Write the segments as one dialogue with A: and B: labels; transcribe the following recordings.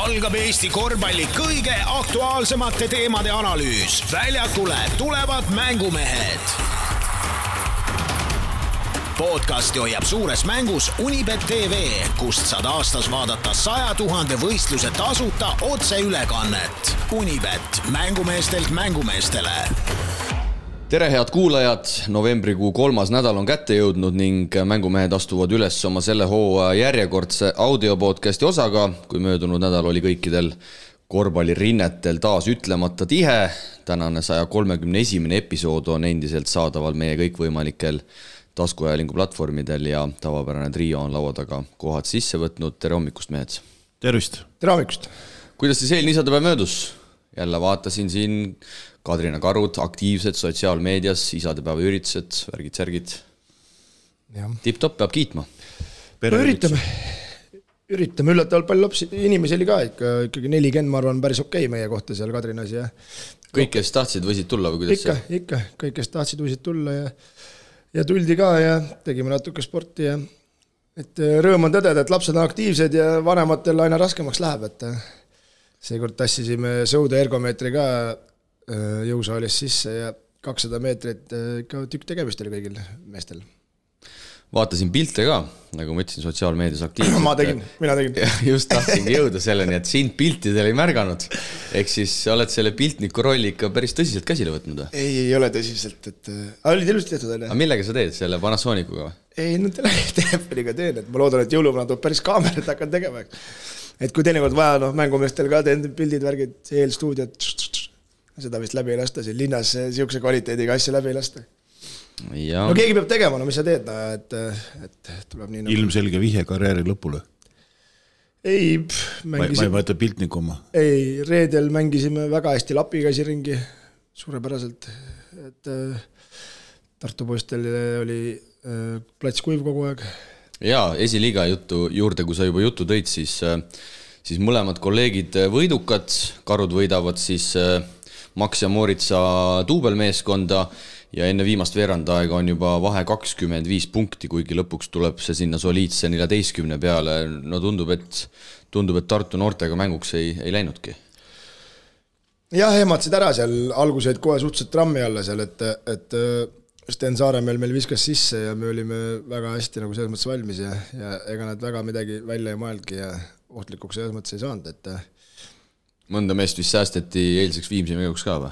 A: algab Eesti korvpalli kõige aktuaalsemate teemade analüüs. Väljakule tulevad mängumehed. Podcasti hoiab suures mängus Unibet TV, kust saad aastas vaadata 100 000 võistluse tasuta otseülekannet. Unibet, mängumeestelt mängumeestele.
B: Tere head kuulajad, novembrikuu 3. nädal on kätte jõudnud ning mängumehed astuvad üles oma selle hooaja järjekordse audiopodcasti osaga, kui möödunud nädal oli kõikidel korvpallirinnetel taas ütlemata tihe. Tänane 131. episood on endiselt saadaval meie kõikvõimalikel taskuajalingu platvormidel ja tavapärane trio on laua taga kohad sisse võtnud. Tere hommikust, mehed!
C: Tervist!
D: Tere hommikust!
B: Kuidas siis eelne isadepäev möödus? Jälle vaatasin siin Kadrina Karud, aktiivsed sotsiaalmeedias, isadepäeva üritused, värgid-särgid. Tipp-top peab kiitma.
D: Üritame üllatavalt palju inimesi oli ka, ikkagi 40, ma arvan, päris okei meie kohta seal Kadrinas. Ja
B: kõik, kes tahtsid, võisid tulla või kuidas?
D: Ikka, kõik, kes tahtsid, võisid tulla ja tuldi ka ja tegime natuke sporti. Et rõõm on tõdeda, et lapsed on aktiivsed ja vanematel aina raskemaks läheb, et seekord tassisime sõude ergomeetri ka jõusaalis sisse ja 200 meetrit ikka tükk tegemist oli kõigil meestel.
B: Vaatasin pilte ka, nagu ma ütlesin, sotsiaalmeedias aktiivselt.
D: Mina tegin.
B: Just tahtsingi jõuda selleni, et sind piltidel ei märganud. Ehk siis oled selle piltniku rolli ikka päris tõsiselt käsile võtnud?
D: Ei ole tõsiselt, et olid ilusti tehtud.
B: Aga millega sa teed, selle Panasonicuga?
D: Ei, no telefoniga teen, et ma loodan, et jõuluvana tuleb päris kaamerat hakkan tegema. Et kui teinekord vaja, mängumeestel ka teen pildid, värgid, eelstuudiot, seda vist läbi ei lasta, siin linnas siukse kvaliteediga asja läbi ei lasta. Ja. No keegi peab tegema, no mis sa teed, et tuleb nii nagu...
C: Ilmselge vihje karjääri lõpule.
D: Ei,
C: mängisime... Ma ei mõtle piltniku oma.
D: Ei, reedel mängisime väga hästi lapikäsi ringi, suurepäraselt, et Tartu poistel oli plats kuiv kogu aeg.
B: Jaa, esiliiga juurde, kui sa juba juttu tõid, siis mõlemad kolleegid võidukad, Karud võidavad siis Max ja Moritsa duubelmeeskonda ja enne viimast veerandaega on juba vahe 25 punkti, kuigi lõpuks tuleb see sinna soliidse 14 peale. No tundub, et Tartu noortega mänguks ei läinudki.
D: Jah, ehmatsid ära seal, alguseid kohe suhteliselt trammi alla seal, et Sten Saaremäel meil viskas sisse ja me olime väga hästi nagu selles mõttes valmis ja ega nad väga midagi välja ei mõeldki ja ohtlikuks selles mõttes ei saanud, et
B: mõnda meest vist säästeti eilseks Viimsi mänguks ka või?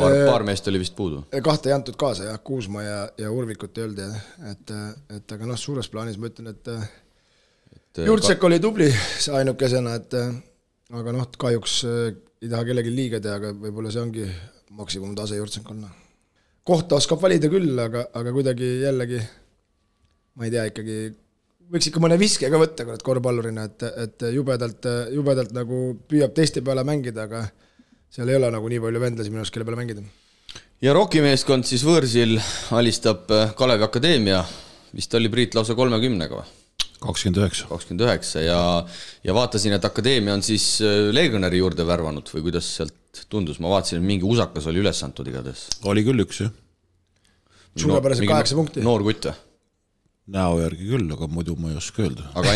B: Paar meest oli vist puudu. 2
D: ei antud kaasa, jah, Kuusma ja Urvikut ei olnud, et aga suures plaanis ma ütlen, et Jurtsek oli tubli ainukesena, aga kahjuks ei taha kellegi liiga teha, aga võib-olla see ongi maksimum tase Jurtsek on. Kohta oskab valida küll, aga kuidagi jällegi, ma ei tea, ikkagi võiks ikka mõne viske ka võtta korvpallurina, et jubedalt nagu püüab teiste peale mängida, aga seal ei ole nagu nii palju vendlasi minust, kelle peale mängida.
B: Ja Rokimeeskond siis võõrsil alistab Kalevi Akadeemia, vist oli Priit lausa 30-ga või?
C: 29
B: ja vaatasin, et Akadeemia on siis Legionäri juurde värvanud või kuidas sealt tundus, ma vaatasin, et mingi usakas oli üles antud igades.
C: Oli küll üks, jah.
D: Suurepäraselt 8 punkti.
B: Noor kutt või?
C: Näo järgi küll, aga muidu ma ei oska öelda.
B: Aga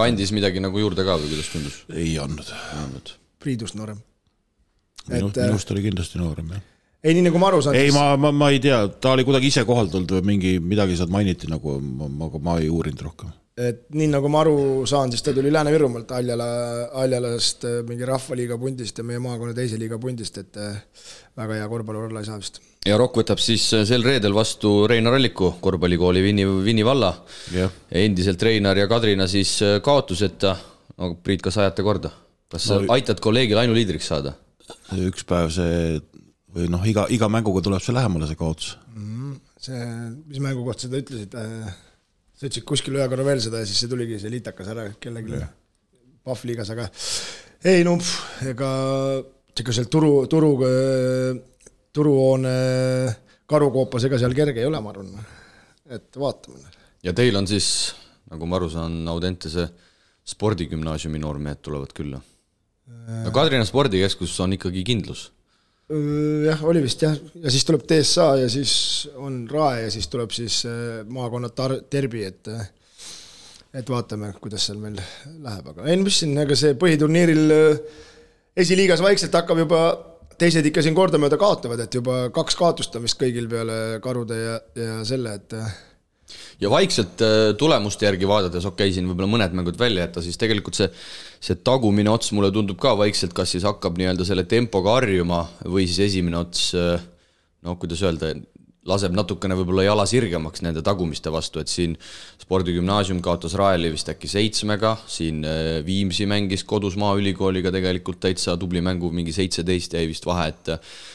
B: andis midagi nagu juurde ka või kuidas tundus?
C: Ei andnud.
D: Priidust noorem.
C: Minust oli kindlasti noorem, jah.
D: Ei, nii nagu ma aru saan.
C: Ei, ma ei tea, ta oli kuidagi ise kohaldult või midagi saad mainiti, nagu ma ei uurinud rohkem.
D: Et nii nagu ma aru saan, siis ta tuli Lääne-Virumalt Aljalast mingi rahvaliiga pundist ja meie maakonna teise liiga pundist, et väga hea korvpallur olla ei saa vist.
B: Ja Rokk võtab siis sel reedel vastu Reinar Alliku korvpallikooli Vinni valla. Ja endiselt Reinar ja Kadrina siis kaotuseta. No, Priit, kas ajate korda? Kas aitad kolleegil ainuliidriks saada?
C: Üks päev see, või iga mänguga tuleb see lähemale see kaotus.
D: See, mis mängu kohta seda ütlesid? Sa ütlesid kuskil ühe korra veel seda ja siis see tuligi see liitakas ära kellegi Pahvliigas, aga ei, ega seal turuhoone karukoopas ega seal kerge ei ole, ma arvan, et vaatame.
B: Ja teil on siis, nagu ma aru saan, Audentese spordigümnaasiumi noormehed tulevad külla. No Kadrina spordikeskus on ikkagi kindlus.
D: Jah, oli vist jah. Ja siis tuleb TSA ja siis on RAE ja siis tuleb siis maakonna derbi, et et vaatame, kuidas seal meil läheb, aga ei, mis siin, ega see põhiturniiril esiliigas vaikselt hakkab juba, teised ikka siin kordamööda kaotavad, et juba 2 kaotust on vist kõigil peale Karude ja selle, et
B: ja vaikselt tulemuste järgi vaadates, siin võib-olla mõned mängud välja jätta, siis tegelikult see tagumine ots mulle tundub ka vaikselt, kas siis hakkab nii-öelda selle tempoga harjuma või siis esimene ots, kuidas öelda, laseb natukene võib-olla jala sirgemaks nende tagumiste vastu, et siin Spordigümnaasium kaotas Raeli vist äkki 7-ga, siin Viimsi mängis kodus Maaülikooliga tegelikult täitsa tubli mängu, mingi 17 jäi vist vahe, et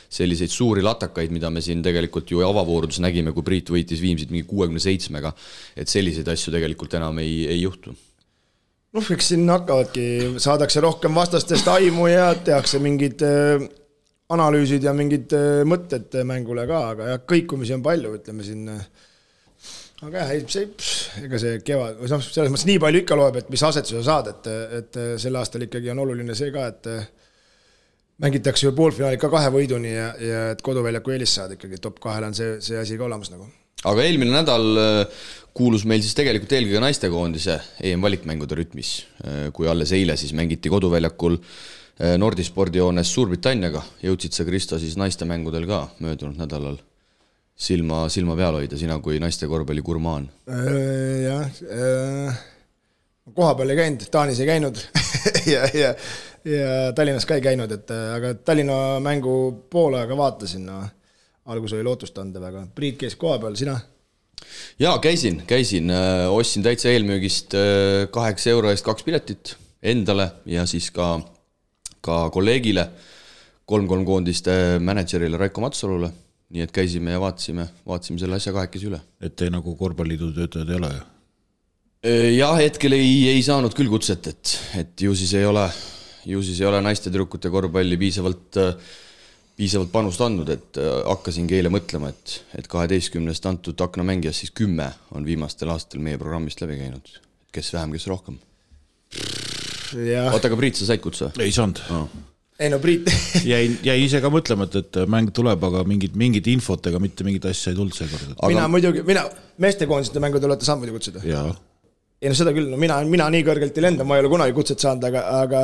B: selliseid suuri latakaid, mida me siin tegelikult ju avavoorudus nägime, kui Priit võitis Viimsit mingi 67-ga, et selliseid asju tegelikult enam ei juhtu.
D: Eks siin hakkavadki, saadakse rohkem vastastest aimu ja tehakse mingid analüüsid ja mingid mõtted mängule ka, aga jah, kõikumisi on palju, ütleme siin. Aga jah, ega see kevad, selles mõttes nii palju ikka loeb, et mis asetuse saad, et sel aastal ikkagi on oluline see ka, et mängitakse ju poolfinaali ka 2 võiduni ja et koduväljaku eelis saad ikkagi, top 2 on see asi ka olemas nagu.
B: Aga eelmine nädal kuulus meil siis tegelikult eelkõige naistekoondise EM-valikmängude rütmis, kui alles eile siis mängiti koduväljakul Nordispordijoones Suurbritanniaga, jõudsid sa Kristo siis naiste mängudel ka möödunud nädalal silma peal hoida, sina kui naiste korvpalli gurmaan?
D: Jah, koha peal ei käinud, Taanis ei käinud ja Tallinnas ka ei käinud, aga Tallinna mängu poole aega vaatasin, algus oli lootustandev, aga Priit käis koha peal, sina?
B: Jaa, käisin, ostsin täitsa eelmüügist 8 euro eest 2 piletit endale ja siis ka kolleegile, 3-3 koondiste managerile Raiko Matsalule, nii et käisime ja vaatasime selle asja kahekesi üle.
C: Et te nagu korvpalliidu töötajad ei ole ju?
B: Jah, hetkel ei saanud küll kutset, et ju siis ei ole naiste tüdrukute korvpalli piisavalt panust andnud, et hakkasingi eile mõtlema, et 12 antud aknamängijas siis 10 on viimastel aastatel meie programmist läbi käinud. Kes vähem, kes rohkem? Oota, aga Priit, sa said kutsa?
C: Ei saanud.
D: Ei no Priit
C: jäi ise ka mõtlema, et mäng tuleb, aga mingid infot ega mitte mingid asja ei tulnud seekord.
D: Mina meestekoondiste mängud olete saanud muidu kutsuda?
C: Jaa.
D: Ei no seda küll, mina nii kõrgelt ei lenda, ma ei ole kunagi kutset saanud, aga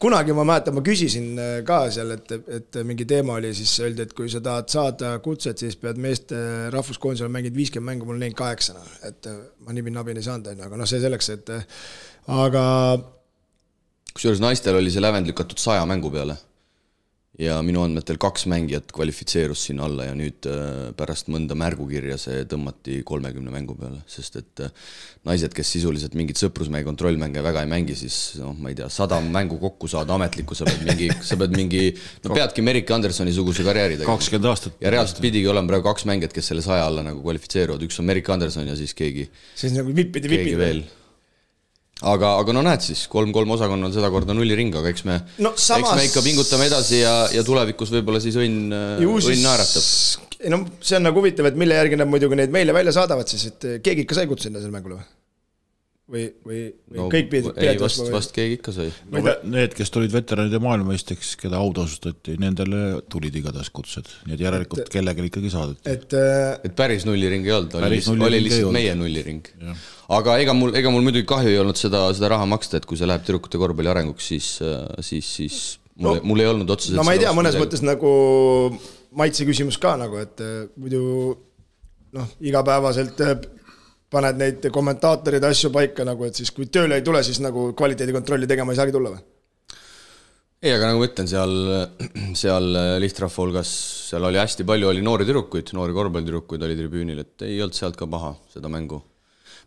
D: kunagi ma mäletan, ma küsisin ka seal, et mingi teema oli, siis öeldi, et kui sa tahad saada kutset, siis pead meeste rahvuskoondisel mängid 50 mängu, mul neil 8, et ma nabin ei saanud, aga see selleks, et aga
B: kusjuures naistel oli see lävend lükatud 100 mängu peale ja minu andmetel 2 mängijat kvalifitseerus sinna alla ja nüüd pärast mõnda märgukirja see tõmmati 30 mängu peale, sest et naised, kes sisuliselt mingid sõprusmäe kontrollmänge väga ei mängi, siis ma ei tea, 100 mängu kokku saada ametlikku, sa pead mingi peadki Merike Andersoni suguse karjääri tegema.
C: 20 aastat.
B: Ja reaalselt pidigi olema praegu 2 mängijat, kes selle 100 alla nagu kvalifitseeruvad, üks on Merike Anderson ja siis keegi
D: nagu vipid
B: veel. Aga näed siis, 3-3 osakonnal seda korda nulliring, aga eks me ikka pingutame edasi ja tulevikus võib-olla siis õnn naeratab.
D: See on nagu huvitav, et mille järgi nad muidugi neid meile välja saadavad siis, et keegi ikka sai kutsuda selle mängule või kõik pidid?
B: Ei, vast keegi ikka sai.
C: Need, kes tulid veteranide maailmameisteks, keda autasustati, nendele tulid igatahes kutsed, nii et järelikult kellegel ikkagi saadeti.
B: Et päris nulliring ei olnud, oli lihtsalt meie nulliring. Aga ega mul muidugi kahju ei olnud seda raha maksta, et kui see läheb tüdrukute korvpalli arenguks, siis mul ei olnud otseselt
D: ma ei tea, mõnes mõttes nagu maitse küsimus ka nagu, et muidu igapäevaselt paned neid kommentaatorid asju paika nagu, et siis kui tööle ei tule, siis nagu kvaliteedikontrolli tegema ei saagi tulla või?
B: Ei, aga nagu ma ütlen, seal lihtrahva hulgas, seal oli hästi palju, oli noori korvpallitüdrukuid oli tribüünil, et ei olnud sealt ka paha seda mängu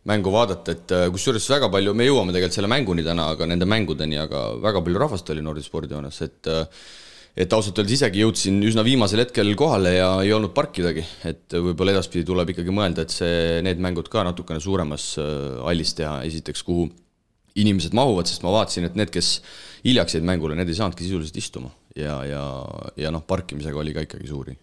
B: vaadata, et kusjuures väga palju, me jõuame tegelikult selle mänguni täna, aga nende mängudeni, aga väga palju rahvast oli Nordspordijoones, et ausalt öeldes isegi jõudsin üsna viimasel hetkel kohale ja ei olnud parkidagi, et võib-olla edaspidi tuleb ikkagi mõelda, et need mängud ka natukene suuremas hallis teha, esiteks kuhu inimesed mahuvad, sest ma vaatasin, et need, kes hiljaks jäid mängule, need ei saanudki sisuliselt istuma ja parkimisega oli ka ikkagi suuri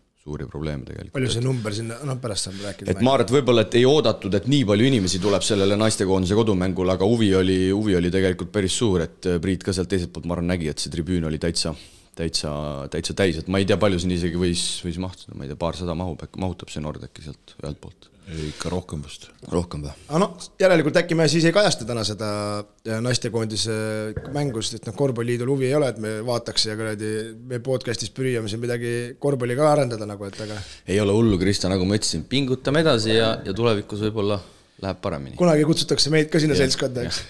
B: probleeme tegelikult. Palju
D: see number sinna, pärast saab rääkida.
B: Et ma arvan, et võib-olla et ei oodatud, et nii palju inimesi tuleb sellele naistekoondise kodumängul, aga huvi oli tegelikult päris suur, et Priit ka sealt teiselt poolt ma arvan nägi, et see tribüün oli täitsa täitsa täis, et ma ei tea, palju siin isegi võis mahtuda, ma ei tea, 200 mahutab see Nordecki sealt ühelt poolt.
C: Ikka rohkem vast.
B: Rohkem või?
D: No, järelikult äkki me siis ei kajasta täna seda naistekoondise mängust, et korvpalliliidul huvi ei ole, et me vaataks ja me podcastis pürjame siin midagi korvpalli ka arendada nagu, et aga...
B: Ei ole hullu, Krista, nagu ma ütlesin, pingutame edasi ja tulevikus võib-olla läheb paremini.
D: Kunagi kutsutakse meid ka sinna seltskonda, eks.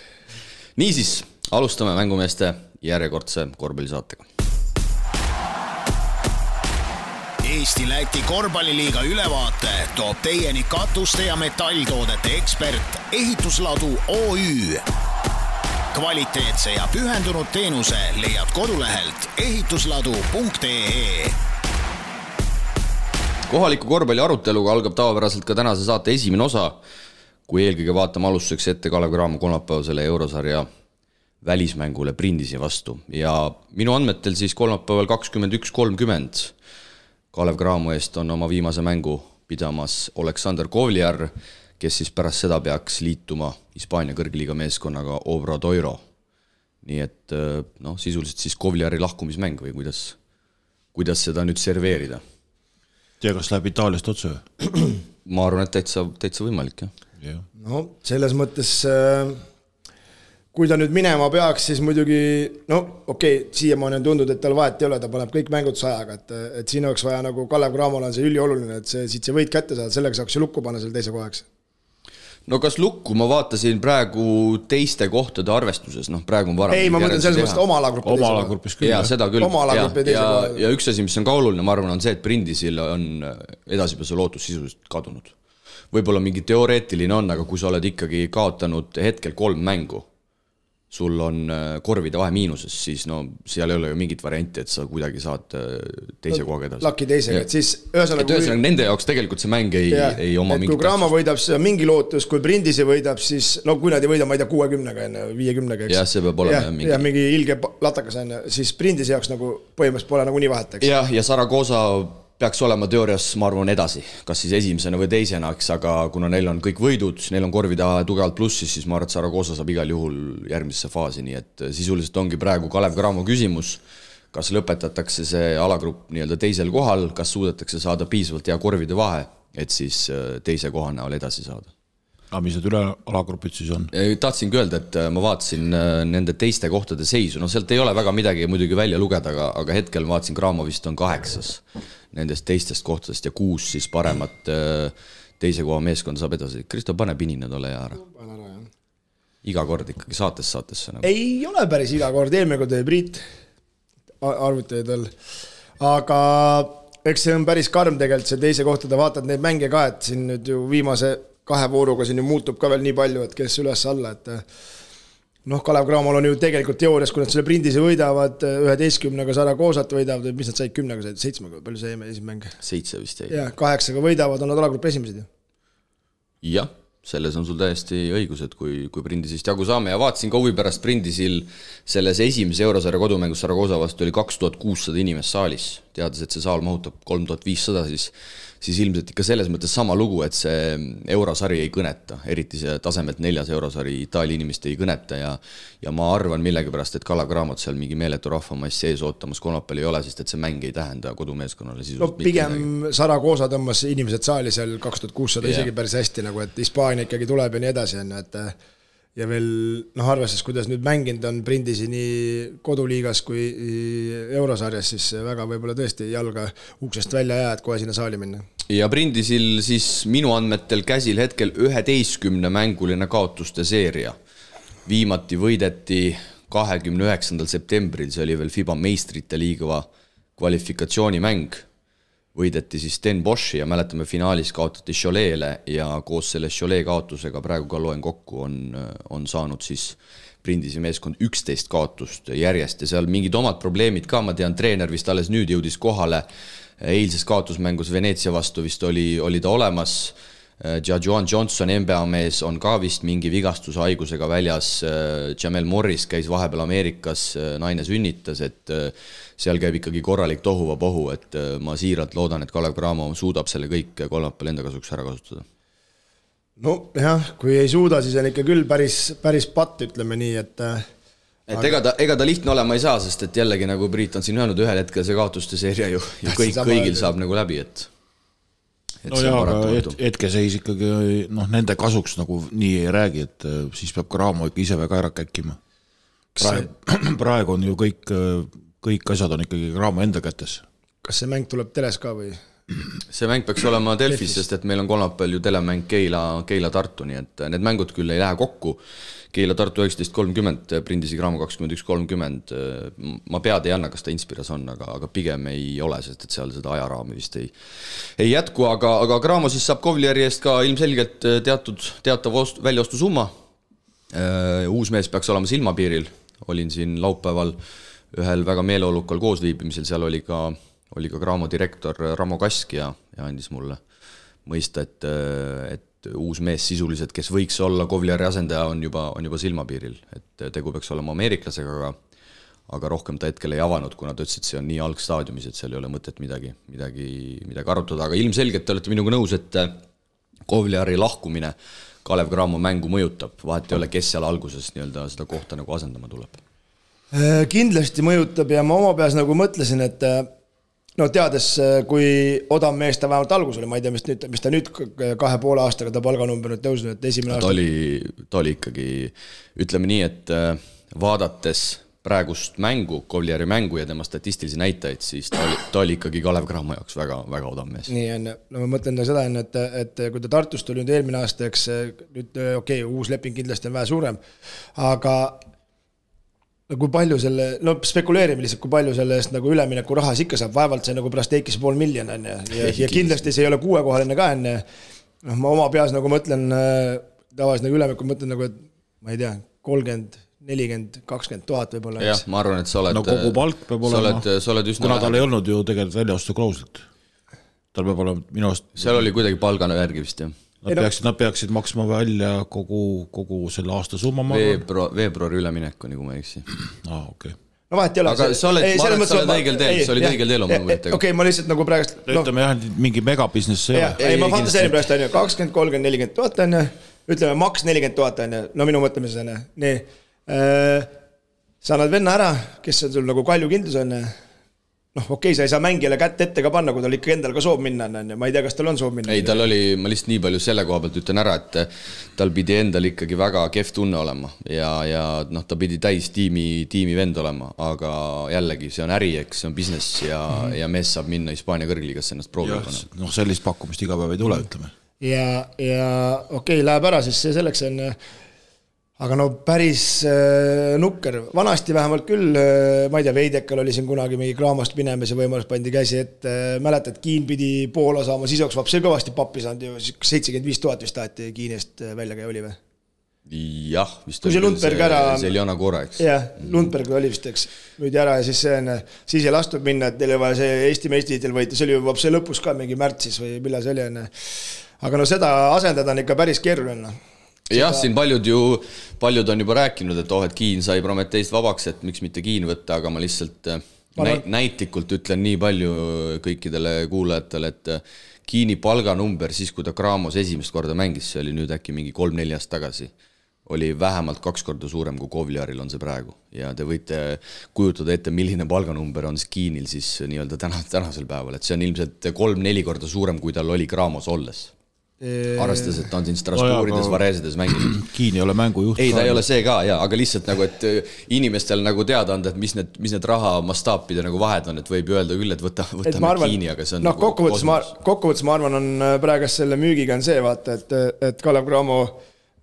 B: Niisiis, alustame mängumeeste järjekordse korvpallisaatega.
A: Eesti-Läti korvpalliliiga ülevaate toob teieni katuste ja metalltoodete ekspert Ehitusladu OÜ. Kvaliteetse ja pühendunud teenuse leiad kodulehelt ehitusladu.ee.
B: Kohaliku korvpalli aruteluga algab tavapäraselt ka tänase saate esimene osa, kui eelkõige vaatame alustuseks ette Kalev Cramo kolmapäevasele eurosarja välismängule Brindisi vastu. Ja minu andmetel siis kolmapäeval 21.30 Kalev Cramo eest on oma viimase mängu pidamas Oleksandr Kovliar, kes siis pärast seda peaks liituma Hispaania kõrgliiga meeskonnaga Obradoiro. Nii et sisuliselt siis Kovliari lahkumismäng või kuidas seda nüüd serveerida?
C: Tea, kas läheb Itaaliast otse?
B: Ma arvan, et täitsa võimalik, jah.
D: No, selles mõttes... Kui ta nüüd minema peaks, siis muidugi, siiamaani on tundnud, et tal vahet ei ole, ta paneb kõik mängud sajaga, et siin oleks vaja nagu Kalev Cramol on see ülioluline, et siit see võit kätte saada, sellega saaks ju lukku panna selle teise kohaks.
B: No kas lukku, ma vaatasin praegu teiste kohtade arvestuses, praegu on varem.
D: Ei, ma mõtlen selles mõttes oma
C: alagrupis küll.
B: Ja seda küll. Ja üks asi, mis on ka oluline, ma arvan, on see, et Brindisil on edasipääsu lootus sisuliselt kadunud. Võib-olla mingi teoreetiline on, aga kui sa oled ikkagi kaotanud hetkel 3 mängu, sul on korvide vahe miinuses, siis seal ei ole ju mingit varianti, et sa kuidagi saad teise kohaga edasi.
D: Laki teisega, et siis ühesõnaga...
B: nende jaoks tegelikult see mäng ei oma mingit...
D: Kui Cramo võidab, siis on mingi lootus, kui Brindisi võidab, siis... kui nad ei võida, ma ei tea, 60-ga enne, 50-ga, eks?
B: Jah, see peab olema mingi...
D: Ja mingi ilge latakas enne, siis Brindisi jaoks nagu põhimõtteliselt pole nagu nii vahet, eks?
B: Ja Saragosa peaks olema teoorias, ma arvan, edasi, kas siis esimesena või teisena, aga kuna neil on kõik võidud, neil on korvida tugevalt plussis, siis ma arvan, et Saragosa saab igal juhul järgmisse faasi, nii et sisuliselt ongi praegu Kalev Cramo küsimus, kas lõpetatakse see alagrupp nii-öelda teisel kohal, kas suudetakse saada piisavalt hea korvide vahe, et siis teise koha näol edasi saada.
C: Aga mis need üle alagrupid siis on?
B: Tahtsingi öelda, et ma vaatasin nende teiste kohtade seisu, sealt ei ole väga midagi muidugi välja lugeda, aga hetkel ma vaatasin, Cramo vist on 8 nendest teistest kohtadest ja 6 siis paremat teise koha meeskond saab edasi. Kristo, pane pinine tolle ja ära. Iga kord ikkagi saatesse. Nagu.
D: Ei ole päris iga kord, eelmine kord oli Priit arvutajaid veel. Aga eks see on päris karm tegelikult see teise kohtade, vaatad neid mänge ka, et siin nüüd ju viimase 2 vooruga siin ju muutub ka veel nii palju, et kes üles alla, et Kalev Cramol on ju tegelikult teoorias, kui nad selle Brindisi võidavad 11-ga Saragosat võidavad, mis nad said 10-ga, 7-ga, palju see esimene mäng?
B: 7 vist jäi.
D: Ja 8-ga võidavad, on nad alagrupp esimesed ju.
B: Jah, selles on sul täiesti õigus, et kui Brindisist jagu saame ja vaatasin ka huvi pärast Brindisil selles esimese eurosarja kodumängus Saragosa vastu oli 2600 inimest saalis, teades, et see saal mahutab 3500, siis ilmselt ikka selles mõttes sama lugu, et see eurosari ei kõneta, eriti see tasemelt 4. eurosari Itaalia inimest ei kõneta ja ma arvan millegipärast, et Kalev Cramot seal mingi meeletu rahvamass sees ootamas kolmapäeval ei ole, sest et see mäng ei tähenda kodumeeskonnale sisuliselt
D: pigem Saragosa tõmbas inimesed saali seal 2600 isegi päris hästi, nagu et Hispaania ikkagi tuleb ja nii edasi, et ja veel arvestades, kuidas nüüd mänginud on Brindisi nii koduliigas kui eurosarjas, siis väga võib-olla tõesti jalga uksest välja jää, et kohe sinna saali minna.
B: Ja Brindisil siis minu andmetel käsil hetkel 11 mänguline kaotuste seeria. Viimati võideti 29. septembril, see oli veel FIBA meistrite liiga kvalifikatsioonimäng. Võideti siis Den Boshi ja mäletame finaalis kaotati Cholet'le ja koos selle Cholet kaotusega praegu ka loen kokku on saanud siis Brindisi meeskond 11 kaotust järjest ja seal mingid omad probleemid ka, ma tean, treener vist alles nüüd jõudis kohale, eilses kaotusmängus Veneetsia vastu vist oli ta olemas, Joan Johnson, NBA mees, on ka vist mingi vigastuse haigusega väljas, Jamel Morris käis vahepeal Ameerikas, naine sünnitas, et seal käib ikkagi korralik tohuvapohu, et ma siiralt loodan, et Kalev Cramo suudab selle kõik kolmapäeval enda kasuks ära kasutada.
D: No jah, kui ei suuda, siis on ikka küll päris patt, ütleme nii, et
B: et ega ta lihtne olema ei saa, sest et jällegi nagu Priit on siin öelnud, ühel hetkel see kaotuste seeria ju kõigil saab nagu läbi, et
C: no jaa, aga hetkeseis ikkagi nende kasuks nagu nii ei räägi, et siis peab ka Raamo ikka ise väga ära käkkima. Praegu on ju kõik asjad on ikkagi Raamo enda kätes.
D: Kas see mäng tuleb teles ka või?
B: See mäng peaks olema Delfis, sest et meil on kolmapäeval ju telemäng Keila-Tartu, nii et need mängud küll ei lähe kokku. Keila-Tartu 19.30, Prindisi Graamo 21.30. Ma pead ei anna, kas ta Inspiras on, aga pigem ei ole, sest et seal seda ajaraami vist ei jätku, aga Graamo siis saab Kovlieri eest ka ilmselgelt teatav väljaostu summa. Uus mees peaks olema silmapiiril. Olin siin laupäeval ühel väga meeleolukal koosviibimisel, seal oli ka Graamo direktor Ramo Kask ja andis mulle mõista, et uus mees sisuliselt, kes võiks olla Kovlieri asendaja, on juba silmapiiril. Et tegu peaks olema ameeriklasega, aga rohkem ta hetkel ei avanud, kuna ta ütles, et see on nii algstaadiumis, et seal ei ole mõtet midagi arutada. Aga ilmselgelt te olete minuga nõus, et Kovlieri lahkumine Kalev Cramo mängu mõjutab. Vahet ei ole, kes seal alguses seda kohta nagu asendama tuleb.
D: Kindlasti mõjutab ja ma oma peas nagu mõtlesin, et teades, kui odav mees ta vähemalt algus oli, ma ei tea, mis ta nüüd 2,5 aastaga ta palganumber nüüd tõusnud, et esimene aasta.
B: Ta oli ikkagi, ütleme nii, et vaadates praegust mängu, Kovlieri mängu ja tema statistilisi näitajaid, siis ta oli ikkagi Kalev Cramo jaoks väga, väga odav mees.
D: Nii on, ma mõtlen seda, et kui ta Tartust oli nüüd eelmine aasta, eks nüüd uus leping kindlasti on vähe suurem, aga kui palju spekuleerime lihtsalt, kui palju selle eest nagu ülemineku rahas ikka saab, vaevalt see nagu pärast teikis 500 000 ja kindlasti see ei ole 6-kohaline ka enne. Ma oma peas nagu mõtlen, tavaliselt nagu ülemineku mõtlen nagu, et ma ei tea, 30, 40, 20 000 võib-olla.
B: Jah, ma arvan, et sa oled...
C: kogu palk peab olema, kuna tal ei olnud ju tegelikult väljaostu klauslit. Tal peab olema minu arust...
B: Seal oli kuidagi palgana järgi vist, jah.
C: Nad peaksid maksma välja kogu selle aasta summa
B: veebruari üleminek, nagu ma eksi.
C: Okay.
D: No vahet ei ole.
B: Aga sa oled õigel teel, sa olid õigel teel oma mõttega.
D: Okei, ma lihtsalt nagu praegust...
C: Ütleme jah, mingi megabusiness ei ole.
D: Ei, ma fantaseerin praegust 20, 30, 40 000 on, ütleme maks 40 000 on, no minu mõtlemises on. Nii, sa annad venna ära, kes on sul nagu kalju kindlus on, okei, sa ei saa mängijale kätt ette ka panna, kui tal ikka endal ka soov minna. Ma ei tea, kas tal on soov minna.
B: Ei, tal oli, ma lihtsalt nii palju selle koha pealt ütlen ära, et tal pidi endal ikkagi väga kehv tunne olema ja ta pidi täis tiimi vend olema, aga jällegi see on äri, eks, see on business ja mees saab minna Hispaania kõrgliigasse ennast proovima.
C: Sellist pakkumist iga päev ei tule, ütleme.
D: Ja okei, läheb ära, siis see selleks on... Aga päris nukker. Vanasti vähemalt küll, ma ei tea, Veidekal oli siin kunagi mingi Craamost minemise võimalus pandi käsi, et mäletad, Kiin pidi Poola saama, siis oleks vapsi kõvasti pappi saanud ju, 75 000 vist taheti Kiinest välja käi oli või?
B: Jah, vist
D: oli
B: see Eliana Kora, eks.
D: Jah, Lundberg oli vist, eks, müüdi ära ja siis ei lastud minna, et teil vaja see Eesti meistritiitel võita, see oli juba vapsi lõpus ka mingi märtsis või millal see oli enne. Aga seda asendada on ikka päris keeruline.
B: Jah, siin paljud on juba rääkinud, et Kiin sai Prometeist vabaks, et miks mitte Kiin võtta, aga ma lihtsalt näitlikult ütlen nii palju kõikidele kuulajatele, et Kiini palganumber siis, kui ta Cramos esimest korda mängis, see oli nüüd äkki mingi 3-4 aasta tagasi, oli vähemalt 2 korda suurem kui Kovliaril on see praegu. Ja te võite kujutada ette, milline palganumber on Kiinil siis nii-öelda tänasel päeval, et see on ilmselt 3-4 korda suurem, kui tal oli Cramos olles. Arvestades, et ta on siin Strasbourgides, Vareesides mänginud.
C: Kiin ei ole mängujuht.
B: Ei, ta ei ole see ka, aga lihtsalt nagu, et inimestel nagu teada anda, et mis need raha mastaapide nagu vahed on, et võib öelda küll, et võtame Kiini, aga see on nagu
D: kokkuvõttes ma arvan, on praegast selle müügiga on see, vaata, et Kalev Cramo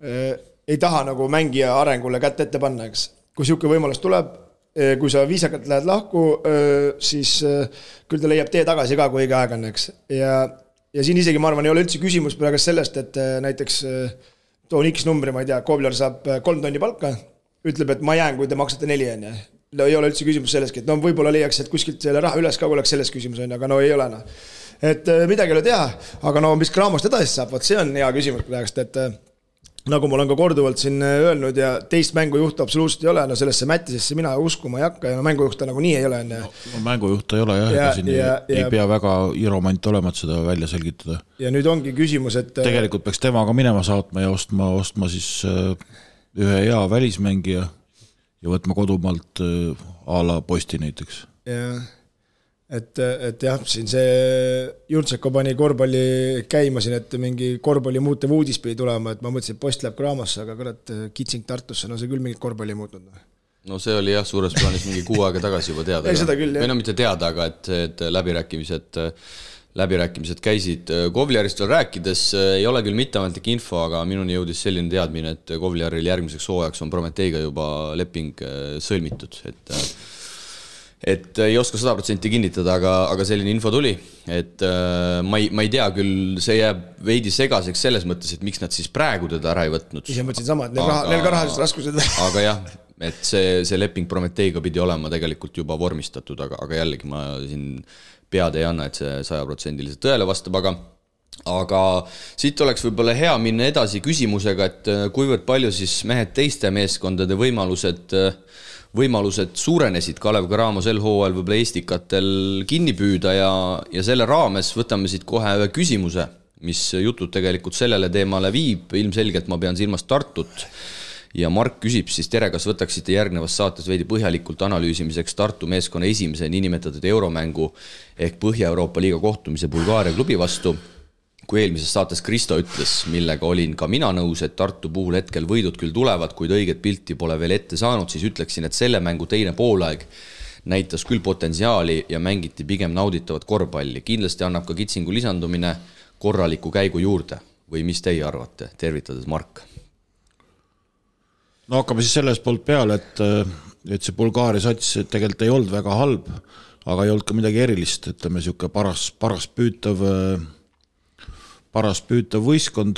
D: ei taha nagu mängija arengule kätt ette panna, eks. Kui siuke võimalus tuleb, kui sa viisakalt lähed lahku, siis küll ta leiab tee tagasi ka, kui õige aeg on, eks. Ja siin isegi, ma arvan, ei ole üldse küsimus praegu sellest, et näiteks toon X numbri, ma ei tea, Kovliar saab 3 tonni palka, ütleb, et ma jään, kui te maksate 4 on. Ei ole üldse küsimus selleski, et võib-olla leiaks, et kuskilt selle raha üles ka oleks selles küsimus on, aga ei ole. Et midagi ei ole teha, aga mis Cramost edasi saab, see on hea küsimus praegust, et nagu ma olen ka korduvalt siin öelnud ja teist mängujuhtu absoluutselt ei ole, sellesse Mättisesse mina uskuma ei hakka ja mängujuhta nagu nii ei ole.
C: Mängujuhta ei ole jah, ei pea väga iromant olema, et seda välja selgitada.
D: Ja nüüd ongi küsimus, et...
C: Tegelikult peaks temaga minema saatma ja ostma siis ühe hea välismängija ja võtma kodumaalt a la Posti näiteks.
D: Jah, et jah, siin see Jurtseko pani korvpalli käima siin, et mingi korvpalli muutev uudis pidi tulema, et ma mõtlesin, et Post läheb Gramosse, aga kurat, Kitsing Tartusse, no see küll mingit korvpalli muutnud.
B: No see oli jah, suures plaanis mingi 6 aega tagasi juba teada.
D: Seda küll, jah.
B: Või no mitte teada, aga et läbirääkimised käisid. Kovliarist veel rääkides ei ole küll mitteametlik info, aga minuni jõudis selline teadmine, et Kovliaril järgmiseks hooajaks on Prometeiga juba leping sõlmitud, et ei oska 100% kinnitada, aga selline info tuli, et ma ei tea küll, see jääb veidi segaseks selles mõttes, et miks nad siis praegu teda ära ei võtnud.
D: Ise mõtlesin sama, et neil ka rahalised raskused.
B: Aga jah, et see leping Prometeiga pidi olema tegelikult juba vormistatud, aga jällegi ma siin pead ei anna, et see 100% tõele vastab, aga siit oleks võib-olla hea minna edasi küsimusega, et kuivõrd palju siis mehed teiste meeskondade võimalused suurenesid Kalev Cramo sel hooajal võib-olla Eestikatel kinni püüda ja selle raames võtame siit kohe ühe küsimuse, mis jutud tegelikult sellele teemale viib, ilmselgelt ma pean silmas Tartut ja Mark küsib siis, tere, kas võtaksite järgnevas saates veidi põhjalikult analüüsimiseks Tartu meeskonna esimese niinimetatud euromängu ehk Põhja-Euroopa liiga kohtumise Bulgaaria klubi vastu, kui eelmises saates Kristo ütles, millega olin ka mina nõus, et Tartu puhul hetkel võidud küll tulevad, kuid õiget pilti pole veel ette saanud, siis ütleksin, et selle mängu teine poolaeg näitas küll potentsiaali ja mängiti pigem nauditavat korvpalli. Kindlasti annab ka Kitsingu lisandumine korraliku käigu juurde. Või mis teie arvate? Tervitades Mark.
C: No hakkame siis sellest poolt peale, et see Bulgaaria sats tegelikult ei olnud väga halb, aga ei olnud ka midagi erilist, ütleme siuke paras püütav võistkond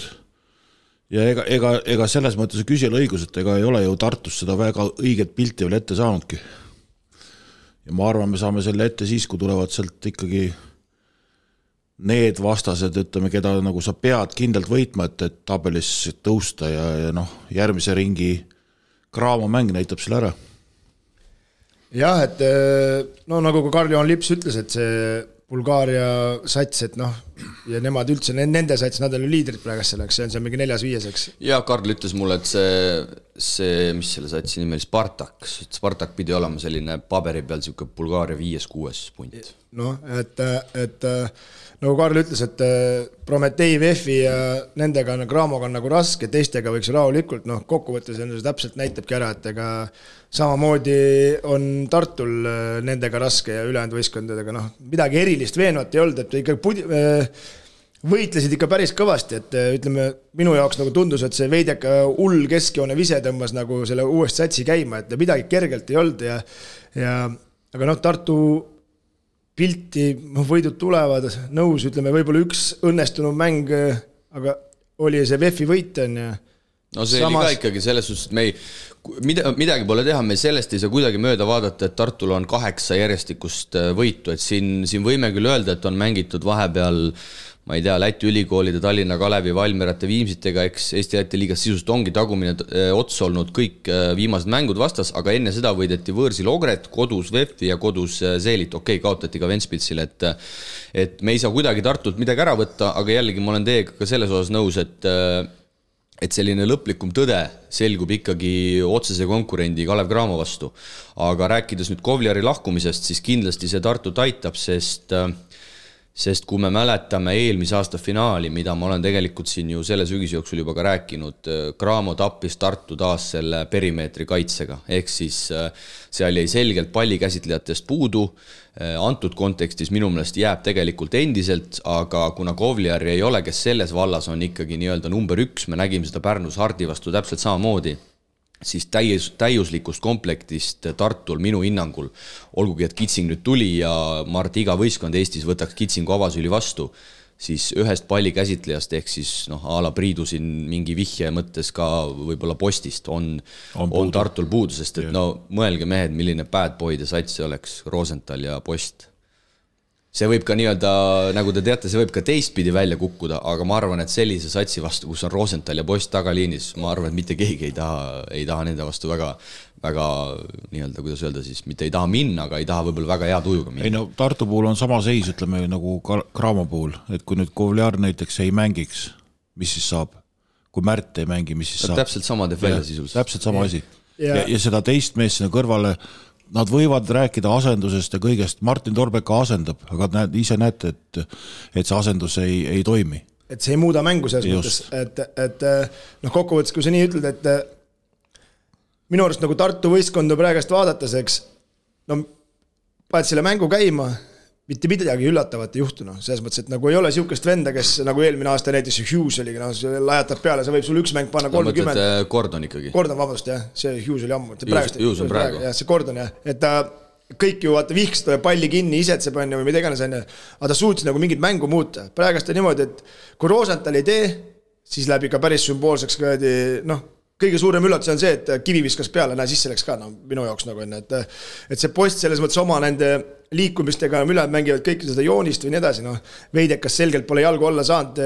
C: ja ega selles mõttes küsijal õigus, et ega ei ole ju Tartus seda väga õiget pilti veel ette saanudki. Ja ma arvan, me saame selle ette siis, kui tulevad sealt ikkagi need vastased, ütleme, keda nagu sa pead kindlalt võitma, et tabelis tõusta ja järgmise ringi Cramo mäng näitab selle ära.
D: Jah, et nagu ka Karl-Johan Lips ütles, et see Bulgaaria sats, et ja nemad üldse, nende sats, nad on liidrid praegu selleks, see on mingi 4-5.
B: Ja Karl ütles mulle, et see mis selle satsi nimi oli, Spartak pidi olema selline paberi peal siuke Bulgaaria 5-6 punt.
D: Et nagu Karl ütles, et Prometei, Vefi ja nendega Cramoga on nagu raske, teistega võiks rahulikult, kokkuvõttes see täpselt näitabki ära, et ega samamoodi on Tartul nendega raske ja ülejäänud võistkondadega, midagi erilist veenvat ei olnud, et ikka võitlesid ikka päris kõvasti, et ütleme, minu jaoks nagu tundus, et see veideka hull keskjoone vise tõmbas nagu selle uuest satsi käima, et midagi kergelt ei olnud aga Tartu pilti, võidud tulevad, nõus, ütleme, võib-olla üks õnnestunud mäng, aga oli see VEF-i võit on ja
B: see oli ka ikkagi selles suhtes, et midagi pole teha, me sellest ei saa kuidagi mööda vaadata, et Tartul on 8 järjestikust võitu, et siin võime küll öelda, et on mängitud vahepeal, ma ei tea, Läti ülikoolide, Tallinna Kalevi, Valmierate, Viimsitega, eks Eesti liigas sisust ongi tagumine ots olnud kõik viimased mängud vastas, aga enne seda võideti võõrsil Ogret, kodus VEF-i ja kodus Seelit, kaotati ka Ventspilsile, et me ei saa kuidagi Tartult midagi ära võtta, aga jällegi ma olen teiega ka selles osas nõus, et selline lõplikum tõde selgub ikkagi otsese konkurendi Kalev Cramo vastu. Aga rääkides nüüd Kovliari lahkumisest, siis kindlasti see Tartut aitab, sest kui me mäletame eelmise aasta finaali, mida ma olen tegelikult siin ju selle sügise jooksul juba ka rääkinud, Cramo tappis Tartu taas selle perimeetri kaitsega, ehk siis seal jäi selgelt pallikäsitlejatest puudu, antud kontekstis minu meelest jääb tegelikult endiselt, aga kuna Kovliari ei ole, kes selles vallas on ikkagi nii-öelda number 1, me nägime seda Pärnus Hardi vastu täpselt samamoodi, siis täiuslikust komplektist Tartul minu hinnangul, olgugi et Kitsing nüüd tuli ja ma arvan, et iga võistkond Eestis võtaks Kitsingu avasüli vastu, siis ühest palli käsitlejast ehk siis a la Priidu siin mingi vihje mõttes ka võib-olla Postist on Tartul puudu, sest et mõelge mehed, milline bad boy ja sats see oleks, Rosenthal ja Post. See võib ka nii-öelda, nagu te teate, see võib ka teistpidi välja kukkuda, aga ma arvan, et sellise satsi vastu, kus on Rosenthal ja Post tagaliinis, ma arvan, et mitte keegi ei taha nende vastu väga nii-öelda, kuidas öelda siis, mitte ei taha minna, aga ei taha võib-olla väga hea tujuga minna.
C: Tartu puhul on sama seis, ütleme nagu Cramo puhul, et kui nüüd Kovliar näiteks ei mängiks, mis siis saab? Kui Märt ei mängi, mis siis saab?
B: Täpselt sama teeb välja sisuliselt.
C: Täpselt sama asi. ja seda teist meest sinna kõrvale, nad võivad rääkida asendusest ja kõigest, Martin Torbek asendab, aga ise näete, et see asendus ei toimi.
D: Et see ei muuda mängu selles mõttes, et kokkuvõttes, kui sa nii ütled, et minu arust nagu Tartu võistkonda praegast vaadates, eks, paned selle mängu käima, mitte midagi üllatavat ei juhtunud, selles mõttes, et nagu ei ole siukest venda, kes nagu eelmine aasta näiteks Hughes oligi, lajatab peale, sa võib sul üks mäng panna 30.
B: Mõtled Gordon ikkagi?
D: Gordon, vabandust, jah, see Hughes oli ammu.
B: Hughes on praegu.
D: Jah, see Gordon, jah, et ta kõik ju vaata vihks palli kinni, isetseb on või mida iganes on, aga ta suutis nagu mingit mängu muuta. Praegast on niimoodi, et kui Rosenthal ei tee, siis läheb ikka päris sümboolseks kõige suurem üllatus on see, et Kivi viskas peale, sisse läks ka, minu jaoks nagu enne, et see Post selles mõttes oma nende liikumistega ülejäänud mängivad kõike seda joonist või nii edasi, Veidekas selgelt pole jalgu olla saanud,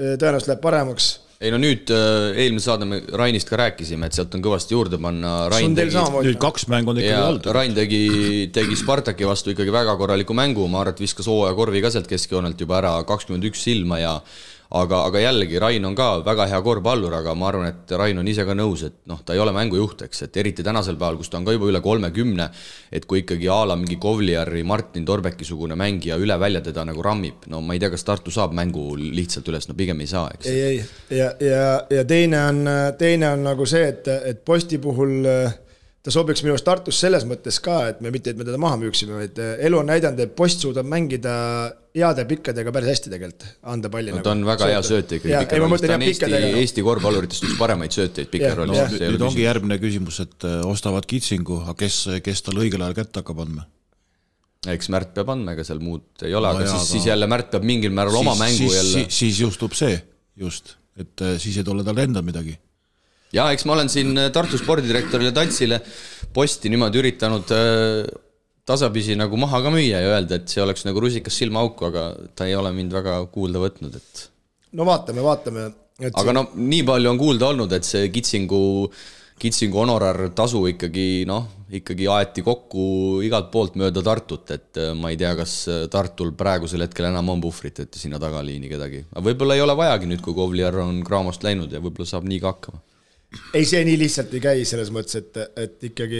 D: tõenäoliselt läheb paremaks.
B: Ei nüüd eelmine saade me Rainist ka rääkisime, et sealt on kõvasti juurde panna.
C: Nüüd 2 mängu on ikkagi olnud.
B: Rain tegi Spartaki vastu ikkagi väga korraliku mängu, ma arvan, et viskas hooaja korvi ka sealt keskjoonelt juba ära 21 silma ja aga jällegi Rain on ka väga hea korvpallur, aga ma arvan, et Rain on ise ka nõus, et ta ei ole mängujuht, eks, et eriti tänasel päeval, kus ta on ka juba üle 30, et kui ikkagi Aala mingi Kovliari, Martin Torbeki-sugune mängija üle välja teda nagu rammib, ma ei tea, kas Tartu saab mängu lihtsalt üles, pigem ei saa, eks.
D: Ei, ja teine on nagu see, et Posti puhul ta sobiks minu Tartus selles mõttes ka, et me mitte, et me teda maha müüksime, vaid elu on näidanud, et Post suudab mängida heade pikkadega päris hästi tegelikult, anda palli.
B: Ta on väga hea sööte ikkagi pikerollis, ta on Eesti korvpalluritest üks paremaid sööteid pikerollis.
C: Nüüd ongi järgmine küsimus, et ostavad Kitsingu, aga kes tal õigel ajal kätte hakkab andma?
B: Eks Märt peab andma, ega seal muud ei ole, aga siis jälle Märt peab mingil määral oma mängu jälle.
C: Siis justub see, et siis ei tule tal enda midagi.
B: Ja eks ma olen siin Tartu spordidirektorile Tantsile Posti niimoodi üritanud tasapisi nagu maha ka müüa ja öelda, et see oleks nagu rusikas silmaauku, aga ta ei ole mind väga kuulda võtnud. Et...
D: vaatame.
B: Aga nii palju on kuulda olnud, et see Kitsingu honorar tasu ikkagi aeti kokku igalt poolt mööda Tartut, et ma ei tea, kas Tartul praegusel hetkel enam on puhvrit, et sinna tagaliini kedagi. Aga võib-olla ei ole vajagi nüüd, kui Kovliar on Kraamost läinud ja võib-olla saab nii ka hakkama.
D: Ei, see nii lihtsalt ei käi selles mõttes, et ikkagi,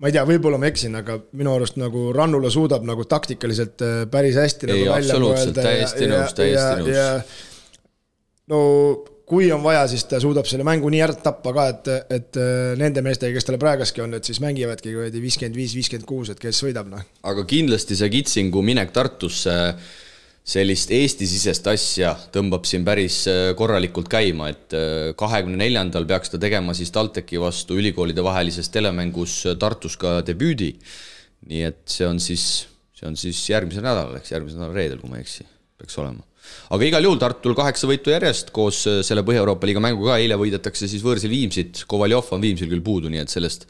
D: ma ei tea, võib-olla ma eksin, aga minu arust nagu Rannula suudab nagu taktikaliselt päris hästi
B: ei,
D: nagu
B: absoluutselt, täiesti nõus.
D: Kui on vaja, siis ta suudab selle mängu nii ära tappa ka, et nende meestega, kes talle praegaski on, et siis mängivadki 55-56, et kes võidab.
B: Aga kindlasti see Kitsingu minek Tartusse sellist Eesti-sisest asja tõmbab siin päris korralikult käima, et 24. peaks ta tegema siis TalTechi vastu ülikoolide vahelises telemängus Tartus ka debüüdi. Nii et see on siis järgmisel nädalal, eks järgmisel nädal reedel, kui ma eksi, peaks olema. Aga igal juhul Tartul 8 võitu järjest koos selle Põhja-Euroopa liiga mängu ka, eile võidetakse siis võõrsil Viimsit, Kovaljov on Viimsil küll puudu, nii et sellest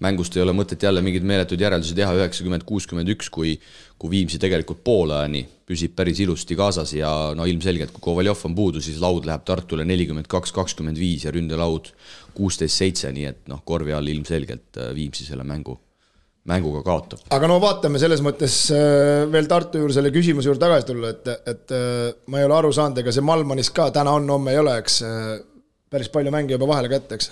B: mängust ei ole mõtet jälle mingid meeletud järeldusi teha 90-61, kui Viimsi tegelikult poolajani püsib päris ilusti kaasas ja ilmselgelt, kui Kovaljov on puudu, siis laud läheb Tartule 42-25 ja ründelaud 16-7, nii et korvi all ilmselgelt Viimsi selle mänguga kaotab.
D: Aga vaatame selles mõttes veel Tartu juurde selle küsimuse juurde tagasi tulla, et ma ei ole aru saanud, ega see Malmanis ka täna on, homme ei ole, eks päris palju mänge juba vahele kätte, eks?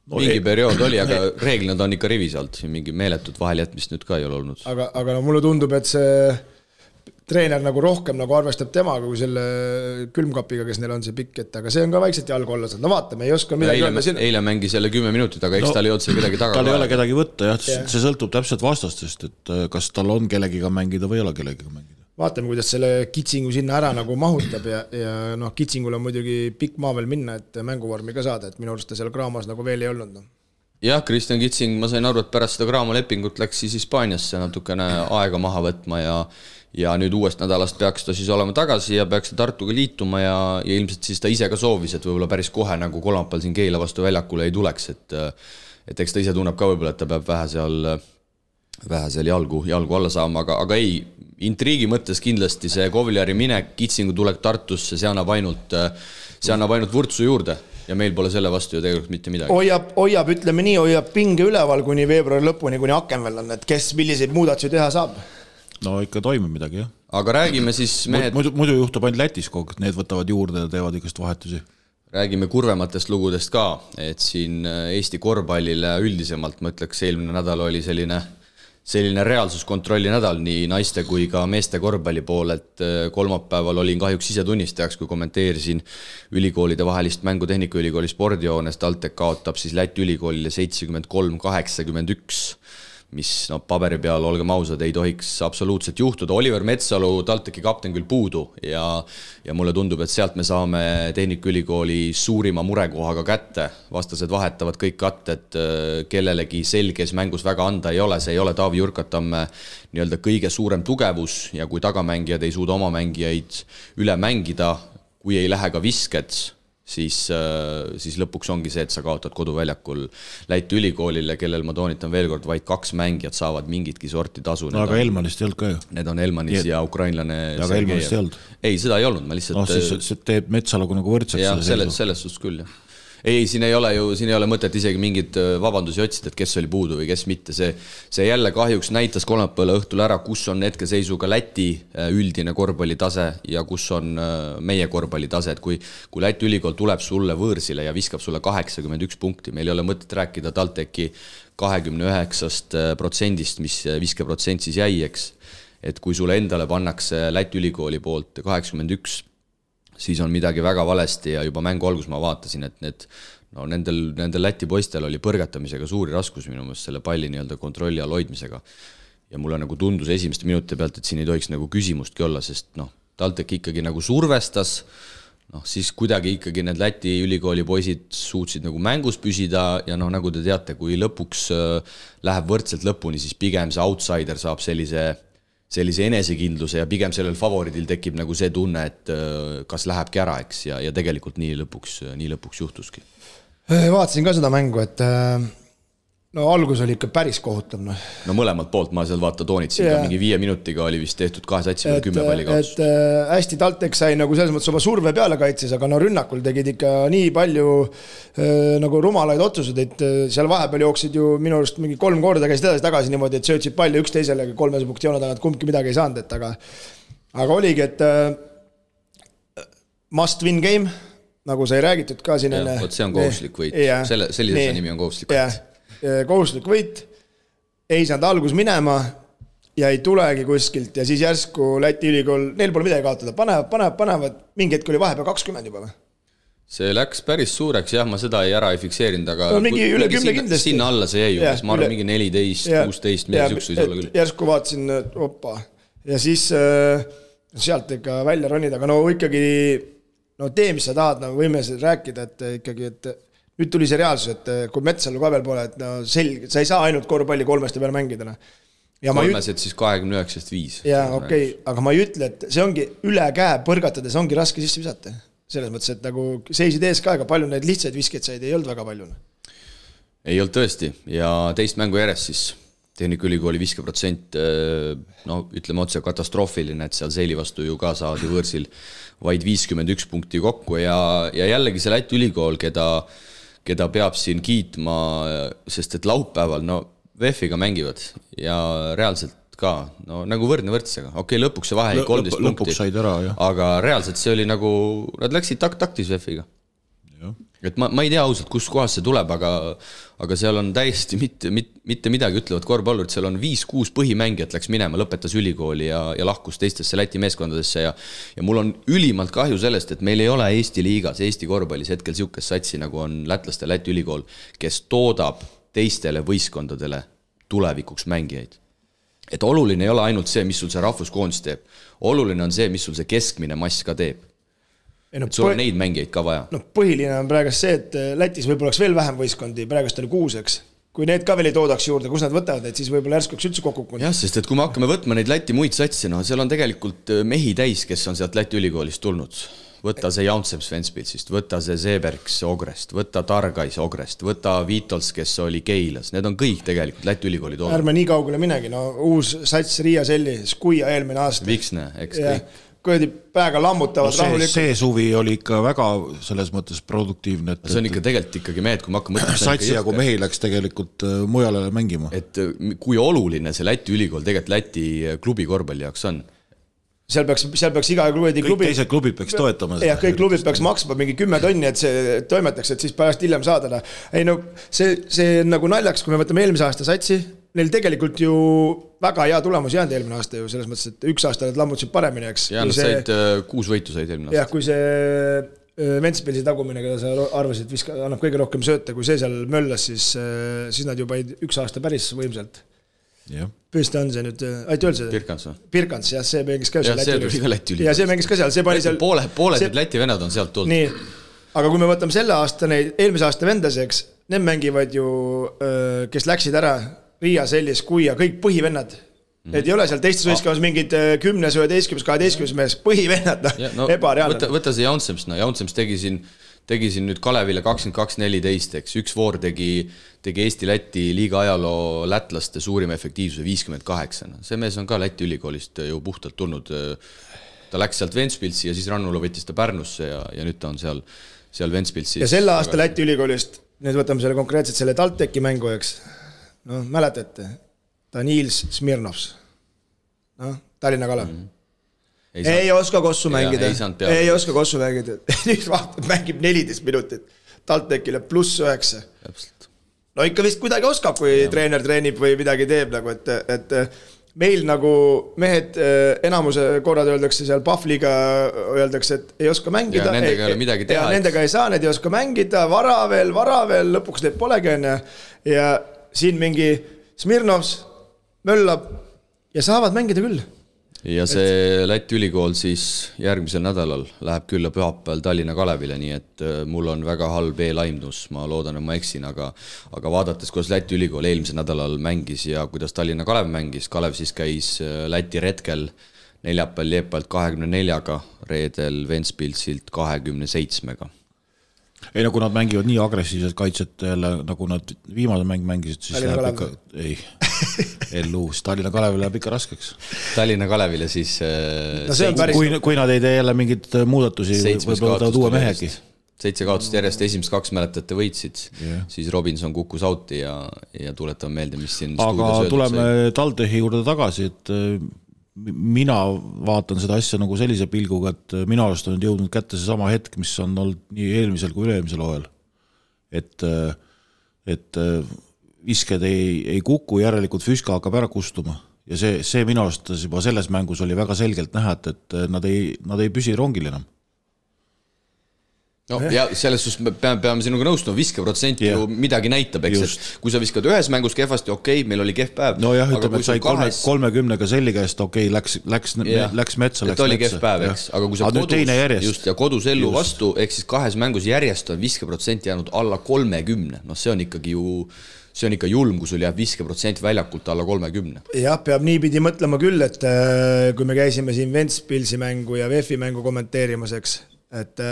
B: Mingi periood oli, aga reeglina ta on ikka rivis alt, mingi meeletut vaheljätmist nüüd ka ei ole olnud.
D: Aga mulle tundub, et see treener nagu rohkem nagu arvestab temaga kui selle külmkapiga, kes neil on see pikk, et aga see on ka vaikselt jalgu olla saanud. Vaatame, ei oska midagi öelda.
B: Eile mängi selle 10 minutit, aga eks tal ei olnud seal kedagi taga.
C: Tal ei ole kedagi võtta, jah, see sõltub täpselt vastastest, et kas tal on kellegiga mängida või ei ole kellegiga mängida. Vaatame,
D: kuidas selle Kitsingu sinna ära nagu mahutab ja Kitsingul on muidugi pikk maa veel minna, et mänguvormi ka saada, et minu arust ta seal Kraamas nagu veel ei olnud.
B: Jah, Kristjan Kitsing, ma sain aru, et pärast seda Kraamo lepingut läks siis Hispaaniasse natukene aega maha võtma ja nüüd uuest nädalast peaks ta siis olema tagasi ja peaks ta Tartuga liituma ja ilmselt siis ta ise ka soovis, et võib-olla päris kohe nagu kolmapäeval siin Keila vastu väljakule ei tuleks, et eks ta ise tunneb ka võib-olla, et ta peab vähe seal jalgu alla saama, aga ei, intriigi mõttes kindlasti see Kovliari minek, Kitsingu tulek Tartusse, see annab ainult vurtsu juurde ja meil pole selle vastu ju tegelikult mitte midagi. Hoiab, ütleme nii, hoiab pinge üleval kuni veebruari lõpuni, kuni Akenvel on, et kes milliseid muudatusi teha saab.
C: No ikka toimub midagi, jah.
B: Aga räägime siis mehed...
C: Muidu juhtub ainult Lätis kogu, need võtavad juurde ja teevad ikast vahetusi.
B: räägime kurvematest lugudest ka, et siin Eesti korvpallile üldisemalt, ma ütleks, eelmine nädal oli selline reaalsuskontrolli nädal nii naiste kui ka meeste korvpalli pool, et kolmapäeval olin kahjuks ise tunnistajaks, kui kommenteerisin ülikoolide vahelist mängu Tehnikaülikooli spordijoones. TalTech kaotab siis Läti ülikoolile 73-81, mis paberi peal, olgem ausad, ei tohiks absoluutselt juhtuda. Oliver Metsalu, TalTechi kapten küll puudu ja mulle tundub, et sealt me saame Tehnikaülikooli suurima murekohaga kätte. Vastased vahetavad kõik katted, kellelegi selges mängus väga anda ei ole. See ei ole Taavi Jurkatamme nii-öelda kõige suurem tugevus ja kui tagamängijad ei suuda oma mängijaid üle mängida, kui ei lähe ka visked, siis lõpuks ongi see, et sa kaotad koduväljakul Läti ülikoolile, kellel ma toonitan veel kord, vaid 2 mängijat saavad mingitki sorti tasu.
C: Aga Elmanist ei olnud ka ju.
B: Need on Elmanis ja ukrainlane.
C: Aga Elmanist ei olnud.
B: Ei, seda ei olnud. Ma lihtsalt...
C: siis teeb Metsalugu nagu võrdseks.
B: Ja selles suhtes küll, jah. Ei, siin ei ole mõtet isegi mingid vabandusi otsida, et kes oli puudu või kes mitte. See jälle kahjuks näitas kolmapäeva õhtul ära, kus on hetkeseisuga Läti üldine korvpallitase ja kus on meie korvpallitase. Et kui Läti ülikool tuleb sulle võõrsile ja viskab sulle 81 punkti, meil ei ole mõtet rääkida TalTechi 29%, mis viskeprotsent siis jäi, eks. Et kui sulle endale pannakse Läti ülikooli poolt 81%, siis on midagi väga valesti ja juba mängu algus ma vaatasin, et nendel Läti poistel oli põrgatamisega suuri raskus minu meelest selle palli nii-öelda kontrolli all hoidmisega. Ja mulle nagu tundus esimeste minuti pealt, et siin ei tohiks nagu küsimustki olla, sest TalTech ikkagi nagu survestas, siis kuidagi ikkagi need Läti ülikooli poisid suutsid nagu mängus püsida ja nagu te teate, kui lõpuks läheb võrdselt lõpuni, siis pigem see outsider saab sellise enesekindluse ja pigem sellel favoridil tekib nagu see tunne, et kas lähebki ära, eks, ja tegelikult nii lõpuks juhtuski.
D: Vaatasin ka seda mängu, et algus oli ikka päris kohutav.
B: Mõlemalt poolt ma seal toonitsin ka mingi 5 minutiga oli vist tehtud 2 satsi või 10 palli kaotus.
D: Et hästi TalTech sai nagu selles mõttes oma surve peale kaitses, aga rünnakul tegid ikka nii palju nagu rumalaid otsused, et seal vahepeal jooksid ju minu arust mingi 3 korda käisid edasi tagasi niimoodi, et söötsid palli üksteisele 3 punkti joone tagant, kumbki midagi ei saanud, et aga oligi, et must win game, nagu sai räägitud ka siin enne.
B: See on kohuslik võit, sellise nimi on kohuslik võit.
D: Kohuslik võit, ei saanud algus minema ja ei tulegi kuskilt ja siis järsku Läti ülikool, neil pole midagi kaotada, panevad, mingi hetk oli vahepeal 20 juba või?
B: See läks päris suureks, jah, ma seda ei fikserinud, aga
D: mingi üle 10 kindlasti.
B: Sinna alla see jäi, ma arvan mingi 14, 16, midagi süksu ei ole küll.
D: Järsku vaatasin, opa, ja siis sealt ikka välja ronida, aga ikkagi tee, mis sa tahad, võime rääkida, et ikkagi, et nüüd tuli see reaalsus, et kui Metsalu ka veel pole, et selge, sa ei saa ainult korvpalli 3 peale mängida.
B: Kolmesed siis 29-5.
D: Jaa, okei, aga ma ei ütle, et see ongi üle käe põrgatades, ongi raske sisse visata. Selles mõttes, et nagu seisid ees ka, aga palju neid lihtsaid viskeid said, ei olnud väga palju.
B: Ei olnud tõesti ja teist mängu järjest siis Tehnikaülikooli viskeprotsent, ütleme otse katastroofiline, et seal Seili vastu ju ka saadi võõrsil vaid 51 punkti kokku ja jällegi see Läti ülikool, keda peab siin kiitma, sest et laupäeval, VF-iga mängivad ja reaalselt ka, nagu võrdne võrdsega. Okei, lõpuks see vahe 13 punkti, aga reaalselt see oli nagu, nad läksid taktis VF-iga. Et ma ei tea ausalt, kus kohas see tuleb, aga seal on täiesti mitte midagi ütlevad korvpallurid, seal on 5-6 põhimängijat läks minema, lõpetas ülikooli ja lahkus teistesse Läti meeskondadesse ja mul on ülimalt kahju sellest, et meil ei ole Eesti liigas, Eesti korvpallis hetkel siukest satsi, nagu on lätlaste Läti ülikool, kes toodab teistele võistkondadele tulevikuks mängijaid. Et oluline ei ole ainult see, mis sul see rahvuskoondis teeb, oluline on see, mis sul see keskmine mass ka teeb. Sul on neid mängijaid ka vaja.
D: Põhiline on praegust see, et Lätis võib-olla oleks veel vähem võistkondi, praegust oli 6, eks. Kui need ka veel ei toodaks juurde, kus nad võtavad, et siis võib-olla järsku üldse kokku.
B: Jah, sest et kui me hakkame võtma neid Läti muid satsi, seal on tegelikult mehi täis, kes on sealt Läti ülikoolist tulnud. Võta see Jaunseps Ventspilsist, võta see Seebergs Ogrest, võta Targais Ogrest, võta Viitols, kes oli Keilas. Need on kõik tegelikult Läti ülikooli toodud.
D: Ärme nii kaugele minegi, uus sats Riia Selli, Skuia eelmine aasta.
B: Viksne, eks kõik.
D: Kõedi päega lammutavad rahulikult.
C: See suvi oli ikka väga selles mõttes produktiivne.
B: See on ikka tegelikult ikkagi mehed, kui ma hakkan mõtlema.
C: Satsi ja kui mehi läks tegelikult mujale mängima.
B: Et kui oluline see Läti ülikool tegelikult Läti klubi korvpalli jaoks on.
D: seal peaks iga klubi
C: kõik teised klubid peaks toetama
D: seda. Kõik klubid peaks maksma mingi 10 tonni, et see toimetaks, et siis pärast hiljem saada. Ei no see nagu naljaks, kui me võtame eelmise aasta satsi, neil tegelikult ju väga hea tulemus jäänud eelmine aasta ju, selles mõttes, et üks aasta nad lammutasid paremini, eks.
B: Ja nad said 6 võitu said eelmine aasta.
D: Jah, kui see Ventspilsi tagumine, keda sa arvasid, annab kõige rohkem sööte, kui see seal möllas, siis nad juba üks aasta päris võimsalt. Püsti on see nüüd, aita öelda seda? Pirkans, jah, see mängis ka seal
B: Läti üli.
D: Ja see mängis ka seal, see pani seal...
B: Pooled Läti vennad on sealt tulnud.
D: Nii, aga kui me võtame selle aasta neid, eelmise aasta vendaseks, need mängivad ju, kes läksid ära, Riia, Sellis, Kuia, kõik põhivennad. Et ei ole seal teistes võistkonnas mingid 10, 11, 12 mees, põhivennad, ebareaalne.
B: Võta see Jaunsems, Jaunsems tegi siin nüüd Kalevile 22-14, eks üks voor tegi Eesti-Läti liiga ajaloo lätlaste suurima efektiivsuse 58. See mees on ka Läti ülikoolist ju puhtalt tulnud. Ta läks sealt Ventspilsi ja siis Rannula võttis ta Pärnusse ja nüüd ta on seal Ventspilsis.
D: Ja selle aasta Läti ülikoolist, nüüd võtame selle konkreetselt selle Talteki mängu, eks. No, mäletate, ta Niils Smirnovs. Tallinna Kalev. Ei oska kossu mängida. Ei oska kossu mängida. Nüüd vaatab, mängib 14 minutit. Taltekile +9. No ikka vist kuidagi oskab, kui treener treenib või midagi teeb, nagu, et meil nagu mehed enamuse korrad öeldakse seal Pahvliga, öeldakse, et ei oska mängida.
B: Ja nendega ei ole midagi teha.
D: Ja nendega ei saa, need ei oska mängida, vara veel, lõpuks need polegi. Ja siin mingi Smirnovs möllab ja saavad mängida küll.
B: Ja see Läti ülikool siis järgmisel nädalal läheb külla pühapäeval Tallinna Kalevile, nii et mul on väga halb eelaimdus, ma loodan, et ma eksin, aga vaadates, kuidas Läti ülikool eelmisel nädalal mängis ja kuidas Tallinna Kalev mängis, Kalev siis käis Läti retkel neljapäeval Liepalt 24-ga, reedel Ventspilsilt 27-ga.
C: Ei, no kui nad mängivad nii agressiivset kaitset jälle, nagu nad viimase mängisid, siis läheb ikka... Ei, Elluus. Tallinna Kalevile läheb ikka raskeks.
B: Tallinna Kalevile siis...
C: Kui nad ei tee jälle mingid muudatusi, võib-olla ta uue mehegi.
B: 7 kaotust järjest, esimest 2 mäletate võitsid, siis Robinson kukkus auti ja tuletame meelde, mis siin
C: aga tuleme Taltehi juurde tagasi, et mina vaatan seda asja nagu sellise pilguga, et minu arust on jõudnud kätte see sama hetk, mis on olnud nii eelmisel kui üleelmisel hooajal. Et visked ei kuku, järelikult Füska hakkab ära kustuma. Ja see minu arust juba selles mängus oli väga selgelt näha, et nad ei püsi rongil enam.
B: No, ja selles suhtes me peame sinuga nõustuma, viskeprotsent ju midagi näitab, eks, et kui sa viskad ühes mängus kehvasti, okei, meil oli kehv päev.
C: No jah, ütleme, et sai 30-ga selli käest, okei, läks metsa,
B: et oli kehv päev, eks, aga kui sa kodus ellu vastu, eks siis 2 mängus järjest on viskeprotsent jäänud alla 30, no see on ikka julm, kui sul jääb viskeprotsent väljakult alla 30.
D: Jah, peab niipidi mõtlema küll, et kui me käisime siin Ventspilsi mängu ja VF-i mängu kommenteerimaseks, et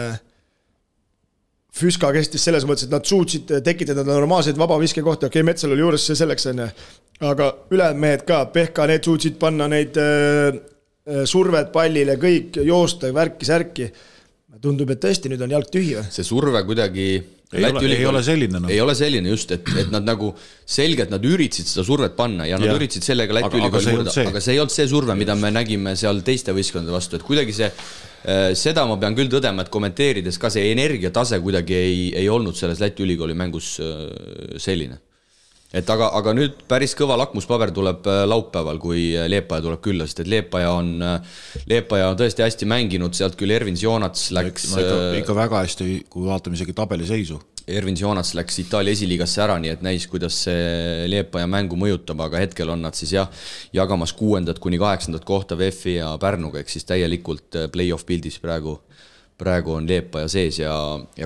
D: Füska kestis selles mõttes, et nad suutsid tekitada normaalseid vabaviske kohti, okei, Metsal oli juures see selleks, aga ülejäänud mehed ka, Pehka, need suutsid panna neid surved pallile, kõik joosta, värki-särki. Tundub, et tõesti nüüd on jalg tühi.
B: See surve kuidagi...
C: Ei ole selline.
B: Ei ole selline just, et nad nagu selgelt nad üritasid seda survet panna ja nad üritasid sellega Läti ülikooli murda, aga see ei olnud see surve, mida me nägime seal teiste võistkondade vastu, et kuidagi seda ma pean küll tõdema, et kommenteerides ka see energiatase kuidagi ei olnud selles Läti ülikooli mängus selline. Et aga nüüd päris kõva lakmuspaber tuleb laupäeval, kui Liepaja tuleb külla, sest et Liepaja on tõesti hästi mänginud, sealt küll Ervins Joonats läks...
C: ikka väga hästi, kui vaatame isegi tabeliseisu.
B: Ervins Joonats läks Itaalia esiliigasse ära, nii et näis, kuidas see Liepaja mängu mõjutab, aga hetkel on nad siis jagamas 6. kuni 8. kohta VF-i ja Pärnuga, ehk siis täielikult play-off pildis praegu on Liepaja sees ja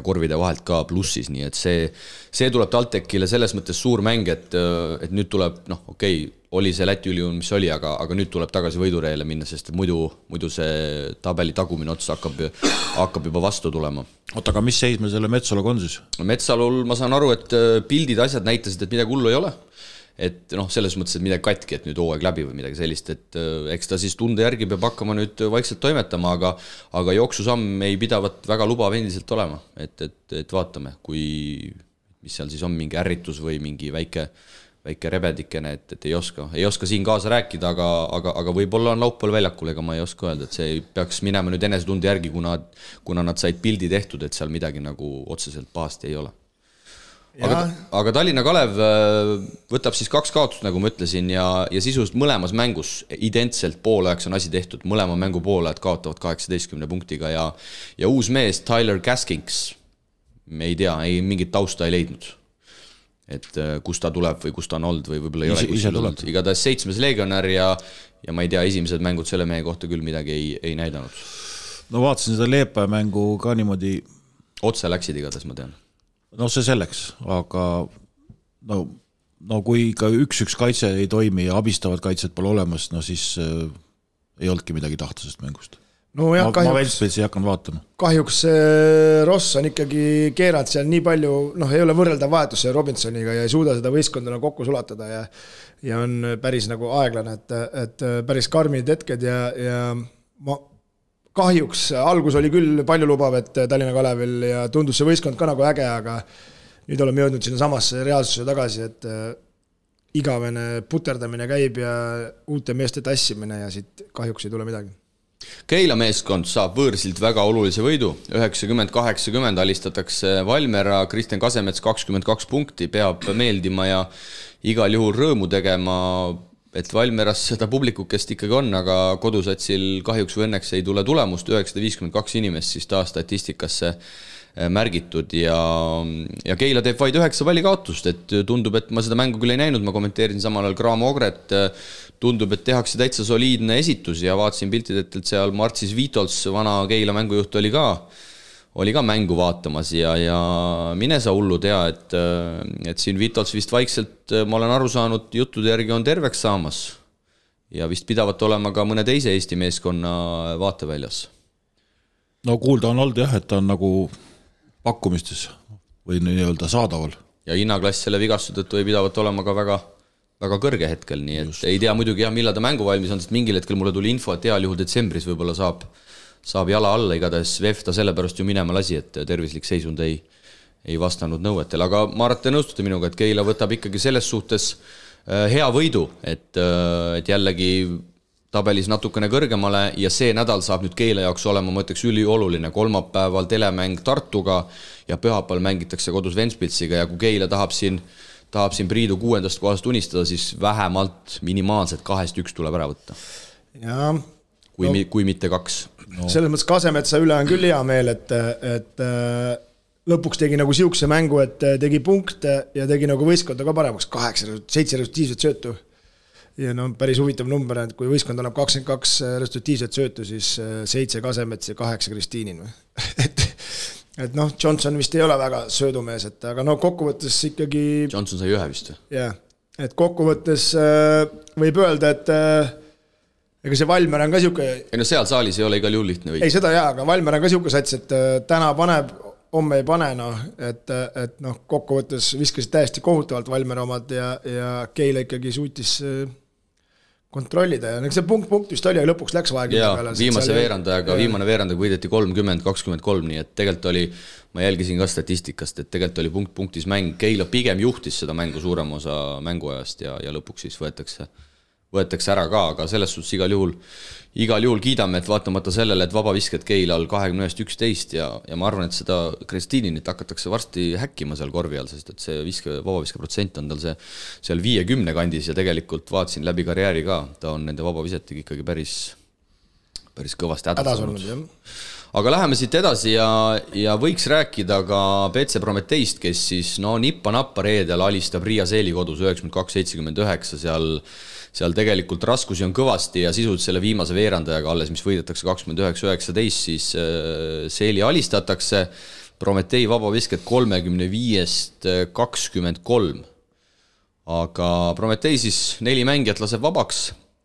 B: korvide vahelt ka plussis, nii et see tuleb Taltekile selles mõttes suur mäng, et nüüd tuleb, oli see Läti üliun, mis oli, aga nüüd tuleb tagasi võidureele minna, sest muidu see tabeli tagumine ots hakkab juba vastu tulema.
C: Oota, aga mis seis me selle Metsaluga on siis?
B: Metsalul ma saan aru, et pildid asjad näitasid, et midagi hullu ei ole. Et selles mõttes, et midagi katki, et nüüd hooaeg läbi või midagi sellist, et eks ta siis tunde järgi peab hakkama nüüd vaikselt toimetama, aga jooksusamm ei pidavat väga lubav endiselt olema, et vaatame, mis seal siis on mingi ärritus või mingi väike väike rebedikene, et ei oska siin kaasa rääkida, aga võib-olla on laupäeval väljakul, ega ma ei oska öelda, et see peaks minema nüüd enesetunde järgi, kuna nad said pildi tehtud, et seal midagi nagu otseselt pahasti ei ole. Aga Tallinna Kalev võtab siis 2 kaotust, nagu ma ütlesin, ja sisust mõlemas mängus identselt poolajaks on asi tehtud, mõlema mängu poolajad kaotavad 18 punktiga ja uus mees Tyler Gaskins, me ei tea, mingit tausta ei leidnud. Et kus ta tuleb või kus ta on olnud või võib-olla ei ole kuskil olnud. Igatahes 7. legionär ja ma ei tea, esimesed mängud selle mehe kohta küll midagi ei näidanud.
C: No vaatasin seda Leepaja mängu ka niimoodi.
B: Otse läksid igatahes, ma tean.
C: No see selleks, aga no kui ka 1-1 kaitse ei toimi ja abistavad kaitset pole olemas, no siis ei olnudki midagi tahta sest mängust. No jah, ma Ventspilsi hakkan vaatama.
D: Kahjuks Ross on ikkagi keeranud seal nii palju, ei ole võrreldav vahetus Robinsoniga ja ei suuda seda võistkondana kokku sulatada ja on päris nagu aeglane, et päris karmid hetked ja ma kahjuks algus oli küll palju lubav, et Tallinna Kalevil ja tundus see võistkond ka nagu äge, aga nüüd oleme jõudnud sinna samasse reaalsuse tagasi, et igavene puterdamine käib ja uute meeste tassimine ja siit kahjuks ei tule midagi.
B: Keila meeskond saab võõrsilt väga olulise võidu, 90-80 alistatakse Valmera, Kristjan Kasemets 22 punkti, peab meeldima ja igal juhul rõõmu tegema, et Valmeras seda publikukest ikkagi on, aga kodusatsil kahjuks või õnneks ei tule tulemust, 952 inimest siis taas statistikasse märgitud ja Keila teeb vaid 9 valikaotust, et tundub, et ma seda mängu küll ei näinud, ma kommenteerisin samal ajal Graamo Ogret, tundub, et tehakse täitsa soliidne esitus ja vaatasin piltidelt, et seal Martsis Vitols, vana Keila mängujuht, oli ka mängu vaatamas ja mine sa hullu tea, et siin Vitols vist vaikselt, ma olen aru saanud, juttude järgi on terveks saamas ja vist pidavat olema ka mõne teise Eesti meeskonna vaateväljas.
C: No kuulda on olnud jah, et ta on nagu pakkumistes või nii-öelda saadaval.
B: Ja hinnaklass selle vigastuse tõttu ei pidavat olema ka väga kõrge hetkel, nii et ei tea muidugi jah, millal ta mängu valmis on, sest mingil hetkel mulle tuli info, et heal juhul detsembris võib-olla saab jala alla, igatahes VEF ta sellepärast ju minema lasi, et tervislik seisund ei vastanud nõuetel, aga ma arvan, te nõustute minuga, et Keila võtab ikkagi selles suhtes hea võidu, et jällegi tabelis natukene kõrgemale ja see nädal saab nüüd Keila jaoks olema, ma ütleks, ülioluline. Kolmapäeval telemäng Tartuga ja pühapäeval mängitakse kodus Ventspilsiga ja kui Keila tahab siin Priidu 6. kohast unistada, siis vähemalt minimaalselt 2-1 tuleb ära võtta.
D: Ja,
B: kui mitte 2.
D: No. Selles mõttes Kasemetsa üle on küll hea meel, et lõpuks tegi nagu siukse mängu, et tegi punkte ja tegi nagu võistkonda ka paremaks. 7 resultiivset söötu. Ja päris huvitav number, et kui võistkond annab 22 resultiivset söötu, siis 7 Kasemets ja 8 Kristiinin. et Johnson vist ei ole väga söödumees, aga kokkuvõttes ikkagi...
B: Johnson sai 1 vist.
D: Jah, et kokkuvõttes võib öelda, et ega see Valmer on ka siuke...
B: Ei seal saalis ei ole igal juhul lihtne võita.
D: Ei seda aga Valmer on ka siuke sats, et täna paneb, homme ei pane, et kokkuvõttes viskasid täiesti kohutavalt Valmer omad ja Keila ikkagi suutis kontrollida ja see punkt vist oli, aga lõpuks läks vaja.
B: Jaa, viimane veerandajaga võideti 30-23, nii et tegelikult oli, ma jälgisin ka statistikast, et tegelikult oli punktis mäng, Keila pigem juhtis seda mängu suurem osa mänguajast ja lõpuks siis võetakse ära ka, aga selles suhtes igal juhul kiidame, et vaatamata sellele, et vabavisked Keilal 21-11 ja ma arvan, et seda Kristiininit hakatakse varsti häkkima seal korvi all, sest et see vabaviske protsent on tal seal 50 kandis ja tegelikult vaatasin läbi karjääri ka, ta on nende vabavisetega ikkagi päris kõvasti hädas olnud. Aga läheme siit edasi ja võiks rääkida ka BC Prometeist, kes siis nippa-nappa reedel alistab Riia Seeli kodus 92-79, seal tegelikult raskusi on kõvasti ja sisult selle viimase veerandajaga alles, mis võidetakse 29-19, siis Seeli alistatakse, Prometei vabavisked 35-23. Aga Prometei siis 4 mängijat laseb vabaks,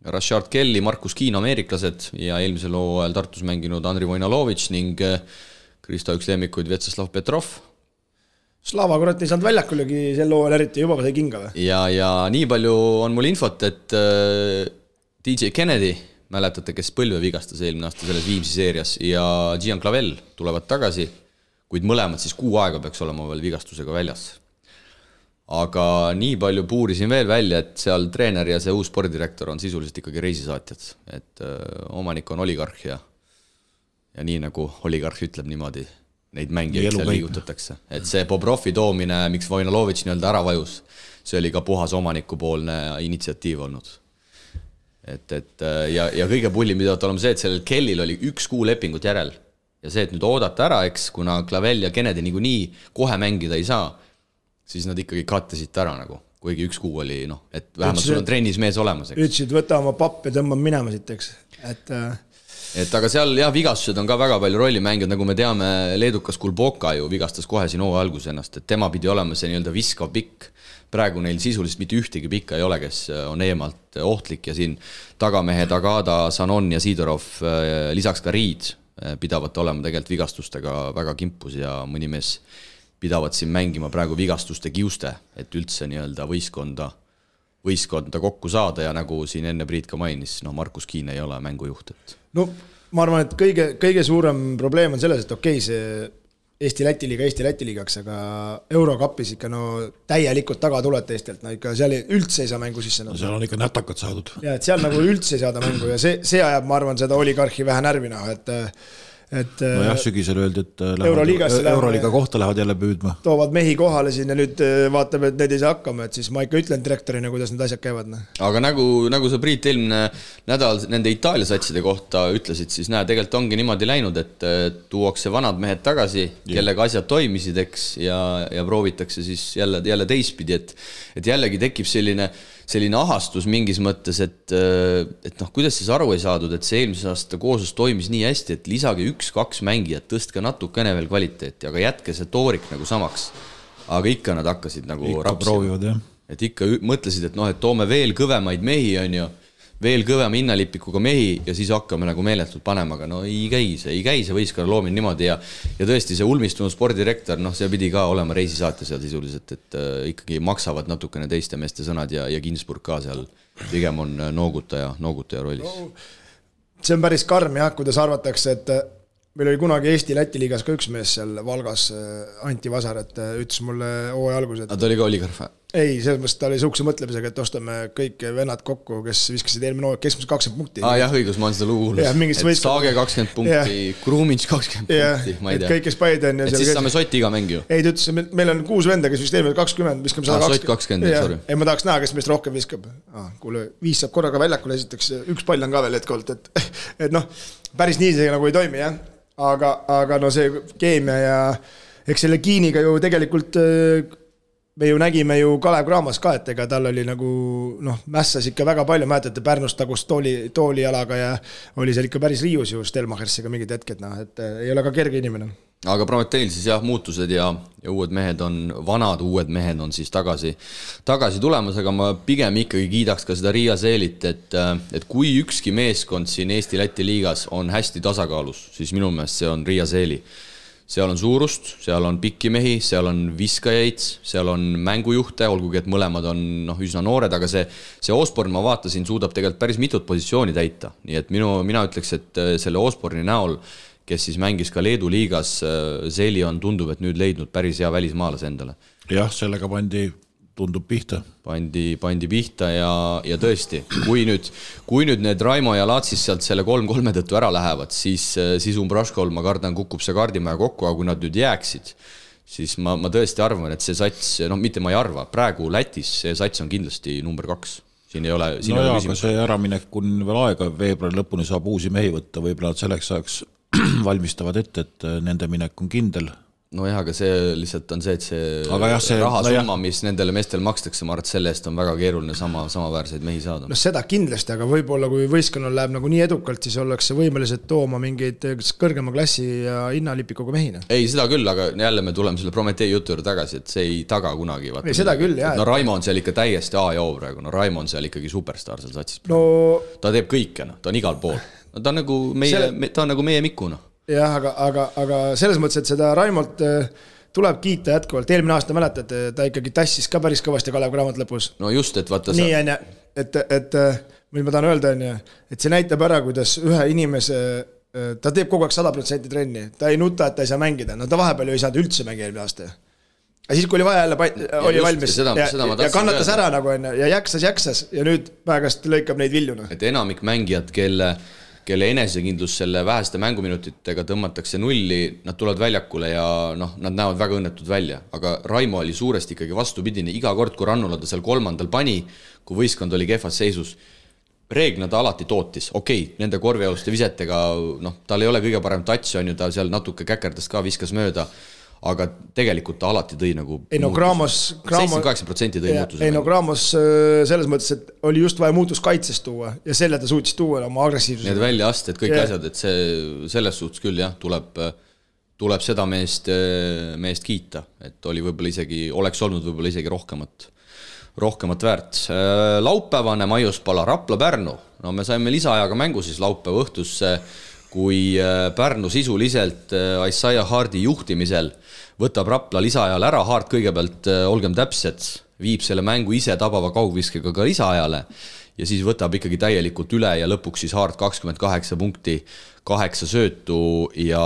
B: Rashard Kelly, Markus Kiin, ameeriklased ja eelmisel hooajal Tartus mänginud Andri Vojnalovitš ning Kristo üks lemmikuid Vetsaslav Petrov.
D: Slava kurat ei saanud väljakulegi sel hooajal eriti, juba sai kinga või?
B: Ja nii palju on mul infot, et DJ Kennedy, mäletate, kes põlve vigastas eelmine aasta selles Viimsi seerias ja Gian Clavel tulevad tagasi, kuid mõlemad siis 6 aega peaks olema veel vigastusega väljas. aga nii palju puurisin veel välja, et seal treener ja see uus spordidirektor on sisuliselt ikkagi reisisaatjad, et omanik on oligarh ja nii nagu oligarh ütleb niimoodi, neid mängijaid seal liigutatakse. Et see Bobrovi toomine, miks Vojnalovitš nii-öelda ära vajus, see oli ka puhas omanikupoolne initsiatiiv olnud. Ja kõige pullim pidavad olema see, et sellel Kellil oli 1 kuu lepingut järel. Ja see, et nüüd oodata ära, eks, kuna Clavel ja Kennedy nii kohe mängida ei saa, siis nad ikkagi kattesid ära nagu, kuigi 1 kuu oli, et vähemalt sul on trennis mees olemas.
D: Ütlesid, võta oma papp ja tõmbab minema siit, eks.
B: Et aga seal vigastused on ka väga palju rolli mänginud, nagu me teame, leedukas Kulboka ju vigastas kohe siin hooaja alguses ennast, et tema pidi olema see nii-öelda viskav pikk. Praegu neil sisuliselt mitte ühtegi pikka ei ole, kes on eemalt ohtlik ja siin tagamehed Agada, Sanon ja Sidorov, lisaks ka Riid pidavad olema tegelikult vigastustega väga kimpus ja mõni mees pidavad siin mängima praegu vigastuste kiuste, et üldse nii-öelda võistkonda kokku saada ja nagu siin enne Priit ka mainis, Markus Kiin ei ole mängujuht.
D: No ma arvan, et kõige suurem probleem on selles, et okei, see Eesti-Läti liigaks, aga Eurokapis ikka täielikult taga tulete Eestilt, ikka seal üldse ei saa mängu sisse.
C: Seal on ikka nätakad saadud.
D: Ja, et seal nagu üldse ei saada mängu ja see ajab, ma arvan, seda oligarhi vähe närvina,
C: jah, sügisel öeldi, et Euroliiga kohta lähevad jälle püüdma.
D: Toovad mehi kohale siin ja nüüd vaatab, et need ei saa hakkama, et siis ma ikka ütlen direktorina, kuidas need asjad käivad.
B: Aga nagu sa Priit eelmine nädal nende Itaalia satside kohta ütlesid, siis tegelikult ongi niimoodi läinud, et tuuakse vanad mehed tagasi, kellega asjad toimisid, eks, ja proovitakse siis jälle teistpidi, et jällegi tekib selline ahastus mingis mõttes, et kuidas siis aru ei saadud, et see eelmise aasta kooslus toimis nii hästi, et lisage 1-2 mängijat, tõstke natukene veel kvaliteeti, aga jätke see toorik nagu samaks. Aga ikka nad hakkasid nagu rapsima. Et ikka mõtlesid, et toome veel kõvemaid mehi, on ju, veel kõvema hinnalipikuga mehi ja siis hakkame nagu meeletult panema, aga ei käi see võistkonna loomine niimoodi ja tõesti see ulmistunud spordidirektor, see pidi ka olema reisisaate seal sisuliselt, et ikkagi maksavad natukene teiste meeste sõnad ja Ginsburg ka seal pigem on noogutaja rollis.
D: See on päris karm jah, kuidas arvatakse, et meil oli kunagi Eesti-Läti liigas ka üks mees seal Valgas, Anti Vasar, et ütles mulle hooaja alguses.
B: Ta oli ka oligarh?
D: Ei, selles mõttes ta oli suhkse mõtlemisega, et ostame kõik vennad kokku, kes viskasid eelmine hooaeg keskmiselt 20 punkti.
B: Jah, õigus, ma olen seda lugu kuulnud. Et Saage 20 punkti, Kruumins 20 punkti, ma ei tea.
D: Kõik, kes Paiden.
B: Et siis saame Soti iga mäng ju.
D: Ei, ta ütles, meil on 6 venda, kes vist eelmine 20, viskame 120.
B: Sot 20, sorry.
D: Ei, ma tahaks näha, kes meist rohkem viskab. Kuule, 5 saab korraga väljakule esiteks, 1 pall on ka veel hetkolt, et päris nii see nagu ei toimi, jah. Aga see keemia ja eks selle Kiiniga ju tegelikult me ju nägime ju Kalev Cramos ka, et ega tal oli nagu mässas ikka väga palju, mäletate Pärnust tagust toolialaga ja oli seal ikka päris riius ju Stelmachersiga mingid hetked, et ei ole ka kerge inimene.
B: Aga Prometeil siis jah, muutused ja vanad uued mehed on siis tagasi tulemas, aga ma pigem ikkagi kiidaks ka seda Riia Seelit, et kui ükski meeskond siin Eesti-Läti liigas on hästi tasakaalus, siis minu meelest see on Riia Seeli. Seal on suurust, seal on pikki mehi, seal on viskajaid, seal on mängujuhte, olgugi et mõlemad on üsna noored, aga see Osborn, ma vaatasin, suudab tegelikult päris mitut positsiooni täita. Nii et mina ütleks, et selle Osborni näol, kes siis mängis ka Leedu liigas, Seeli on tundub, et nüüd leidnud päris hea välismaalase endale.
C: Jah, sellega tundub pihta.
B: Pandi pihta ja tõesti, kui nüüd need Raimo ja Laatsis sealt selle 3-3 tõttu ära lähevad, siis Umbraškol, ma kardan, kukub see kaardimaja kokku, aga kui nad nüüd jääksid, siis ma tõesti arvan, et see sats, mitte ma ei arva, praegu Lätis see sats on kindlasti number 2. Siin ei ole
C: küsimus. Aga see äraminek on veel aega, veebruari lõpuni saab uusi mehi võtta, võib-olla selleks ajaks valmistavad ette, et nende minek on kindel.
B: Aga see lihtsalt on see, et see rahasumma, mis nendele meestel makstakse, ma arvan, et selle eest on väga keeruline samaväärseid mehi saada.
D: Seda kindlasti, aga võib-olla kui võistkonnal läheb nagu nii edukalt, siis ollakse võimelised tooma mingeid kõrgema klassi ja hinnalipikuga mehina.
B: Ei, seda küll, aga jälle me tuleme selle Prometee jutu juurde tagasi, et see ei taga kunagi.
D: Ei, seda küll, jah.
B: Raimo on seal ikka täiesti A ja O praegu. Raimo on seal ikkagi superstar seal satsis. Ta teeb kõike, ta on igal pool. Ta on nagu meie Mikuna.
D: Jah, aga selles mõttes, et seda Raimolt tuleb kiita jätkuvalt. Eelmine aasta mäletate, ta ikkagi tassis ka päris kõvasti Kalev Cramot lõpus.
B: No just, et vaata
D: nii on, et mis ma tahan öelda, et see näitab ära, kuidas ühe inimese, ta teeb kogu aeg 100% trenni, ta ei nuta, et ta ei saa mängida, ta vahepeal ju ei saanud üldse mängi eelmine aasta. siis kui oli vaja jälle oli valmis ja kannatas ära nagu enne ja jaksas ja nüüd päegast lõikab neid viljuna.
B: Et enamik mängijad, kelle enesekindlus selle väheste mänguminutitega tõmmatakse nulli, nad tulevad väljakule ja nad näevad väga õnnetud välja. Aga Raimo oli suuresti ikkagi vastupidine. Iga kord, kui Rannula ta seal 3. pani, kui võistkond oli kehvas seisus, reeglina ta alati tootis. Okei, nende korvialuste visetega, tal ei ole kõige parem touch, on ju, ta seal natuke käkerdas ka, viskas mööda, aga tegelikult ta alati tõi nagu 78% tõi muutuse.
D: Gramos selles mõttes, et oli just vaja muutus kaitsest tuua ja selle ta suutis tuua oma agressiivsuse.
B: Need väljaasted, kõik asjad, et selles suhtes küll jah, tuleb seda meest kiita, et oli võib-olla isegi, oleks olnud võib-olla isegi rohkemat väärt. Laupäevane Maiuspala Rapla Pärnu. Me saime lisaajaga mängu siis laupäeva õhtusse, kui Pärnu sisuliselt Isaiah Hardi juhtimisel võtab Rapla lisaajal ära. Hart kõigepealt, olgem täpsed, viib selle mängu ise tabava kaugviskega ka lisaajale ja siis võtab ikkagi täielikult üle ja lõpuks siis Hart 28 punkti, 8 söötu ja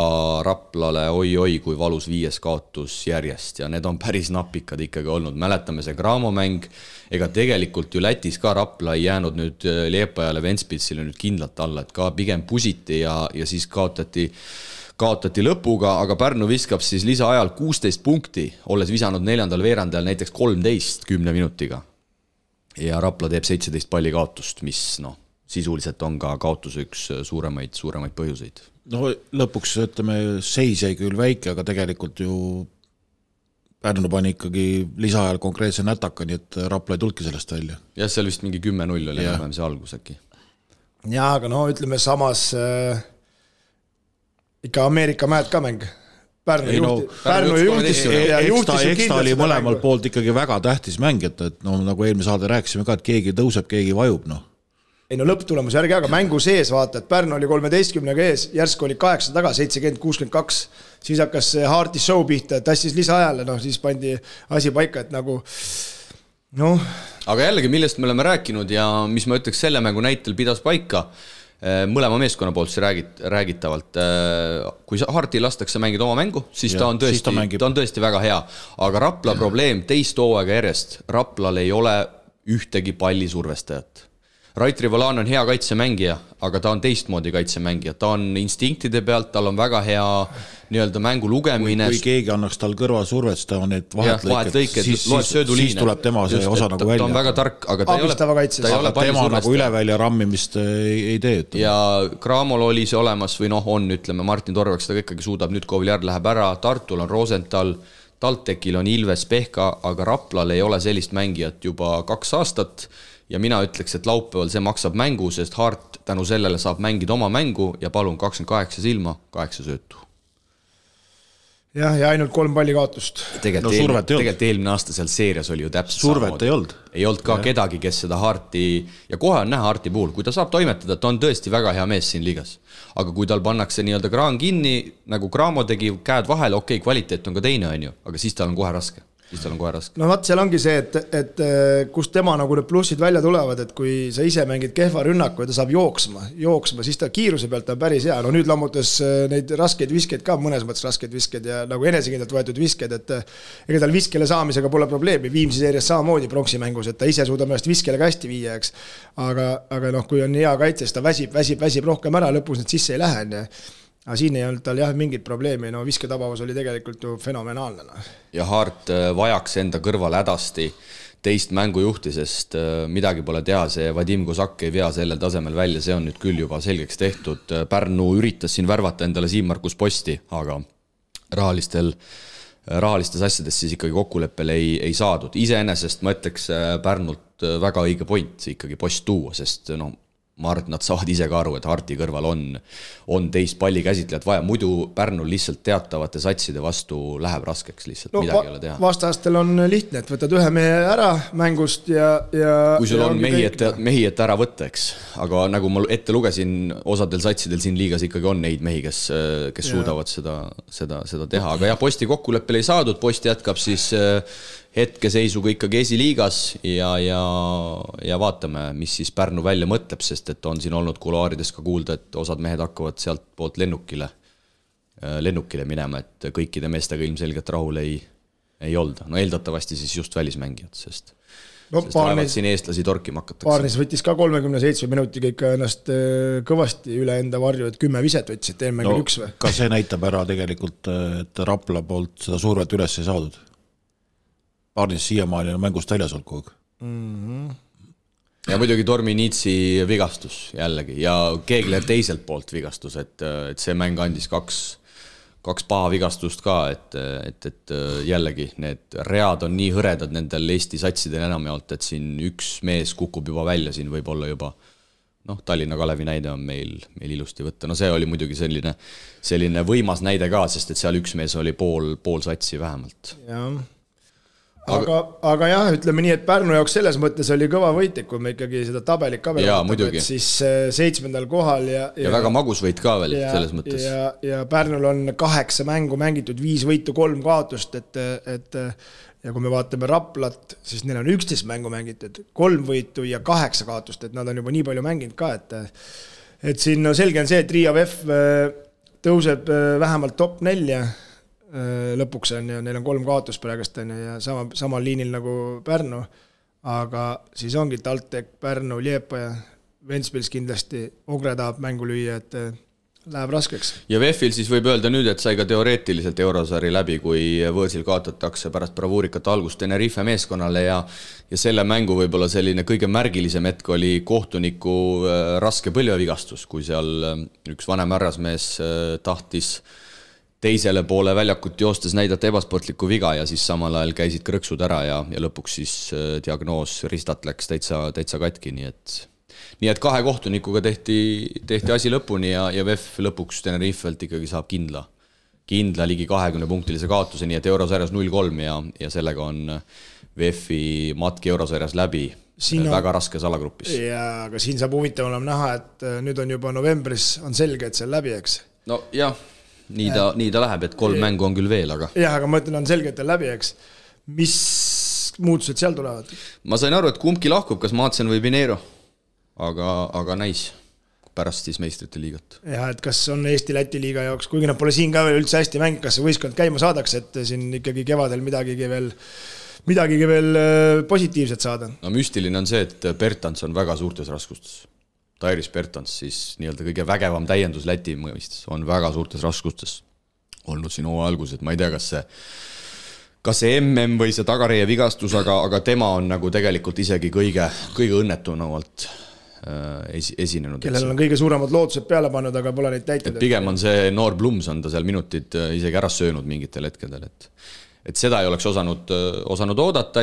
B: Raplale oi, kui valus 5 kaotus järjest ja need on päris napikad ikkagi olnud. Mäletame see Graamo mäng, ega tegelikult ju Lätis ka Rapla ei jäänud nüüd Liepajale Ventspilsile nüüd kindlalt alla, et ka pigem pusiti ja siis kaotati lõpuga, aga Pärnu viskab siis lisaajal 16 punkti, olles visanud 4. veerandajal näiteks 13 10 minutiga. Ja Rapla teeb 17 palli kaotust, mis sisuliselt on ka kaotuse üks suuremaid põhjuseid.
C: Lõpuks ütleme, seis jäi küll väike, aga tegelikult ju Pärnu pani ikkagi lisaajal konkreetse nätaka, nii et Rapla ei tulki sellest välja.
B: Ja seal vist mingi 10-0 oli enam see algus äkki.
D: Ja, aga ütleme samas ikka Ameerika mäed ka mäng. Pärnu juhtis
C: ta oli mõlemal poolt ikkagi väga tähtis mäng, et nagu eelmise saade rääkisime ka, et keegi tõuseb, keegi vajub.
D: Lõpptulemus järgi, aga mängu sees vaata, et Pärnu oli 13-ga ees, järsku oli 8 taga, 70-62, siis hakkas Harti show pihta, tassis lisaajale, siis pandi asi paika, et nagu
B: Aga jällegi, millest me oleme rääkinud ja mis ma ütleks selle mängu näitel pidas paika, mõlema meeskonna poolt see räägitavalt. Kui Harti lastakse mängida oma mängu, siis ta on tõesti väga hea. Aga Rapla probleem teist hooaega järjest. Raplal ei ole ühtegi palli survestajat. Rait Rivolan on hea kaitsemängija, aga ta on teistmoodi kaitsemängija. Ta on instinktide pealt, tal on väga hea nii-öelda mängu lugemine.
C: Kui keegi annaks tal kõrval survet, ta on need vahetlõiked, siis tuleb tema see osa nagu välja.
B: Ta on väga tark, aga ta ei ole
C: tema nagu ülevälja rammimist ei tee.
B: Ja Graamol oli see olemas või on, ütleme, Martin Torveks ta ikkagi suudab, nüüd Koviliar läheb ära, Tartul on Rosenthal, Taltekil on Ilves Pehka, aga Raplal ei ole sellist mängijat juba 2 aastat. Ja mina ütleks, et laupäeval see maksab mängu, sest Hart tänu sellele saab mängida oma mängu ja palun 28 silma, 8 söötu.
D: Ja ainult 3 palli kaotust.
B: Tegelikult eelmine aasta seal seerias oli ju täpselt
C: survet ei olnud.
B: Ei olnud ka kedagi, kes seda Harti, ja kohe on näha Harti puhul, kui ta saab toimetada, ta on tõesti väga hea mees siin liigas. Aga kui tal pannakse nii-öelda kraan kinni, nagu Graamo tegi käed vahele, okei, kvaliteet on ka teine, on ju, aga siis tal on kohe raske.
D: Vaat seal ongi see, et kust tema nagu need plussid välja tulevad, et kui sa ise mängid kehva rünnaku ja ta saab jooksma, siis ta kiiruse pealt on päris hea. Nüüd lammutas neid raskeid viskeid ka, mõnes mõttes raskeid viskeid ja nagu enesekindlalt võetud viskeid, et ega tal viskele saamisega pole probleemi. Viimsi seerias samamoodi pronksi mängus, et ta ise suudab ennast viskele ka hästi viia, eks. Aga kui on hea kaitse, siis ta väsib rohkem ära, lõpus need sisse ei lähe. Aga siin ei olnud tal mingit probleemi, visketabavus oli tegelikult ju fenomenaalne.
B: Ja Hart vajaks enda kõrval hädasti teist mängujuhti, sest midagi pole teha, see Vadim Kozak ei vea sellel tasemel välja, see on nüüd küll juba selgeks tehtud. Pärnu üritas siin värvata endale Siim-Markus Posti, aga rahalistes asjades siis ikkagi kokkuleppel ei saadud. Iseenesest ma ütleks Pärnult väga õige point ikkagi Post tuua, sest ma arvan, et nad saavad ise ka aru, et Harti kõrval on teist palli käsitlejat vaja. Muidu Pärnul lihtsalt teatavate satside vastu läheb raskeks lihtsalt, midagi ei ole teha.
D: Vastastel on lihtne, et võtad ühe mehe ära mängust ja
B: kui sul on mehi, et ära võtta, eks. Aga nagu ma ette lugesin, osadel satsidel siin liigas ikkagi on neid mehi, kes suudavad seda teha. Aga Posti kokkuleppel ei saadud, Post jätkab siis hetkeseisuga ikkagi esiliigas ja vaatame, mis siis Pärnu välja mõtleb, sest et on siin olnud kuluaarides ka kuulda, et osad mehed hakkavad sealt poolt lennukile minema, et kõikide meestega ilmselgelt rahul ei ei olda, no eeldatavasti siis just välismängijad, sest
C: Barnes,
B: siin eestlasi torkima hakatakse.
D: Barnes võttis ka 37 minutiga ikka ennast kõvasti üle enda varju, et 10 viset võttis, et eelmängil üks või?
C: Ka see näitab ära tegelikult, et Rapla poolt seda survet üles ei saadud. Barnes siiamaani on mängust väljas olnud kogu aeg.
B: Ja muidugi Tormi Niitsi vigastus jällegi ja Keegler teiselt poolt vigastus, et see mäng andis kaks paha vigastust ka, et jällegi need read on nii hõredad nendel Eesti satsidel enamjaolt, et siin üks mees kukub juba välja, siin võib olla juba Tallinna Kalevi näide on meil ilusti võtta. No see oli muidugi selline võimas näide ka, sest et seal üks mees oli pool satsi vähemalt.
D: Jah. Aga jah, ütleme nii, et Pärnu jaoks selles mõttes oli kõva võit, kui me ikkagi seda tabelit ka
B: vaatame, et
D: siis 7. kohal ja
B: väga magus võit ka veel selles mõttes.
D: Ja Pärnul on 8 mängu mängitud, 5 võitu, 3 kaotust, et ja kui me vaatame Raplat, siis neil on 11 mängu mängitud, 3 võitu ja 8 kaotust, et nad on juba nii palju mänginud ka, et siin selge on see, et Riia VEF tõuseb vähemalt top 4 lõpuks on ja neil on 3 kaotust praegust on ja samal liinil nagu Pärnu, aga siis ongi TalTech, Pärnu, Liepaja, Ventspils kindlasti, Ogre tahab mängu lüüa, et läheb raskeks.
B: Ja VEF-il siis võib öelda nüüd, et sai ka teoreetiliselt eurosari läbi, kui võõrsil kaotatakse pärast bravuurikat algust Tenerife meeskonnale ja selle mängu võib-olla selline kõige märgilisem hetk oli kohtuniku raske põlvevigastus, kui seal üks vanem härrasmees tahtis teisele poole väljakut joostes näidata ebasportlikku viga ja siis samal ajal käisid krõksud ära ja lõpuks siis diagnoos ristat läks täitsa katki, nii et 2 kohtunikuga tehti asi lõpuni ja VEF lõpuks Tenerifelt ikkagi saab kindla ligi 20-punktilise kaotuse, nii et eurosarjas 0-3 ja sellega on VEF-i matki eurosarjas läbi väga raskes alagrupis.
D: Ja, aga siin saab huvitav olema näha, et nüüd on juba novembris on selge, et see on läbi, eks?
B: No jah. Nii ta läheb, et 3 mängu on küll veel, aga...
D: Jah, aga ma ütlen, on selge, et on läbi, eks. Mis muutused seal tulevad?
B: Ma sain aru, et kumbki lahkub, kas Maatsen või Pinero, aga näis pärast siis meistrite liigat.
D: Jah, et kas on Eesti-Läti liiga jaoks, kuigi nad pole siin ka veel üldse hästi mängid, kas see võistkond käima saadakse, et siin ikkagi kevadel midagigi veel positiivset saada?
B: No müstiline on see, et Bertans on väga suurtes raskustes. Tairis Bertans, siis nii-öelda kõige vägevam täiendus Läti mõistes, on väga suurtes raskustes olnud siin algus, et ma ei tea, kas see MM või see tagareie vigastus, aga tema on nagu tegelikult isegi kõige õnnetunavalt esinenud.
D: Kellel on kõige suuremad lootused peale pannud, aga pole neid täitnud.
B: Pigem on see noor Blums on ta seal minutid isegi ära söönud mingitel hetkedel, et seda ei oleks osanud oodata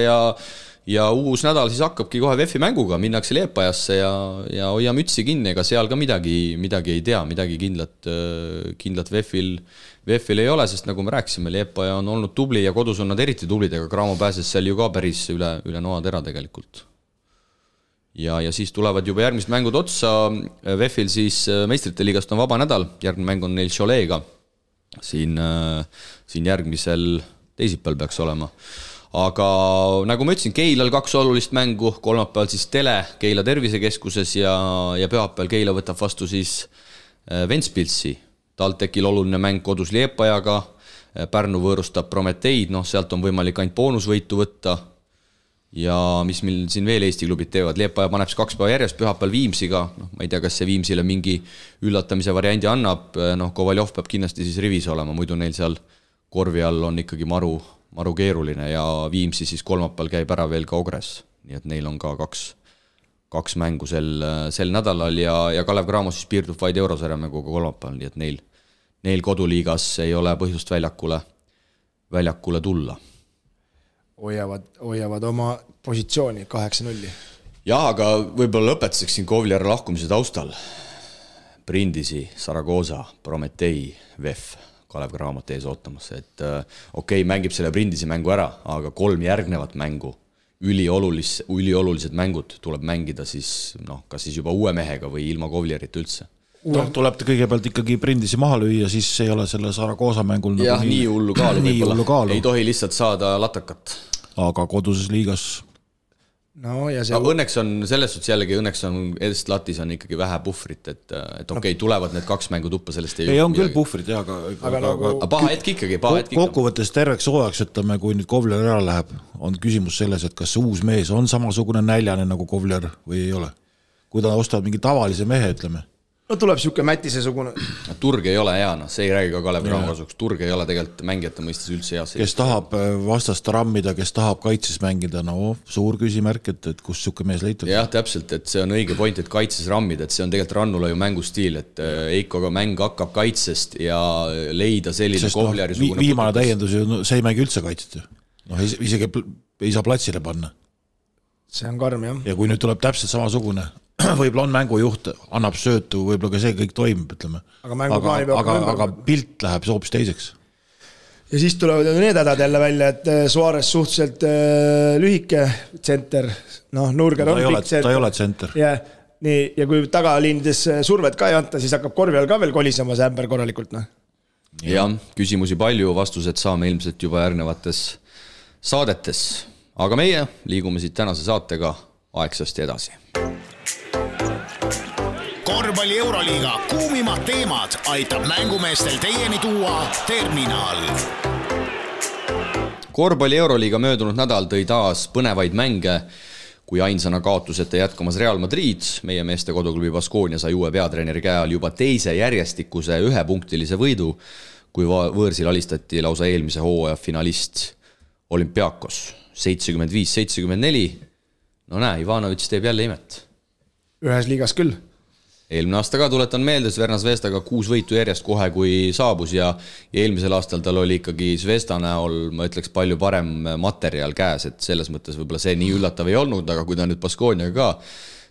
B: ja uus nädal siis hakkabki kohe VEF-i mänguga, minnakse Liepajasse ja hoia mütsi kinni, ega seal ka midagi ei tea, midagi kindlat VEF-il ei ole, sest nagu me rääkisime, Liepaja on olnud tubli ja kodus on nad eriti tublid, aga Graamo pääses seal ju ka päris üle noatera tegelikult. Ja siis tulevad juba järgmised mängud otsa, VEF-il siis meistrite liigast on vaba nädal, järgmine mäng on neil Choleega, siin järgmisel teisipäeval peaks olema. Aga nagu ma ütlesin, Keilal 2 olulist mängu, kolmapäeval siis Tele Keila tervisekeskuses ja pühapäeval Keila võtab vastu siis Ventspilsi. TalTechil oluline mäng kodus Liepajaga, Pärnu võõrustab Prometeid, sealt on võimalik ainult boonusvõitu võtta ja mis meil siin veel Eesti klubid teevad, Liepaja paneb 2 päeva järjest pühapäeval Viimsiga, ma ei tea, kas see Viimsile mingi üllatamise variandi annab, Kovaljov peab kindlasti siis rivis olema, muidu neil seal korvi all on ikkagi maru keeruline ja Viimsi siis kolmapäeval käib ära veel ka Ogres, nii et neil on ka 2 mängu sel nädalal ja Kalev Cramo siis piirdub vaid eurosarja mänguga kolmapäeval, nii et neil koduliigas ei ole põhjust väljakule tulla.
D: Hoiavad oma positsiooni 8-0.
B: Jah, aga võib-olla lõpetaseks siin Kovliara lahkumise taustal. Brindisi, Saragoza, Prometei, VEF, Kalev Cramot ees ootamas, et mängib selle Brindisi mängu ära, aga 3 järgnevat mängu, üliolulised mängud tuleb mängida siis, kas siis juba uue mehega või ilma Kovliarit üldse.
C: Tuleb kõigepealt ikkagi Brindisi maha lüüa, siis ei ole selle Saragoza mängul
B: jah, nii hullu kaalu võib-olla. Ei tohi lihtsalt saada latakat.
C: Aga koduses liigas
D: No, ja see...
B: Õnneks on selles suhtes jällegi, õnneks on Edest Latis on ikkagi vähe puhvrit, et okei, tulevad need 2 mängu tuppa, sellest
C: ei on küll puhvrit, aga
B: paha hetk ikkagi.
C: Kokkuvõttes terveks hooajaks, ütleme, kui nüüd Kovler ära läheb, on küsimus selles, et kas see uus mees on samasugune näljane nagu Kovler või ei ole. Kui ta ostab mingi tavalise mehe, ütleme.
D: No tuleb siuke Mätise-sugune.
B: Turg ei ole hea, see ei räägi ka Kalev Cramo kasuks. Turg ei ole tegelikult mängijate mõistes üldse hea.
C: Kes tahab vastast rammida, kes tahab kaitses mängida, no suur küsimärk, et kus siuke mees leitud.
B: Jah, täpselt, et see on õige point, et kaitses rammida, et see on tegelikult Rannula ju mängustiil, et Eikoga mäng hakkab kaitsest ja leida selline Kovleri-sugune...
C: Viimane täiendus ju, see ei mängi üldse kaitset ju. No isegi ei saa platsile panna.
D: See on karm, jah.
C: Ja kui nüüd tuleb täpselt samasugune... võib-olla on mängujuht, annab söötu, võib-olla ka see kõik toimib, ütleme. Aga pilt läheb hoopis teiseks.
D: Ja siis tulevad need hädad jälle välja, et Suarez suhteliselt lühike tsenter, Nurger on pikk tsenter.
C: Ta ei ole tsenter.
D: Ja kui tagaliinides survet ka ei anta, siis hakkab korvi all ka veel kolisema see ämber korralikult.
B: Jah, küsimusi palju, vastused saame ilmselt juba järgnevates saadetes. Aga meie liigume siit tänase saatega aegsasti edasi.
A: Korvpalli Euroliiga kuumimad teemad aitab mängumeestel teieni tuua Terminal.
B: Korvpalli Euroliiga möödunud nädal tõi taas põnevaid mänge, kui ainsana kaotuseta jätkamas Real Madrid. Meie meeste koduklubi Baskonia sai uue peatreeneri käe all juba teise järjestikuse 1-punktilise võidu, kui võõrsil alistati lausa eelmise hooaja finalist Olympiakos 75-74. No näe, Ivanovic teeb jälle imet.
D: Ühes liigas küll.
B: Eelmine aasta ka tuletan meelde, Sverna Zvezdaga 6 võitu järjest kohe, kui saabus ja eelmisel aastal tal oli ikkagi Zvezda näol, ma ütleks, palju parem materjal käes, et selles mõttes võib-olla see nii üllatav ei olnud, aga kui ta nüüd Baskoniaga ka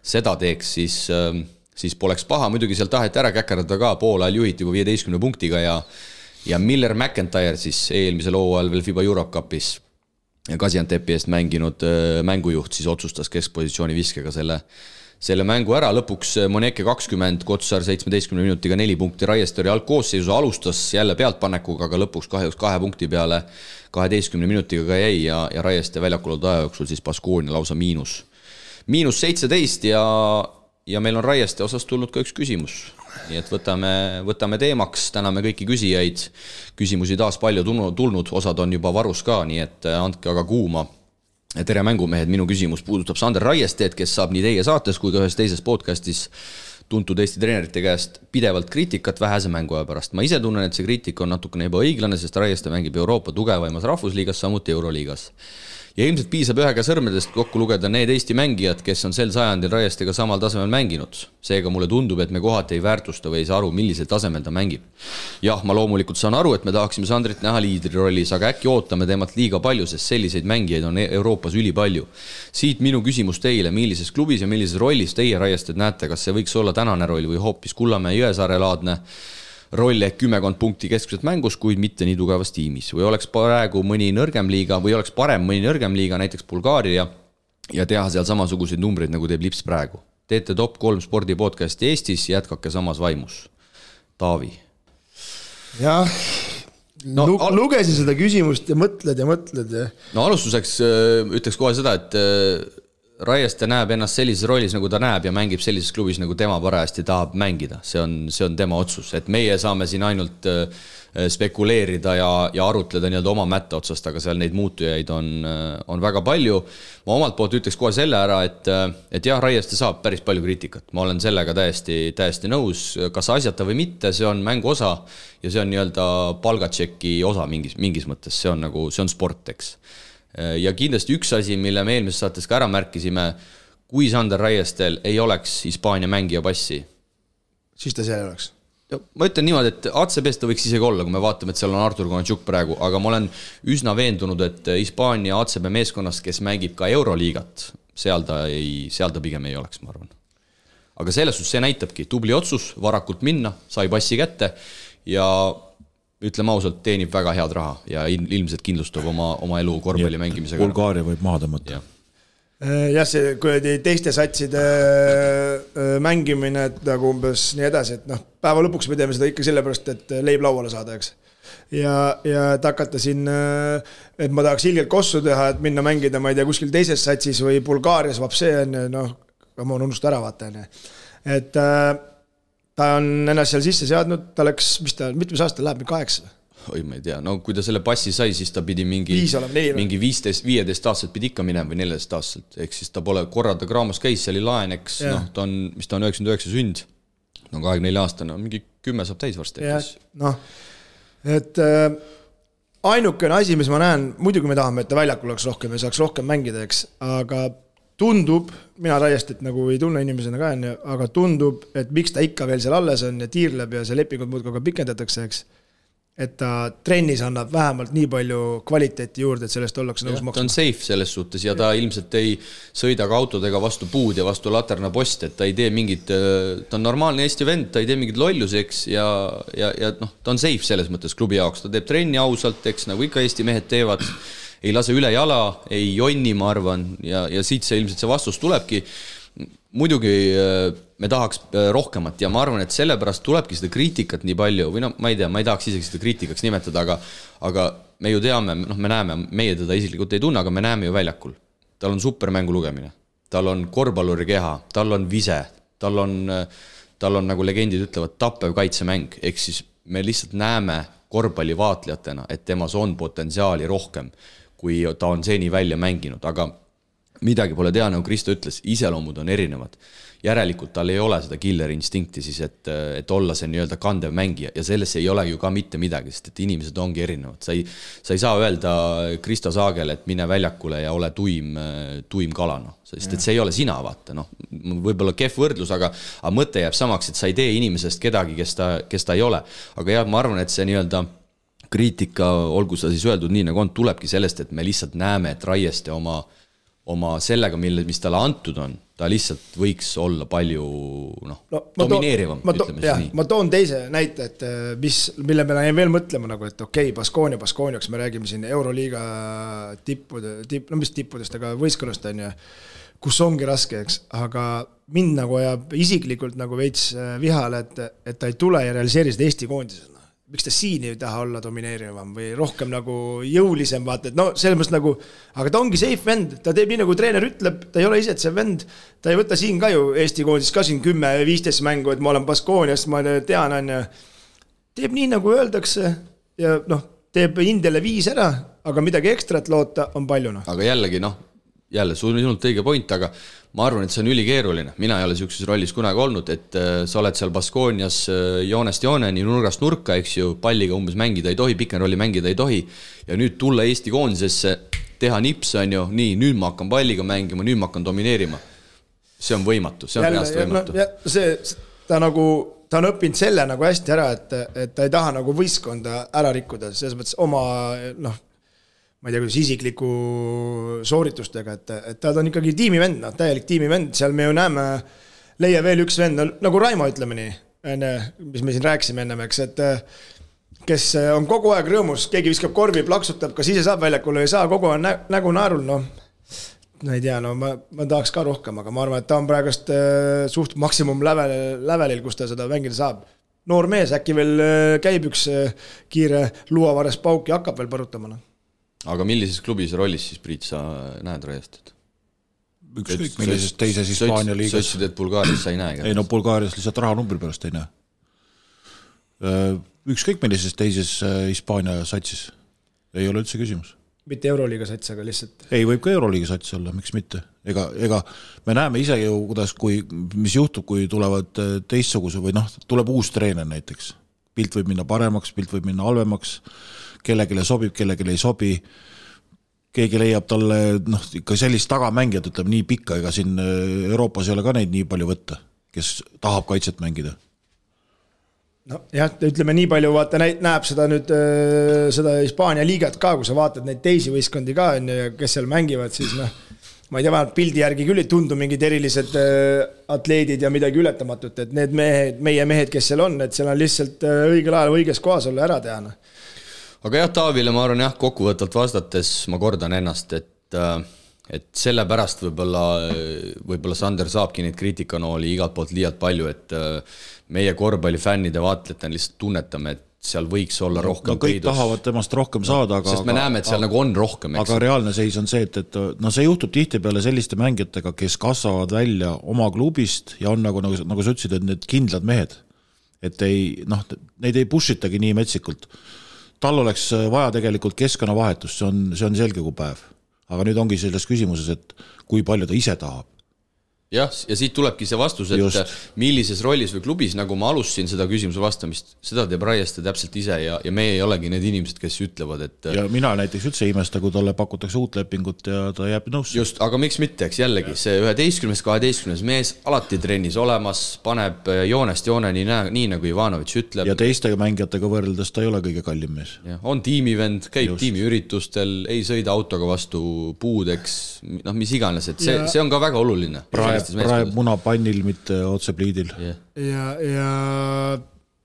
B: seda teeks, siis poleks paha. Muidugi seal taheti ära käkerdada ka, poolajal juhiti juba 15 punktiga ja Miller McIntyre siis eelmisel hooajal veel FIBA Eurocupis ja Gaziantepi eest mänginud mängujuht siis otsustas keskpositsiooni viskega selle mängu ära. Lõpuks Moneke 20, Kotsar 17 minutiga 4 punkti, Raiestori algkoosseisu alustas jälle pealtpanekuga, aga lõpuks kahjuks 2 punkti peale 12 minutiga ka jäi ja Raieste väljakul aja jooksul siis Baskonia lausa -17 ja meil on Raieste osas tulnud ka üks küsimus. Nii et võtame teemaks, täname kõiki küsijaid, küsimusi taas palju tulnud, osad on juba varus ka, nii et andke aga kuuma. Tere mängumehed, minu küsimus puudutab Sander Raiesteed, kes saab nii teie saates kui ka ühes teises podcastis tuntud Eesti treenerite käest pidevalt kriitikat vähese mänguaja pärast. Ma ise tunnen, et see kriitika on natukene ebaõiglane, sest Raieste mängib Euroopa tugevaimas rahvusliigas, samuti Euroliigas. Ja ilmselt piisab ühega sõrmedest kokku lugeda need Eesti mängijad, kes on sel sajandil Raiestega samal tasemel mänginud. Seega mulle tundub, et me kohati ei väärtusta või ei saa aru, millisel tasemel ta mängib. Jah, ma loomulikult saan aru, et me tahaksime Sandrit näha liidri rollis, aga äkki ootame temalt liiga palju, sest selliseid mängijaid on Euroopas ülipalju. Siit minu küsimus teile, millises klubis ja millises rollis teie Raiested näete, kas see võiks olla tänane roll või hoopis Kullamäe Jõesaare laadne roll ehk 10 punkti keskselt mängus, kuid mitte nii tugevas tiimis. Või oleks praegu mõni nõrgem liiga või oleks parem mõni nõrgem liiga, näiteks Bulgaaria ja teha seal samasuguseid numbreid, nagu teeb Lips praegu. Teete top 3 spordipodcasti Eestis, jätkake samas vaimus. Taavi.
D: Jah, lugesin seda küsimust ja mõtled.
B: No alustuseks ütleks kohe seda, et Raieste näeb ennast sellises rollis, nagu ta näeb ja mängib sellises klubis, nagu tema parajasti tahab mängida. See on tema otsus, et meie saame siin ainult spekuleerida ja arutleda nii-öelda oma mätta otsast, aga seal neid muutujaid on väga palju. Ma omalt poolt ütleks kohe selle ära, et jah, Raieste saab päris palju kriitikat. Ma olen sellega täiesti nõus, kas asjata või mitte, see on mängu osa ja see on nii-öelda palgatšeki osa mingis mõttes, see on sport, eks. Ja kindlasti üks asi, mille me eelmises saates ka ära märkisime, kui Sander Raiestel ei oleks Hispaania mängija passi,
D: siis ta seal oleks.
B: Ma ütlen niimoodi, et ACB-st ta võiks isegi olla, kui me vaatame, et seal on Artur Konatšuk praegu, aga ma olen üsna veendunud, et Hispaania ACB meeskonnast, kes mängib ka Euroliigat, seal ta pigem ei oleks, ma arvan. Aga selles suhtes see näitabki tubli otsus, varakult minna, sai passi kätte ja ütleme ausalt, teenib väga head raha ja ilmselt kindlustab oma elu korvpalli mängimisega.
C: Bulgaaria võib maha tõmmata.
D: jah, see teiste satside mängimine, et nagu umbes nii edasi, et päeva lõpuks me teeme seda ikka sellepärast, et leib lauale saada, eks. Ja et hakata siin, et ma tahaks ilgelt kossu teha, et minna mängida, ma ei tea, kuskil teises satsis või Bulgaarias vapsee on, ma olen unust ära vaata, et ta on ennast seal sisse seadnud, ta läks, mitmes aasta läheb, 8?
B: Oi, ma ei tea, no kui ta selle passi sai, siis ta pidi mingi 15 aastaselt pidi ikka minema või 14 aastaselt, ehk siis ta pole korra ta Graamos käis, see oli laen, eks, ta on, mis ta on 99 sünd, 24 aastane, mingi 10 saab täis varsti.
D: Et ainukene asi, mis ma näen, muidugi me tahame, et ta väljakul oleks rohkem ja saaks rohkem mängida, eks, aga tundub, mina täiesti nagu ei tunne inimesena ka, aga tundub, et miks ta ikka veel seal alles on ja tiirleb ja see lepingud muudkui ka pikendatakse, eks, et ta trennis annab vähemalt nii palju kvaliteeti juurde, et sellest ollakse nõus maksma.
B: Ta on safe selles suhtes ja ta ilmselt ei sõida ka autodega vastu puud ja vastu laterna post, et ta ei tee mingit, ta on normaalne Eesti vend, ta ei tee mingit lolluseks ja ta on safe selles mõttes klubi jaoks, ta teeb trenni ausalt, eks nagu ikka Eesti mehed teevad, ei lase üle jala, ei jonni, ma arvan, ja siit see ilmselt see vastus tulebki. Muidugi me tahaks rohkemat ja ma arvan, et sellepärast tulebki seda kriitikat nii palju, või ma ei tea, ma ei tahaks isegi seda kriitikaks nimetada, aga me ju teame, me näeme, meie teda isiklikult ei tunne, aga me näeme ju väljakul. Tal on supermängu lugemine, tal on korvpalluri keha, tal on vise, tal on nagu legendid ütlevad tappev kaitsemäng, ehk siis me lihtsalt näeme korvpalli vaatlejatena, et temas on potentsiaali rohkem, kui ta on seni välja mänginud, aga midagi pole tea, nagu Kristo ütles, iseloomud on erinevad. Järelikult tal ei ole seda killer instinkti siis, et olla see nii-öelda kandev mängija ja sellesse ei ole ju ka mitte midagi, sest et inimesed ongi erinevad. Sa ei saa öelda Kristo Saagele, et mine väljakule ja ole tuim kalana, sest et see ei ole sina, vaata. Võib-olla kehv võrdlus, aga mõte jääb samaks, et sa ei tee inimesest kedagi, kes ta ei ole. Aga jah, ma arvan, et see nii-öelda kriitika, olgu sa siis öeldud nii, nagu on, tulebki sellest, et me lihtsalt näeme, et Raieste oma sellega, mis talle antud on, ta lihtsalt võiks olla palju domineerivam, ütleme nii.
D: Ma toon teise näite, et mille me jäin veel mõtlema, nagu, et okei, Baskooniaks me räägime siin Euroliiga tippudest, aga võistkonnast on ja kus ongi raske, eks, aga mind nagu ajab isiklikult nagu veits vihale, et ta ei tule ja realiseeri seda Eesti koondisena. Miks ta siin ei taha olla domineerivam või rohkem nagu jõulisem, vaata, et selles mõttes nagu, aga ta ongi safe vend, ta teeb nii nagu treener ütleb, ta ei ole ise see vend, ta ei võta siin ka ju Eesti koondis ka siin 10-15 mängu, et ma olen Baskooniast, ma tean, teeb nii nagu öeldakse ja teeb Indiale 5 ära, aga midagi ekstrat loota on palju.
B: Aga jällegi, sinult õige point, aga ma arvan, et see on ülikeeruline. Mina ei ole sellises rollis kunagi olnud, et sa oled seal Baskoonias joonest jooneni, nurgast nurka, eks ju, palliga umbes mängida ei tohi, pikenrolli mängida ei tohi ja nüüd tulla Eesti koondisesse, teha nips, on ju, nii, nüüd ma hakkan palliga mängima, nüüd ma hakkan domineerima. See on võimatu, see on reaalselt võimatu.
D: Ta on õppinud selle nagu hästi ära, et ta ei taha nagu võistkonda ära rikkuda, selles mõttes oma, ma ei tea, kuidas isikliku sooritustega, et ta on ikkagi tiimivend, täielik tiimivend, seal me ju näeme, leia veel üks vend, nagu Raimo ütleme nii, mis me siin rääkisime ennem, eks, et kes on kogu aeg rõõmus, keegi viskab korvi, plaksutab, kas ise saab väljakule või ei saa, kogu aeg nägu naarul, ei tea, ma tahaks ka rohkem, aga ma arvan, et ta on praegust suht maksimum lävelil, kus ta seda mängida saab. Noor mees, äkki veel käib üks kiire luuavares pauk ja hakkab veel põrutama.
B: Aga millises klubis rollis siis, Priit, sa näed Raiestet?
C: Ükskõik millises teises Hispaania liigas.
B: Sa ütlesid, et Bulgaarias sa ei näe?
C: Ei, Bulgaarias lihtsalt rahanumbri pärast ei näe. Ükskõik millises teises Hispaania satsis. Ei ole üldse küsimus.
D: Mitte Euroliiga sats, aga lihtsalt...
C: Ei, võib ka Euroliiga sats olla, miks mitte. Ega me näeme ise ju, mis juhtub, kui tulevad teistsuguse või tuleb uus treener näiteks. Pilt võib minna paremaks, pilt võib minna halvemaks, kellegile sobib, kellegile ei sobi. Keegi leiab talle ikka sellist tagamängijat, ütleb nii pikka, ega siin Euroopas ei ole ka neid nii palju võtta, kes tahab kaitset mängida.
D: Jah, ütleme nii palju, vaata, näeb seda nüüd seda Hispaania liigat ka, kui sa vaatad neid teisi võistkondi ka, kes seal mängivad, siis ma ei tea, vähemalt pildi järgi küll ei tundu mingid erilised atleedid ja midagi ületamatut, et need meie mehed, kes seal on, et seal on lihtsalt õigel ajal õiges kohas olla ära teha.
B: Aga jah, Taavile ma arvan, kokkuvõttalt vastates ma kordan ennast, et et sellepärast võib-olla Sander saabki neid kriitikanooli igalt poolt liialt palju, et meie korvpallifännide vaatlejatena lihtsalt tunnetame, et seal võiks olla rohkem
C: kõik tahavad temast rohkem saada,
B: sest me näeme, et seal nagu on rohkem,
C: aga reaalne seis on see, et see juhtub tihtipeale selliste mängijatega, kes kasvavad välja oma klubist ja on nagu sa ütlesid, et need kindlad mehed, et neid ei pushitagi nii metsikult. Tal oleks vaja tegelikult keskkonnavahetust, see on selge kui päev. Aga nüüd ongi selles küsimuses, et kui palju ta ise tahab.
B: Jah, ja siit tulebki see vastus, et millises rollis või klubis, nagu ma alustasin seda küsimuse vastamist, seda teeb Raieste täpselt ise ja meie ei olegi need inimesed, kes ütlevad, et... Ja mina näiteks üldse imesta, kui talle pakutakse uut lepingut ja ta jääb nõusse. Just, aga miks mitte, eks jällegi, see 11-12 mees alati trennis olemas, paneb joonest jooneni nii nagu Ivanović ütleb.
C: Ja teistega mängijatega võrreldes ta ei ole kõige kallim mees.
B: Ja, on tiimivend, käib tiimiüritustel, ei sõida autoga vastu puudeks, mis iganes, et see on ka väga oluline.
C: Praeb munapannil, mitte otse pliidil.
D: Ja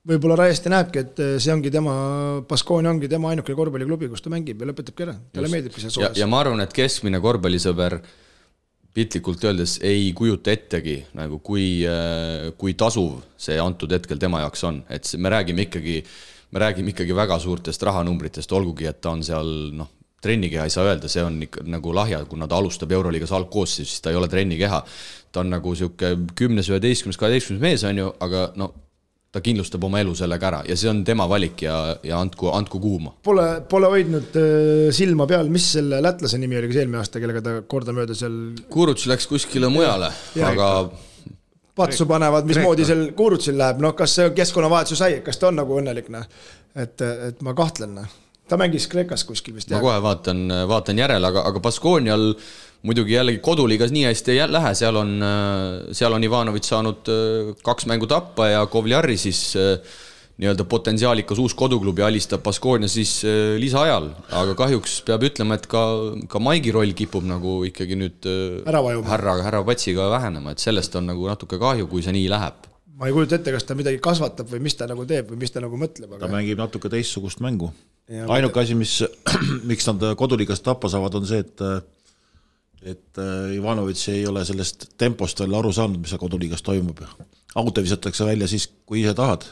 D: võib-olla Raieste näebki, et see ongi Baskonia ongi tema ainukene korvpalliklubi, kus ta mängib ja lõpetabki ära. Talle meeldibki see soojas.
B: Ja ma arvan, et keskmine korvpallisõber pitlikult öeldes ei kujuta ettegi, nagu kui tasuv see antud hetkel tema jaoks on. Et me räägime ikkagi väga suurtest rahanumbritest, olgugi, et ta on seal, trennikeha ei saa öelda, see on ikka nagu lahja, kuna ta alustab Euroliigas algkoosseis, siis ta ei ole trennikeha. Ta on nagu siuke 10, 11, 12 mees on ju, aga ta kindlustab oma elu sellega ära ja see on tema valik ja andku kuuma.
D: Pole hoidnud silma peal, mis selle lätlase nimi oli eelmine aasta, kellega ta kordamööda seal...
B: Kuruts läks kuskile mujale, aga...
D: Patsu panevad, mismoodi seal Kurutsil läheb, kas see keskkonnavahetsu sai, kas ta on nagu õnnelik, et ma kahtlen. Ta mängis Kreekas kuskil vist.
B: Ma kohe vaatan järele, aga Baskonial muidugi jällegi koduliigas nii hästi ei lähe, seal on Ivanović saanud 2 mängu tappa ja Kovliari siis nii-öelda potentsiaalikas uus koduklubi alistab Baskonia siis lisaajal, aga kahjuks peab ütlema, et ka Maigi roll kipub nagu ikkagi nüüd härra Patsiga vähenema, et sellest on nagu natuke kahju, kui see nii läheb.
D: Ma ei kujuta ette, kas ta midagi kasvatab või mis ta nagu teeb või mis ta nagu mõtleb.
C: Ta mängib natuke teistsugust mängu. Ainuke asi, miks nad koduliigast tappa saavad, on see, et Ivanović ei ole sellest tempost veel aru saanud, mis koduliigas toimub. Auto visatakse välja siis, kui ise tahad.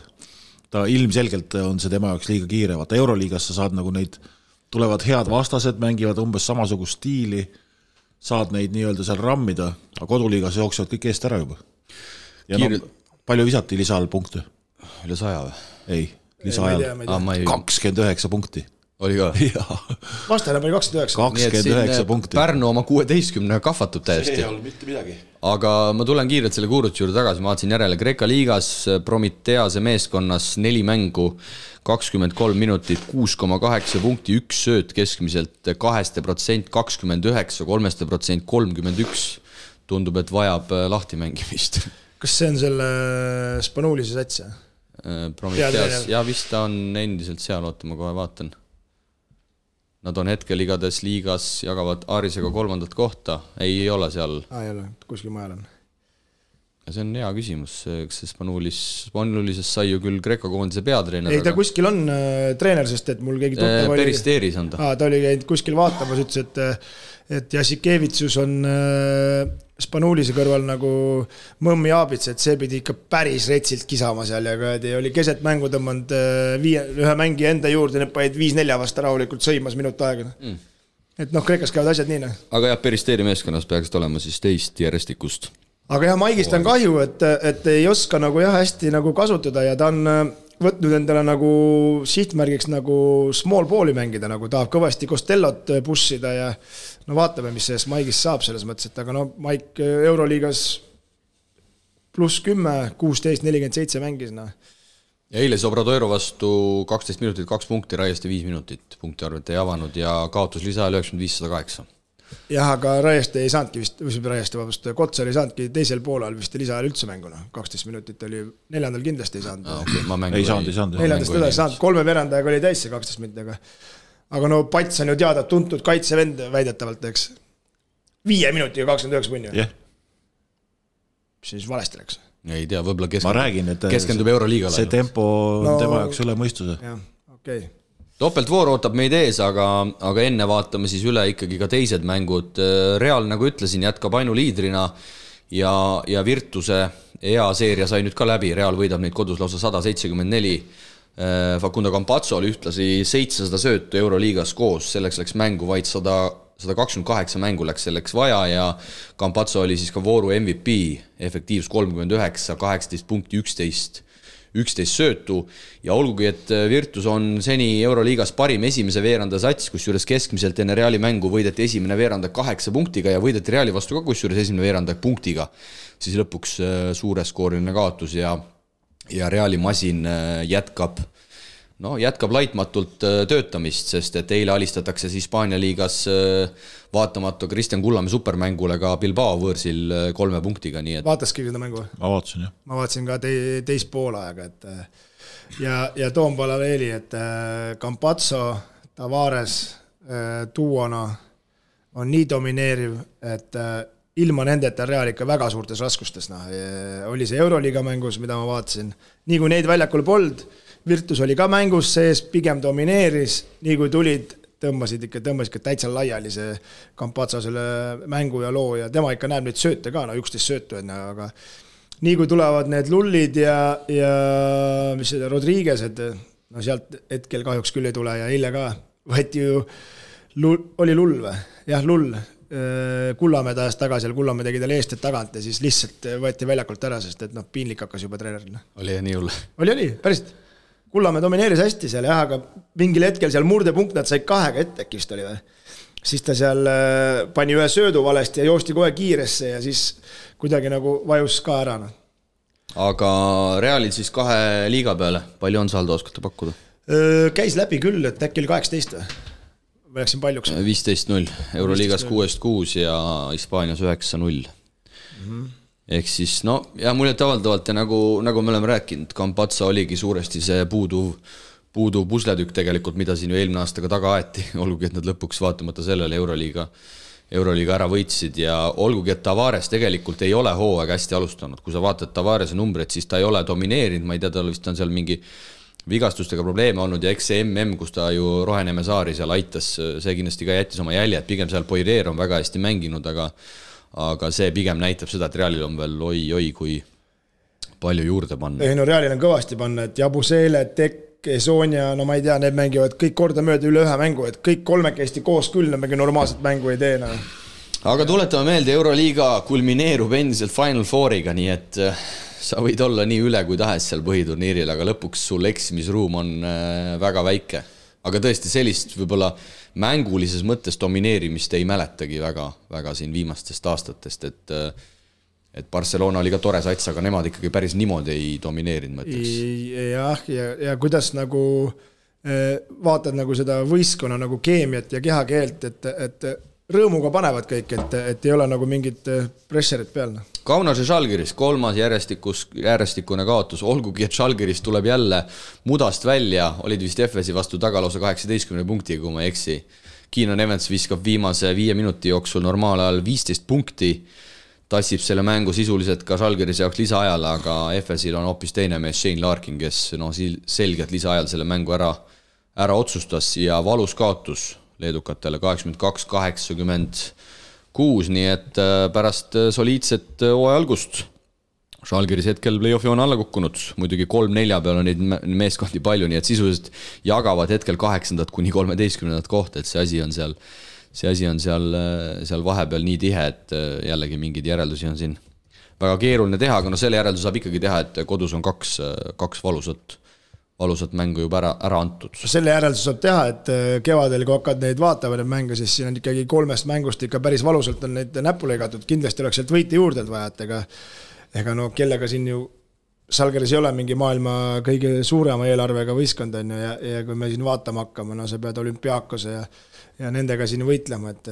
C: Ta ilmselgelt on see tema jaoks liiga kiire. Vaata Euroliigas sa saad nagu neid, tulevad head vastased, mängivad umbes samasugust stiili, saad neid nii-öelda seal rammida, aga koduliigas jooksevad kõik eest ära juba. Ja palju visati lisaajal punkte?
B: Üle 100 või?
C: Ei, lisaajal 29 punkti.
B: Oli ka?
D: Vastane pani
C: 29 punkti.
B: Pärnu oma 16 kahvatub täiesti.
C: See ei olnud mitte midagi.
B: Aga ma tulen kiirelt selle Kurutsi juurde tagasi, ma vaatasin järele Kreeka liigas Prometease meeskonnas 4 mängu, 23 minutit, 6,8 punkti, 1 sööt keskmiselt, 2%, 29, 3%, 31. Tundub, et vajab lahti mängimist.
D: Kas see on selle Spanuulise sats?
B: Prometeas, ja vist ta on endiselt seal, oota, ma kohe vaatan. Nad on hetkel igades liigas, jagavad Aarisega 3. kohta, ei ole seal.
D: Ei ole, kuskil majal on.
B: Ja see on hea küsimus, eks see Spanuulises sai ju küll Kreeka koondise peatreener.
D: Ei, ta kuskil on treener, sest et mul keegi tuttav
B: oli... Peristeeris on ta.
D: Ta oli käinud kuskil vaatamas, ütles, et Jasikevitsus on Spanuulise kõrval nagu mõmmi aabits, et see pidi ikka päris retsilt kisama seal ja oli keset mängu tõmmanud ühe mängi enda juurde, need paid 5-4 vasta rahulikult sõimas minut aega. Et Kreekas käivad asjad nii.
B: Aga jah, Peristeeri meeskonnas peaks olema siis teist järjestikust.
D: Aga jah, Maigist on kahju, et ei oska nagu hästi nagu kasutada ja ta on võtnud endale nagu sihtmärgiks nagu small balli mängida, nagu tahab kõvasti Costellot pushida ja vaatame, mis sellest Maigist saab selles mõttes, et aga Maik Euroliigas +10, 16, 47 mängis.
B: Ja eile Obradoiro vastu 12 minutit, 2 punkti, Raieste 5 minutit punkti arvet ei avanud ja kaotus lisaajal 95-108.
D: Jah, aga Raieste ei saanudki vist, Kotsar ei saanudki teisel poolel vist lisaajal üldse mänguna. 12 minutit oli, 4. kindlasti ei saanud.
C: Ei saanud.
D: 4. ei saanud, 3 verandajaga oli täis see 12 minutiga. Aga Pats on ju teada tuntud kaitsevend väidetavalt, eks. 5 minutiga 29 punni.
C: Jah.
D: Mis siis valesti läks?
B: Ei tea, võib-olla
C: keskendub
B: Euroliigale.
C: See tempo on tema jaoks üle mõistuse.
D: Jah, okei.
B: Topeltvoor ootab meid ees, aga enne vaatame siis üle ikkagi ka teised mängud. Real, nagu ütlesin, jätkab ainuliidrina ja Virtuse EA-seeria sai nüüd ka läbi. Real võidab neid kodus lausa 174. Facundo Campazzo oli ühtlasi 700 söötu Euroliigas koos, selleks läks mängu vaid 128 mängu läks selleks vaja ja Campazzo oli siis ka vooru MVP, efektiivs 39, 18 punkti, 11 söötu ja olgugi, et Virtus on seni Euroliigas parim esimese veeranda sats, kus juures keskmiselt enne Reali mängu võideti esimene veeranda 8 punktiga ja võideti Reali vastu ka kus juures esimene veeranda punktiga, siis lõpuks suureskooriline kaotus ja Reali masin jätkab laitmatult töötamist, sest et eile alistatakse siis Hispaania liigas vaatamata Kristjan Kullamäe supermängule ka Bilbao võõrsil 3 punktiga. Nii et...
D: Vaataski seda mängu?
C: Ma vaatasin, jah.
D: Ma vaatasin ka teist poolaega, et ja toon paralleeli, et Campazzo, Tavares duona on nii domineeriv, et ilma nendeta Real ikka väga suurtes raskustes. Oli see Euroliiga mängus, mida ma vaatasin. Nii kui neid väljakul pold, Virtus oli ka mängus sees, pigem domineeris. Nii kui tulid, tõmbasid ikka täitsa laiali see Campazzo selle mängu ja loo ja tema ikka näeb neid sööte ka, 11 söötu enne, aga nii kui tulevad need lullid ja mis see Rodriguez'ed, sealt hetkel kahjuks küll ei tule ja eile ka võeti ju, oli lull või? Jah, lull. Kullamäe tajas tagasi ja Kullamäe tegi tal eest tagant ja siis lihtsalt võeti väljakult ära, sest et piinlik hakkas juba treeneril.
B: Oli ja nii hull?
D: Oli, päriselt. Kullamäe domineeris hästi seal, jah, aga mingil hetkel seal murdepunkt nad sai 2 ette äkist oli või. Siis ta seal pani ühe söödu valesti ja joosti kohe kiiresse ja siis kuidagi nagu vajus ka ära.
B: Aga Realil siis 2 liiga peale, palju on saldo, oskate pakkuda?
D: Käis läbi küll, et äkki oli 18 või? Või läksin paljuks?
B: 15-0, Euroliigas 6-6 ja Hispaanias 9-0. Ehk siis, ja muljet avaldavalt ja nagu me oleme rääkinud, Campazzo oligi suuresti see puuduv pusletükk tegelikult, mida siin ju eelmine aastaga taga aeti, olgugi, et nad lõpuks vaatamata sellele Euroliiga ära võitsid ja olgugi, et Tavares tegelikult ei ole hooaeg hästi alustanud. Kui sa vaatad Tavarese numbreid, siis ta ei ole domineerinud, ma ei tea, tal vist on seal mingi vigastustega probleeme olnud ja eks see kus ta ju Roheneme saari seal aitas, see kindlasti ka jättis oma jälje, et pigem seal Poirier on väga hästi mänginud, aga see pigem näitab seda, et Realil on veel oi, kui palju juurde panna.
D: Ei, Realil on kõvasti panna, et Jabusele, Tekk, Sonia, ma ei tea, need mängivad kõik korda mööda üle 1 mängu, et kõik 3 koos küll, nad normaalset mängu ei tee.
B: Aga tuletame meelde, Euroliiga kulmineerub endiselt Final Fouriga, nii et sa võid olla nii üle kui tahes seal põhiturniiril, aga lõpuks sul eksimisruum on väga väike. Aga tõesti sellist võib-olla mängulises mõttes domineerimist ei mäletagi väga siin viimastest aastatest, et Barcelona oli ka tore sats, aga nemad ikkagi päris niimoodi ei domineerinud, mõtleks.
D: Jah, ja kuidas nagu vaatad nagu seda võistkonna nagu keemiat ja kehakeelt, et rõõmuga panevad kõik, et ei ole nagu mingit pressurit peal.
B: Kaunase Žalgiris 3. järjestikune kaotus, olgugi, et Žalgiris tuleb jälle mudast välja, olid vist Efesi vastu tagalausa 18 punktiga, kui ma eksi. Keenan Evans viskab viimase 5 minuti jooksul normaalajal 15 punkti, tassib selle mängu sisuliselt ka Žalgirise jaoks lisaajal, aga Efesil on hoopis teine mees Shane Larkin, kes selgelt lisaajal selle mängu ära otsustas ja valus kaotus leedukatele 82-86, nii et pärast soliidset hooaja algust Žalgiris hetkel play-offi on alla kukkunud, muidugi 3-4 peal on neid meeskondi palju, nii et sisuliselt jagavad hetkel 8. kuni 13. kohta, et see asi on seal vahepeal nii tihe, et jällegi mingeid järeldusi on siin väga keeruline teha, aga selle järeldus saab ikkagi teha, et kodus on 2 valusat mängu juba ära antud.
D: Selle järeldus saab teha, et kevadel, kui hakkad neid vaatavad neid mänge, siis siin on ikkagi 3 mängust ikka päris valusalt on neid näppu lõigatud, kindlasti oleks sealt võite juurde vaja, et ega kellega siin ju Žalgiris ei ole mingi maailma kõige suurema eelarvega võistkond on ju, ja kui me siin vaatama hakkame, sa pead Olümpiakose ja nendega siin võitlema, et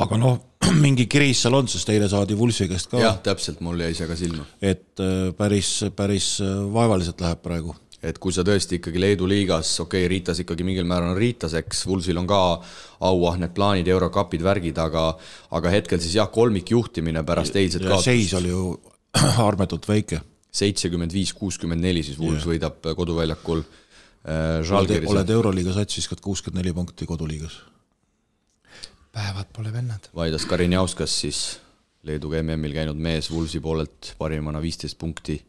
C: aga mingi kriis seal on, sest eile saadi Vulsi käest ka.
B: Jah, täpselt, mul jäi see ka silma.
C: Et päris vaevaliselt läheb praegu.
B: Et kui sa tõesti ikkagi Leedu liigas, Riitas ikkagi mingil määral on Riitaseks, Vulsil on ka auahned plaanid, Eurokapid, värgid, aga hetkel siis kolmik juhtimine pärast eilset kaotust.
C: Seis oli ju armetult väike.
B: 75-64 siis Vuls võidab koduväljakul
C: oled Euroliiga sats, viskad 64 punkti koduliigas.
D: Päevad pole vennad.
B: Vaidas Karinjauskas siis Leeduga MM-il käinud mees Vulsi poolelt parimana 15 punkti,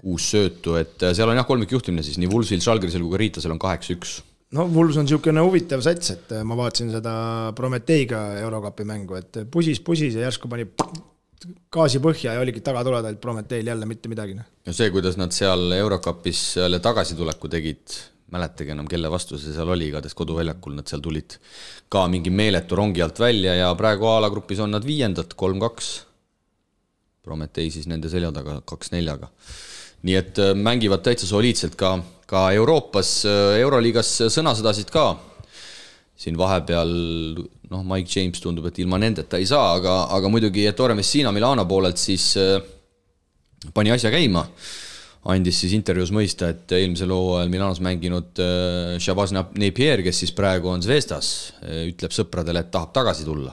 B: 6 söötu, et seal on jah kolmikjuhtimine siis nii Vulsil, Žalgirisel kui ka Riitasel on 8-1.
D: No Vuls on niisugune huvitav sats, et ma vaatasin seda Prometeiga Eurokapi mängu, et pusis ja järsku pani gaasi põhja ja oligi taga tuleda, et Prometeil jälle mitte midagi.
B: Ja see, kuidas nad seal Eurokapis jälle tagasituleku tegid, mäletage enam, kelle vastu see seal oli, igatahes koduväljakul nad seal tulid ka mingi meeletu rongi alt välja ja praegu alagrupis on nad 5. 3-2. Prometei siis nende selja taga 2-4. Nii et mängivad täitsa soliidselt ka Euroopas, Euroliigas sõnasõdasid ka. Siin vahepeal, Mike James tundub, et ilma nendeta ei saa, aga muidugi Ettore Messina Milano poolelt siis pani asja käima. Andis siis intervjuus mõista, et eelmisel hooajal Milanos mänginud Shabazz Napier, kes siis praegu on Zvezdas, ütleb sõpradele, et tahab tagasi tulla.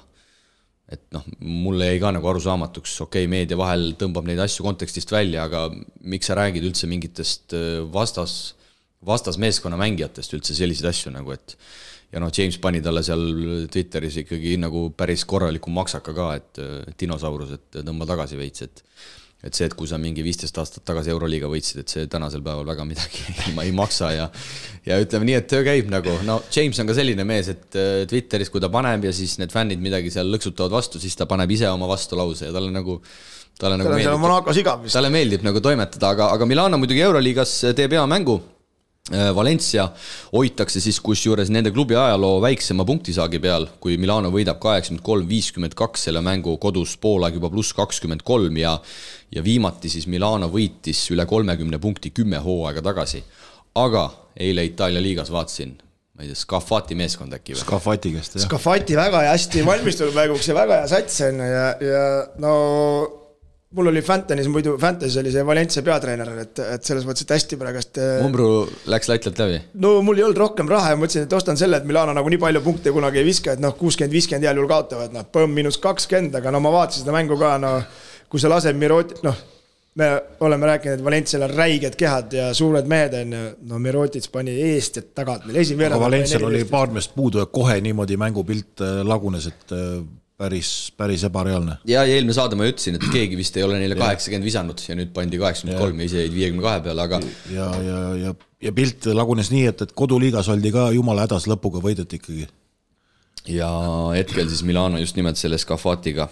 B: Et mulle jäi ka nagu arusaamatuks, meedia vahel tõmbab neid asju kontekstist välja, aga miks sa räägid üldse mingitest vastasmeeskonna mängijatest üldse selliseid asju nagu, et ja James pani talle seal Twitteris ikkagi nagu päris korraliku maksaka ka, et dinosaurus, et tõmba tagasi veits, et see, et kui sa mingi 15 aastat tagasi Euroliiga võitsid, et see tänasel päeval väga midagi ei maksa ja ütleme nii, et töö käib nagu, James on ka selline mees, et Twitteris, kui ta paneb ja siis need fännid midagi seal lõksutavad vastu, siis ta paneb ise oma vastulause ja talle meeldib nagu toimetada, aga Milano muidugi Euroliigas teeb hea mängu. Valencia hoitakse siis kusjuures nende klubi ajaloo väiksema punktisaagi peal, kui Milano võidab 83-52 selle mängu kodus poolaeg juba pluss 23 ja viimati siis Milano võitis üle 30 punkti 10 hooaega tagasi. Aga eile Itaalia liigas vaatasin, ma ei tea, Scafati meeskond äkki või?
C: Scafati käest, jah.
D: Scafati väga hästi valmistunud mänguks ja väga hea sats on ja mul oli Fantasy oli see Valencia peatreener, et selles mõttes, et hästi praegast...
B: Umbru läks laitlalt läbi?
D: No mul ei olnud rohkem raha ja mõtlesin, et ostan selle, et Milano nagu nii palju punkte kunagi ei viska, et 60-50 heal juhul kaotavad, -20, aga ma vaatasin seda mängu ka, kui sa lased Mirotic, me oleme rääkinud, et Valencial on räiged kehad ja suured mehed on, Mirotic pani eest ja tagant meil
C: aga Valencial oli paar meest puudu ja kohe niimoodi mängupilt lagunes, et päris ebareaalne.
B: Ja eelmine saade ma ütlesin, et keegi vist ei ole neile 80 visanud ja nüüd pandi 83 ja ise jäid 52 peale, aga...
C: Ja pilt lagunes nii, et koduliigas oldi ka jumala hädas lõpuga võideti ikkagi.
B: Ja hetkel siis Milano just nimelt selle Scafatiga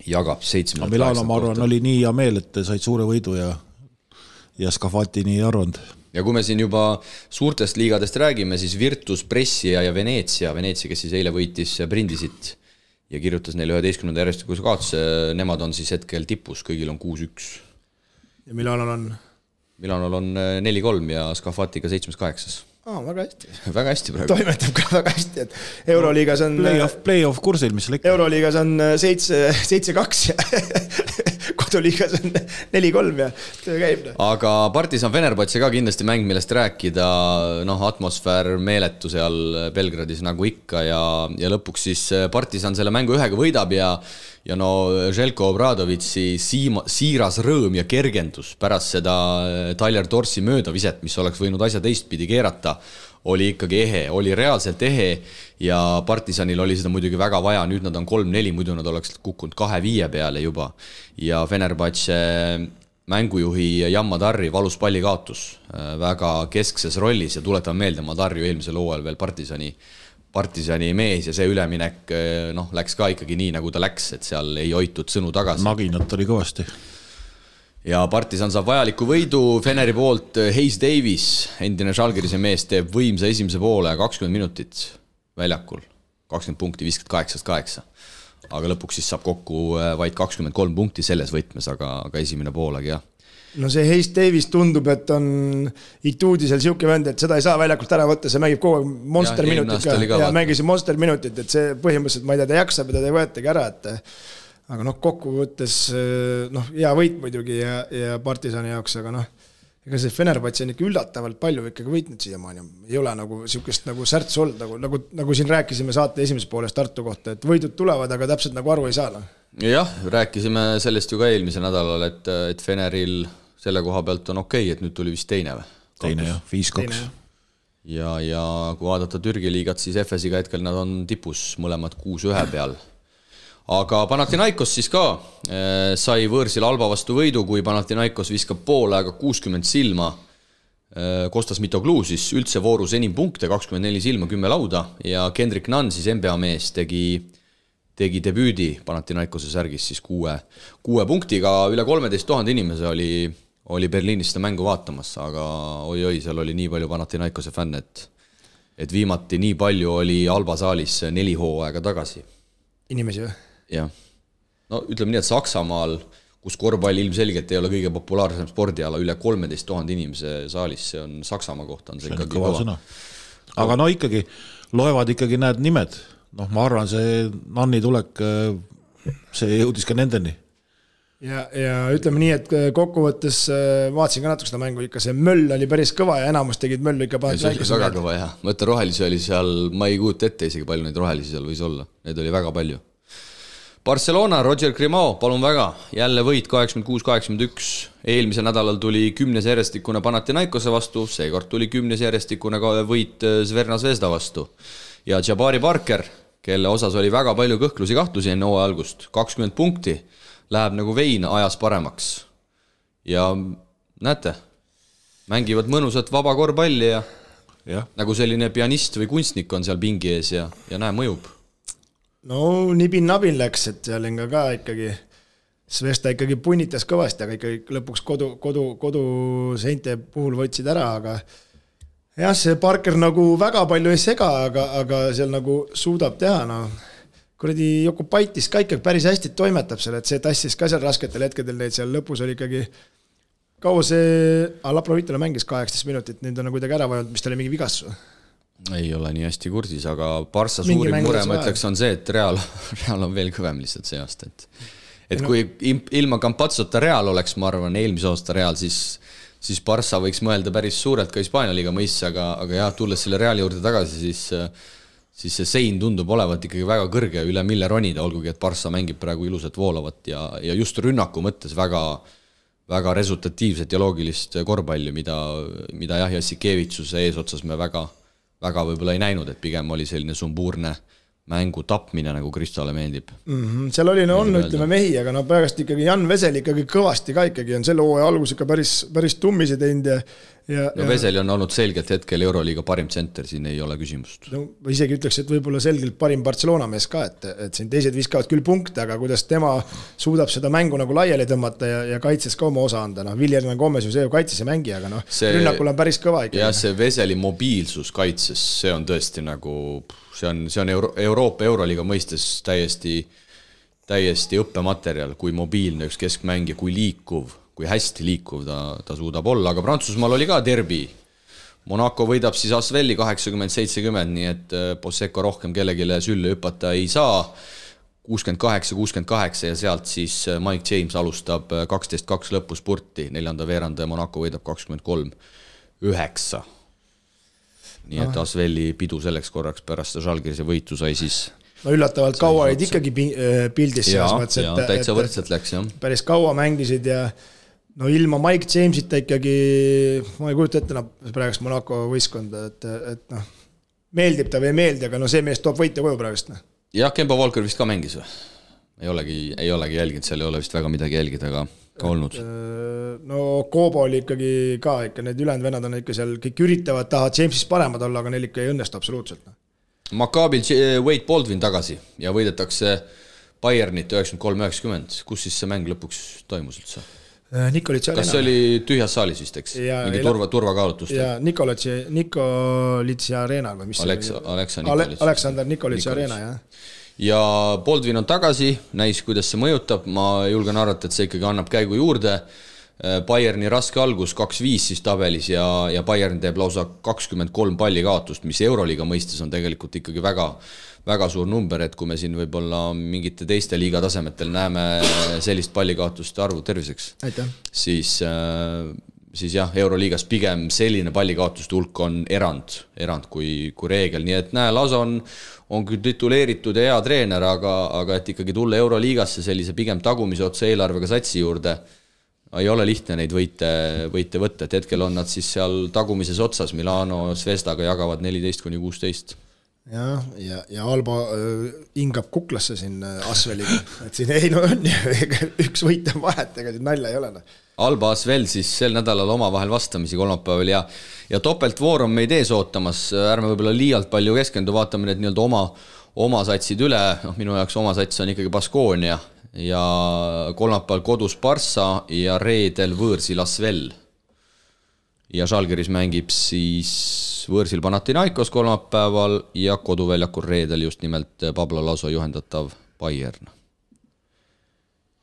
B: jagab 7.
C: Milano, ma arvan, oli nii hea meel, et said suure võidu ja Scafati nii arvanud.
B: Ja kui me siin juba suurtest liigadest räägime, siis Virtus, Brescia ja Venetsia, kes siis eile võitis Brindisit ja kirjutas neile 11. järjestikuse kaotuse, nemad on siis hetkel tipus, kõigil on 6-1.
D: Ja Milanol on?
B: Milanol on 4-3 ja Scafatiga 7-8.
D: Väga hästi.
B: Väga hästi praegu.
D: Toimetab ka väga hästi, et Euroliigas on...
C: Playoff kursil, mis läks.
D: Euroliigas on 7-2 ja koduliigas on 4-3 ja töö käib.
B: Aga Partisan Fenerbahce ka kindlasti mäng, millest rääkida, atmosfäär meeletu seal Belgradis nagu ikka ja lõpuks siis Partisan selle mängu 1 võidab ja Željko Obradovitsi siiras rõõm ja kergendus pärast seda Tyler Dorsi möödaviset, mis oleks võinud asja teistpidi keerata, oli ikkagi ehe, oli reaalselt ehe ja Partisanil oli seda muidugi väga vaja, nüüd nad on 3-4, muidu nad oleks kukkunud 2-5 peale juba ja Fenerbahce mängujuhi Jan Madarri valus palli kaotus väga keskses rollis ja tuletame meelde, Madarri eelmisel hooajal veel Partisani mees ja see üleminek läks ka ikkagi nii, nagu ta läks, et seal ei hoitud sõnu tagasi.
C: Maginat oli kõvasti.
B: Ja Partisan saab vajaliku võidu Feneri poolt. Hayes Davis, endine Žalgirise mees, teeb võimsa esimese poole 20 minutit väljakul. 20 punkti, 58-8. Aga lõpuks siis saab kokku vaid 23 punkti selles võtmes, aga esimene poolegi jah.
D: No see Hayes Davis tundub, et on Ituudisel siuke vend, et seda ei saa väljakult ära võtta, see mängib kogu monster minutit ja mängis monster minutit, et see põhimõtteliselt, ma ei tea, ta jaksab ja ta ei võetagi ära, et aga kokku võttes hea võit muidugi ja Partisani jaoks, aga ega see Fenerbahce on ikka üllatavalt palju ikkagi võitnud siiamaani. Ei ole nagu siukest nagu särts olnud, nagu siin rääkisime saate esimeses pooles Tartu kohta, et võidud tulevad, aga täpselt nagu aru ei saa.
B: Jah, rääkisime sellest ju ka eelmise nädalal, et Feneril selle koha pealt on okei, et nüüd tuli vist teine või?
C: teine jah, 5-2.
B: Ja kui vaadata Türgi liigat, siis FS-iga hetkel nad on tipus mõlemad 6-1 peal. Aga Panathinaikos siis ka sai võõrsil Alba vastu võidu, kui Panathinaikos viskab poole aega 60 silma. Kostas Mitoglou siis üldse voorus enim punkte, 24 silma, 10 lauda ja Kendrick Nunn siis NBA mees tegi debüüdi Panathinaikose särgis siis 6 punktiga, üle 13 000 inimese oli Berliinis seda mängu vaatamas, aga oi, seal oli nii palju Panathinaikose fänne, et viimati nii palju oli Alba saalis 4 hooaega tagasi.
D: Inimesi või?
B: Jah. No ütleme nii, et Saksamaal, kus korvpall ilmselgelt ei ole kõige populaarsem spordiala, üle 13 000 inimese saalis, see on Saksamaa kohta, on see ikkagi kõva.
C: Aga no ikkagi, loevad ikkagi need nimed. No ma arvan, see Nanni tulek, see jõudis ka nendeni.
D: Ja ütleme nii, et kokkuvõttes vaatasin ka natuke seda mängu, ikka see möll oli päris kõva ja enamus tegid möllu ikka
B: see oli väga kõva, jah. Mõtle, rohelisi oli seal, ma ei kujuta ette isegi palju neid rohelisi seal võis olla, neid oli väga palju. Barcelona, Roger Grimao, palun väga, jälle võit 86-81, eelmisel nädalal tuli 10 järjestikune Panathinaikose vastu, seekord tuli 10 järjestikune võit Zverna Zvezda vastu ja Jabari Parker, kelle osas oli väga palju kõhklusi-kahtlusi enne hooaja algust, 20 punkti, läheb nagu vein ajas paremaks ja näete, mängivad mõnusat vaba korvpalli ja nagu selline pianist või kunstnik on seal pingi ees ja näe, mõjub.
D: No nibin-nabin läks, et seal ka ikkagi Svesta ikkagi punnitas kõvasti, aga ikkagi lõpuks kodu seinte puhul võtsid ära, aga jah, see Parker nagu väga palju ei sega, aga seal nagu suudab teha, no kuradi Jokubaitis ka ikkagi päris hästi toimetab seal, et see tassis ka seal rasketel hetkedel neid seal lõpus oli ikkagi kaua see Laprovitole mängis 18 minutit, nüüd on kuidagi ära vajanud, mis ta oli mingi vigastus.
B: Ei ole nii hästi kursis, aga Barca suurim mure, ma ütleks, on see, et Real on veel kõvem lihtsalt see aasta. Et kui ilma Campazzota Real oleks, ma arvan, eelmise aasta Real, siis Barca võiks mõelda päris suurelt ka Hispaania liiga mõisse, aga jah, tulles selle Reali juurde tagasi, siis see sein tundub olevat ikkagi väga kõrge üle mille ronida, olgugi, et Barca mängib praegu ilusat voolavat ja just rünnaku mõttes väga resultatiivset ja loogilist korvpalli, mida jah, Jassikevitsuse eesotsas me väga võib-olla ei näinud, et pigem oli selline sumbuurne mängu tapmine, nagu Kristale meeldib.
D: Seal oli ütleme mehi, aga pärast ikkagi Jan Vesel ikkagi kõvasti ka ikkagi on selle hooaja algus ikka päris tummisi teinud
B: Veseli on olnud selgelt hetkel Euroliiga parim tsenter, siin ei ole küsimust.
D: No, isegi ütleks, et võib-olla selgelt parim Barcelona mees ka, et siin teised viskavad küll punkte, aga kuidas tema suudab seda mängu nagu laiali tõmmata ja kaitses ka oma osa anda. Viljerna Gomez ju see ju kaitses ei mängi, aga rünnakul on päris kõva ikkagi.
B: Ja see Veseli mobiilsus kaitses, see on tõesti nagu, see on Euroopa Euroliiga mõistes täiesti õppematerjal, kui mobiilne üks keskmängija, kui hästi liikuv ta suudab olla, aga Prantsusmaal oli ka derbi. Monaco võidab siis Asvelli 80-70, nii et Posseko rohkem kellegile sülle hüpata ei saa. 68-68 ja sealt siis Mike James alustab 12-2 lõpus spurti, 4. veeranda ja Monaco võidab 23-9. Nii et Asvelli pidu selleks korraks pärast Žalgirise võitu sai siis...
D: No üllatavalt kaua olid ikkagi pildis selles
B: mõttes, täitsa võrdselt läks, jah.
D: Päris kaua mängisid ja ilma Mike Jamesita ikkagi, ma ei kujuta ette praegust Monaco võistkonda, et meeldib ta või ei meeldi, aga see mees toob võite koju praegust.
B: Jah, Kemba Walker vist ka mängis või? Ei olegi jälginud, seal ei ole vist väga midagi jälgida, aga ka olnud.
D: No Kobo oli ikkagi ka, need ülejäänud vennad on ikka seal, kõik üritavad taha Jamesist paremad olla, aga neil ikka ei õnnestu absoluutselt.
B: Maccabil Wade Baldwin tagasi ja võidetakse Bayernit 93-90. Kus siis see mäng lõpuks toimus üldse?
D: Nikolitsi Arena.
B: Kas see oli tühjas saalis vist, eks? Mingi turvakaalutlust?
D: Ja Nikolitsi Arena või mis Aleksandr Nikolitsi Arena, jah.
B: Ja Baldwin on tagasi, näis, kuidas see mõjutab. Ma julgen arvata, et see ikkagi annab käigu juurde. Bayerni raske algus 2-5 siis tabelis ja Bayern teeb lausa 23 palli kaotust, mis Euroliiga mõistes on tegelikult ikkagi väga suur number, et kui me siin võib-olla mingite teiste liiga tasemetel näeme sellist pallikaotuste arvu terviseks, siis jah, Euroliigas pigem selline pallikaotuste hulk on erand kui reegel, nii et lausa on küll tituleeritud ja hea treener, aga et ikkagi tulla Euroliigasse sellise pigem tagumise otse eelarvega satsi juurde, ei ole lihtne neid võite võtta, et hetkel on nad siis seal tagumises otsas, Milano Zvezdaga jagavad 14-16.
D: Ja Alba hingab kuklasse siin Asveliga, et siin ei on üks võit on vahet, ega siin nalja ei ole.
B: Alba Asvel siis sel nädalal omavahel vastamisi kolmapäeval ja topeltvoor on meid ees ootamas, ärme võib-olla liialt palju keskendu, vaatame need nii-öelda oma satsid üle, minu jaoks oma sats on ikkagi Baskonia ja kolmapäeval kodus Barça ja reedel võõrsil Asvel. Ja Žalgiris mängib siis võõrsil Panathinaikos kolmapäeval ja koduväljakul reedel just nimelt Pablo Laso juhendatav Bayern.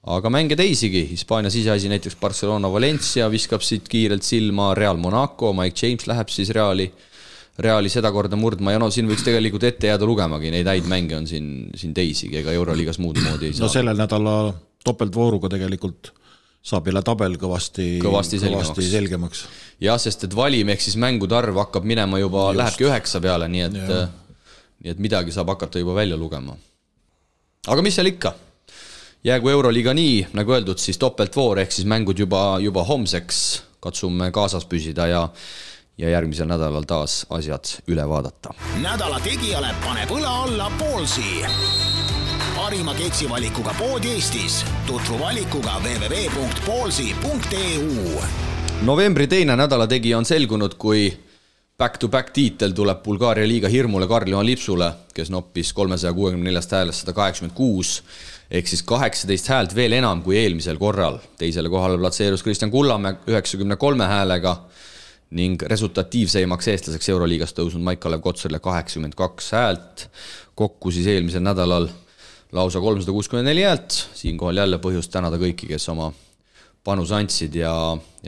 B: Aga mänge teisigi, Hispaania siseasi näiteks Barcelona Valencia viskab siit kiirelt silma, Real Monaco, Mike James läheb siis Reali seda korda murdma ja siin võiks tegelikult ette jääda lugemagi, neid häid mänge on siin teisigi, ega Euroliigas muud moodi ei saa.
C: No sellel nädala topeltvooruga tegelikult saab jälle tabel kõvasti selgemaks.
B: Jah, sest et valim ehk siis mängude arv hakkab minema juba, lähebki 9 peale, nii et midagi saab hakata juba välja lugema. Aga mis seal ikka? Jäägu Euroliiga nii, nagu öeldud, siis topeltvoor ehk siis mängud juba homseks, katsume kaasas püsida ja järgmisel nädalal taas asjad üle vaadata.
A: Nädala tegijale paneb õla alla Poolsi. Parima keksivalikuga pood Eestis. Tutvu valikuga www.poolsi.eu.
B: Novembri teine nädala tegija on selgunud, kui back-to-back tiitel tuleb Bulgaaria liiga hirmule Karl-Johan Lipsule, kes noppis 364 häälest 186, ehk siis 18 häält veel enam kui eelmisel korral. Teisele kohale platseerus Kristjan Kullamäe 93 häälega ning resultatiivseimaks eestlaseks Euroliigas tõusnud Maik-Kalev Kotsarile 82 häält. Kokku siis eelmisel nädalal lausa 364 häält. Siinkohal jälle põhjust tänada kõiki, kes oma panus andsid ja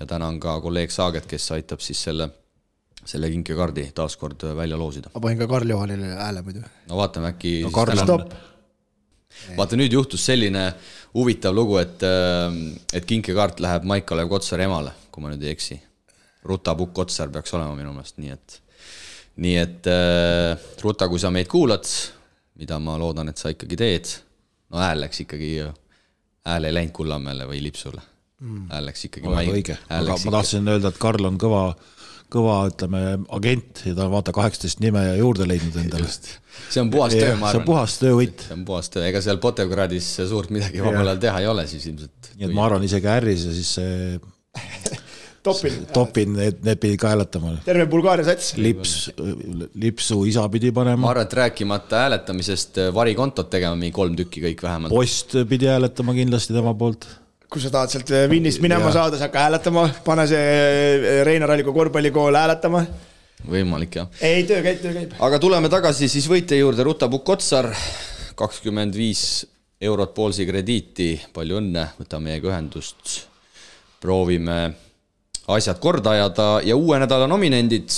B: tänan ka kolleeg Saaget, kes aitab siis selle kinkekaardi taaskord välja loosida.
D: Ma panin ka Karl-Johanile hääle muidu.
B: No vaatame äkki...
D: No
B: Vaata, nüüd juhtus selline huvitav lugu, et kinkekaart läheb Maik-Kalev Kotsari emale, kui ma nüüd ei eksi. Ruta Pukk Kotsar peaks olema minu meelest, nii et Ruta, kui sa meid kuulad, mida ma loodan, et sa ikkagi teed, no hääl läks ikkagi, hääl ei läinud Kullamäele või Lipsule. Hääl läks ikkagi
C: õige. Aga ma tahtsin öelda, et Karl on kõva ütleme, agent ja ta on vaata 18 nime ja juurde leidnud endale.
B: See on puhas töö, ma arvan.
C: See on puhas töövõtt.
B: See on puhas töö, ega seal Potevgradis suurt midagi vabalal teha ei ole siis ilmselt.
C: Nii et ma arvan isegi ärris ja siis see Topin, need pidi ka hääletama.
D: Terve Bulgaaria sats.
C: Lipsu isa pidi panema.
B: Ma arvan, et rääkimata hääletamisest varikontot tegema 3 tükki kõik vähemalt.
C: Post pidi hääletama kindlasti tema poolt.
D: Kui sa tahad sealt Vinnist minema saada, sa hakka hääletama, pane see Reinar Alliku korvpallikool hääletama.
B: Võimalik, jah.
D: Ei, töö käib.
B: Aga tuleme tagasi siis võitja juurde, Ruta Pukk Kotsar, 25 eurot Poolsi krediiti, palju õnne, võtame meiega ühendust, proovime asjad korda ajada ja uue nädala nominendid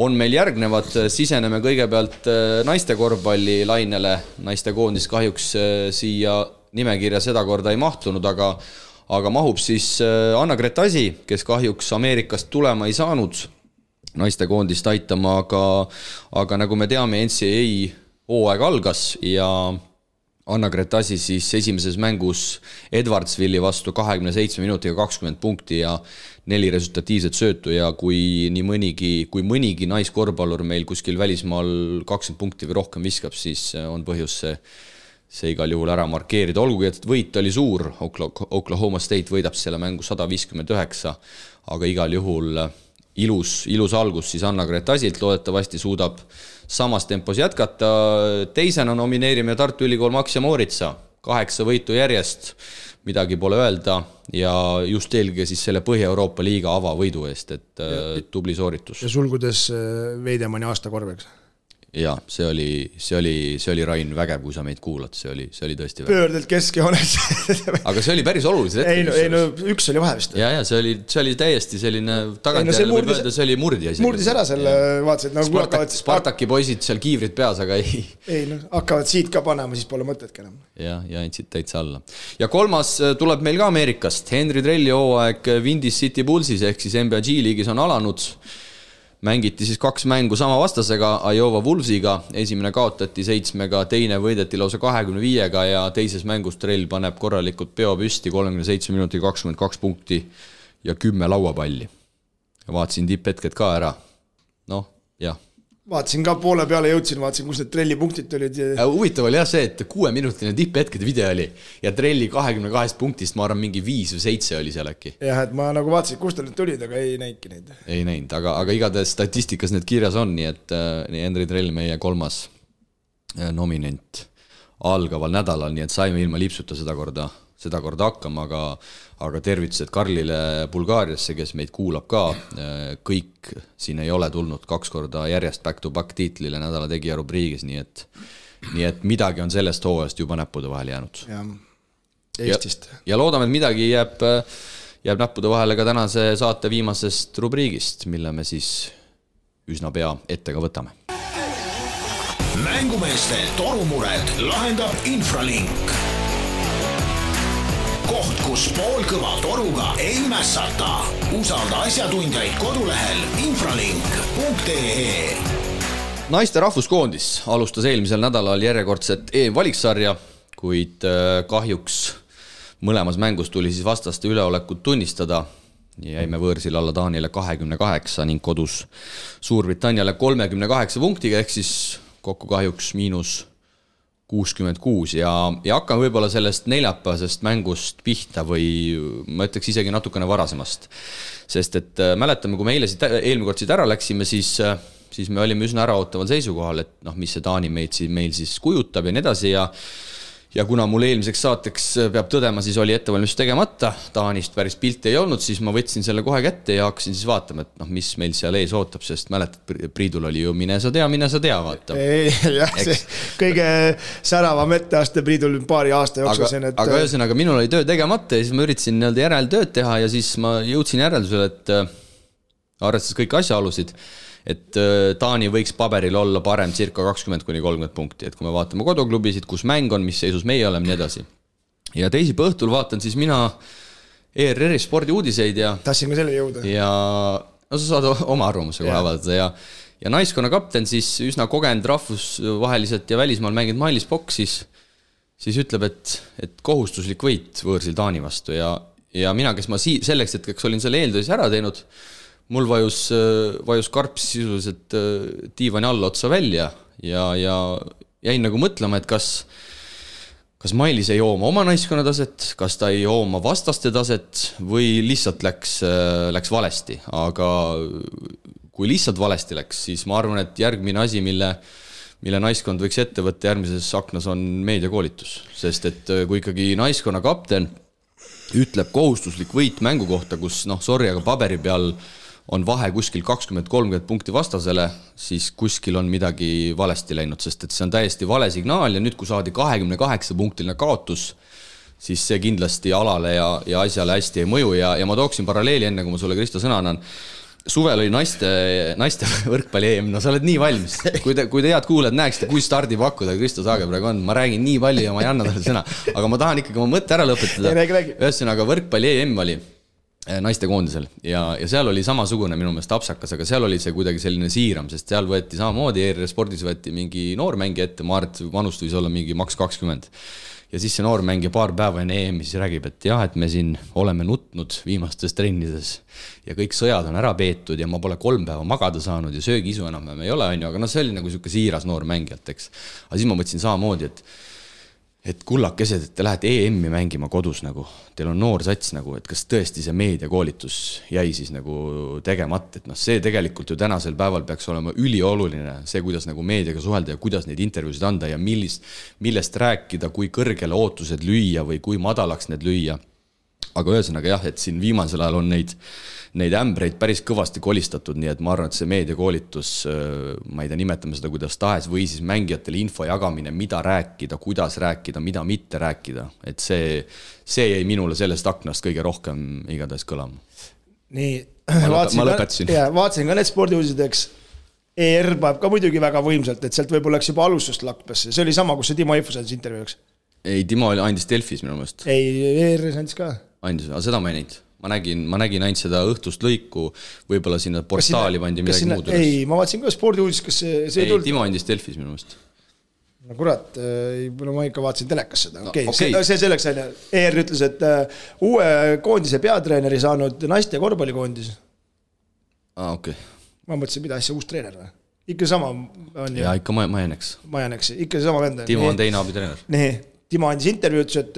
B: on meil järgnevad, siseneme kõigepealt naiste korvpalli lainele, naiste koondis kahjuks siia nimekirja seda korda ei mahtunud, aga mahub siis Anna-Grete Asi, kes kahjuks Ameerikast tulema ei saanud naiste koondist aitama, aga nagu me teame, NCAA hooaeg algas ja Anna-Grete Asi siis esimeses mängus Edwardsville'i vastu 27 minutiga 20 punkti ja 4 resultatiivset söötu ja kui mõnigi naiskorvpallur meil kuskil välismaal 20 punkti või rohkem viskab, siis on põhjus see igal juhul ära markeerida. Olgugi, et võit oli suur, Oklahoma State võidab selle mängu 159, aga igal juhul ilus algus siis Anna-Grete Asilt, loodetavasti suudab samas tempos jätkata. Teisena nomineerime Tartu Ülikool Max ja Mooritsa, 8 võitu järjest, midagi pole öelda ja just eelge siis selle Põhja-Euroopa liiga avavõidu eest, et tubli sooritus.
D: Ja sulgudes Veidemani aasta korveks.
B: Ja, see oli Rain vägev, kui sa meid kuulad, see oli tõesti vägev.
D: Pöördelt keskjoones.
B: Aga see oli päris olulised hetkel.
D: Ei, no üks oli vahe vist.
B: Ja, see oli täiesti selline tagantjärele võib öelda, see oli murdja.
D: Murdis ära selle, vaatasid, nagu
B: Spartaki poisid seal kiivrid peas, aga ei.
D: Ei, hakkavad siit ka panema, siis pole mõtetki enam.
B: Ja andsid täitsa alla. Ja kolmas tuleb meil ka Ameerikast. Henry Trelli hooaeg Windy City Bullsis ehk siis NBA G-liigis on alanud. mängiti siis 2 mängu sama vastasega, Iowa Wolvesiga, esimene kaotati 7-ga, teine võideti lausa 25-ga ja teises mängus Trell paneb korralikult peo püsti 37 minuti 22 punkti ja 10 lauapalli. Ja vaatasin tipphetked ka ära. Noh, jah.
D: Vaatasin ka poole peale jõudsin, vaatasin, kus need Trelli punktid olid.
B: Huvitav oli jah see, et 6-minutine tipphetkede video oli ja Trelli 22 punktist, ma arvan, mingi 5 või 7 oli seal äkki.
D: Jah, et ma nagu vaatasin, kust need tulid, aga ei näinki neid.
B: Ei näinud, aga igatahes statistikas need kirjas on, nii et Henri Trell meie 3. nominent algaval nädalal, nii et saime ilma lipsuta seda korda hakkama, aga tervitused Karlile Bulgaariasse, kes meid kuulab ka. Kõik siin ei ole tulnud 2 korda järjest back-to-back tiitlile nädala tegija rubriigis, nii et midagi on sellest hooajast juba näppude vahele jäänud.
D: Ja, Eestist.
B: Ja loodame, et midagi jääb näppude vahele ka tänase saate viimasest rubriigist, mille me siis üsna pea ette ka võtame.
A: Mängumeeste torumured lahendab Infralink. Koht, kus poolkõva toruga ei mässata. Usalda asjatundjaid kodulehel infralink.ee.
B: Naiste rahvuskoondis alustas eelmisel nädalal järjekordset EM-valiksarja, kuid kahjuks mõlemas mängus tuli siis vastaste üleolekut tunnistada. Jäime võõrsil alla Taanile 28 ning kodus Suurbritanniale 38 punktiga, ehk siis kokku kahjuks -66 ja hakkame võib-olla sellest neljapäevasest mängust pihta või ma ütleks isegi natukene varasemast. Sest et mäletame, kui me eelmine kord siit ära läksime, siis me olime üsna äraootaval seisukohal, et mis see Taani meil siis kujutab ja nii edasi ja kuna mul eelmiseks saateks peab tõdema, siis oli ettevalmistus tegemata, Taanist päris pilti ei olnud, siis ma võtsin selle kohe kätte ja hakkasin siis vaatama, et mis meil seal ees ootab, sest mäletad, Priidul oli ju mine sa tea, vaata.
D: Jah, see kõige säravam etteaste Priidul paari aasta jooksul.
B: Aga ühesõnaga, minul oli töö tegemata ja siis ma üritasin järeltööd teha ja siis ma jõudsin järeldusele, et arvestades kõik asjaolusid, et Taani võiks paberil olla parem circa 20-30 punkti, et kui me vaatame koduklubisid, kus mäng on, mis seisus meie oleme, nii edasi. Ja teisipäeva õhtul vaatan siis mina ERR-i spordiuudiseid ja
D: tahtsin ka selle jõuda.
B: Ja sa saad oma arvamuse kohe avaldada ja naiskonna kapten siis üsna kogenud rahvusvaheliselt ja välismaal mänginud Mailis Pokk siis ütleb, et kohustuslik võit võõrsil Taani vastu ja mina, kes ma selleks hetkeks olin selle eeltöös ära teinud, mul vajus karps sisuliselt diivani alla otsa välja ja jäin nagu mõtlema, et kas Mailis ei jooma oma naiskonna taset, kas ta ei jooma vastaste taset või lihtsalt läks valesti. Aga kui lihtsalt valesti läks, siis ma arvan, et järgmine asi, mille naiskond võiks ette võtta järgmises aknas on meediakoolitus. Sest et kui ikkagi naiskonna kapten ütleb kohustuslik võit mängu kohta, kus aga paberi peal on vahe kuskil 20-30 punkti vastasele, siis kuskil on midagi valesti läinud, sest et see on täiesti vale signaal ja nüüd, kui saadi 28-punktiline kaotus, siis see kindlasti alale ja asjale hästi ei mõju ja ma tooksin paralleeli enne, kui ma sulle, Kristo, sõna annan. Suvel oli naiste võrkpalli EM, sa oled nii valmis. Kui te head kuuled, näeksite, kui stardi pakkuda Kristo Saage praegu on. Ma räägin nii palju ja ma ei anna talle sõna. Aga ma tahan ikkagi oma mõtte ära lõpetada. Ühesõnaga võrkpalli EM oli naiste koondisel ja seal oli samasugune minu meelest apsakas, aga seal oli see kuidagi selline siiram, sest seal võeti samamoodi ERR spordis võeti mingi noormängi ette, ma arvan, et vanust võis olla mingi maks 20 ja siis see noormängija paar päeva enne EM siis räägib, et jah, et me siin oleme nutnud viimastes trennides ja kõik sõjad on ära peetud ja ma pole 3 päeva magada saanud ja söögiisu enam ei ole, aga see oli nagu selline siiras noor mängijalt, eks. Aga siis ma mõtlesin samamoodi, et kullakesed, et te lähete EM-i mängima kodus nagu, teil on noor sats nagu, et kas tõesti see meediakoolitus jäi siis nagu tegemata, et see tegelikult ju tänasel päeval peaks olema ülioluline, see kuidas nagu meediaga suhelda ja kuidas neid intervjuusid anda ja millest rääkida, kui kõrgele ootused lüüa või kui madalaks need lüüa. Aga ühesõnaga jah, et siin viimasel ajal on neid ämbreid päris kõvasti kolistatud, nii et ma arvan, et see meediakoolitus, ma ei tea, nimetame seda kuidas tahes, või siis mängijatele info jagamine, mida rääkida, kuidas rääkida, mida mitte rääkida, et see jäi minule sellest aknast kõige rohkem igatahes kõlama.
D: Nii,
B: ma lõpetasin.
D: Vaatasin ka need spordiuudisid, eks ER paneb ka muidugi väga võimsalt, et sealt võib-olla läks juba alustust lakpasse, see oli sama, kus see Timo Eifus intervjuuks.
B: Ei, Timo andis Delfis minu meelest.
D: Ei, ER andis ka.
B: Andis, aga seda ma ei näinud. ma nägin ainult seda õhtust lõiku, võib-olla sinna portaali pandi midagi muud üles.
D: Ei, ma vaatasin ka spordiuudis, kas see ei tulnud.
B: Timo andis Delfis minu meelest.
D: No kurat, ma ikka vaatasin telekas seda. Okay. See selleks ER ütles, et uue koondise peatreeneri saanud naiste korvpallikoondis.
B: Okay.
D: Ma mõtlesin, mida asja uus treener või? Ikka sama on ju.
B: Ja ikka Majaneks.
D: Ikka sama vend.
B: Timo on teine abitreener.
D: Nii, Timo andis intervjuu, ütles, et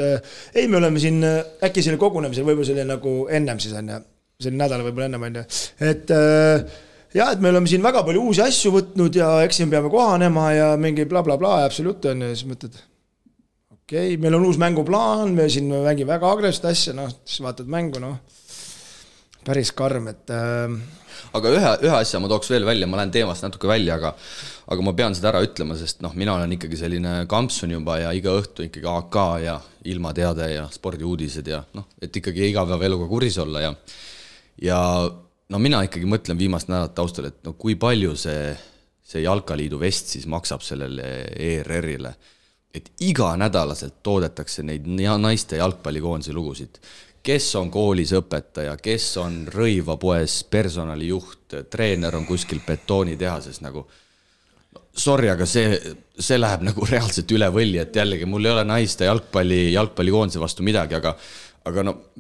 D: ei, me oleme siin äkki selle kogunemisel, võib-olla selle nagu ennem siis on ja selle nädala võib-olla ennem on ja. Et jah, et me oleme siin väga palju uusi asju võtnud ja eks siin peame kohanema ja mingi bla bla bla ja absoluut on ja siis mõtled, okei, meil on uus mänguplaan, me siin mängime väga agressivt asja, siis vaatad mängu, päris karm, et
B: aga ühe asja ma tooks veel välja, ma lähen teemast natuke välja, aga ma pean seda ära ütlema, sest mina olen ikkagi selline kampsun juba ja iga õhtu ikkagi AK ja ilmateade ja spordiuudised ja et ikkagi igapäeva eluga kuris olla ja mina ikkagi mõtlen viimast nädalat taustal, et kui palju see Jalkaliidu vest siis maksab sellele ERR-ile, et iga nädalaselt toodetakse neid naiste jalgpallikoondise lugusid. Kes on koolis õpetaja, kes on rõivapoes personalijuht, treener on kuskil betoonitehases nagu. Sorry, aga see läheb nagu reaalselt üle võlli, et jällegi mul ei ole naiste jalgpallikoondise vastu midagi, aga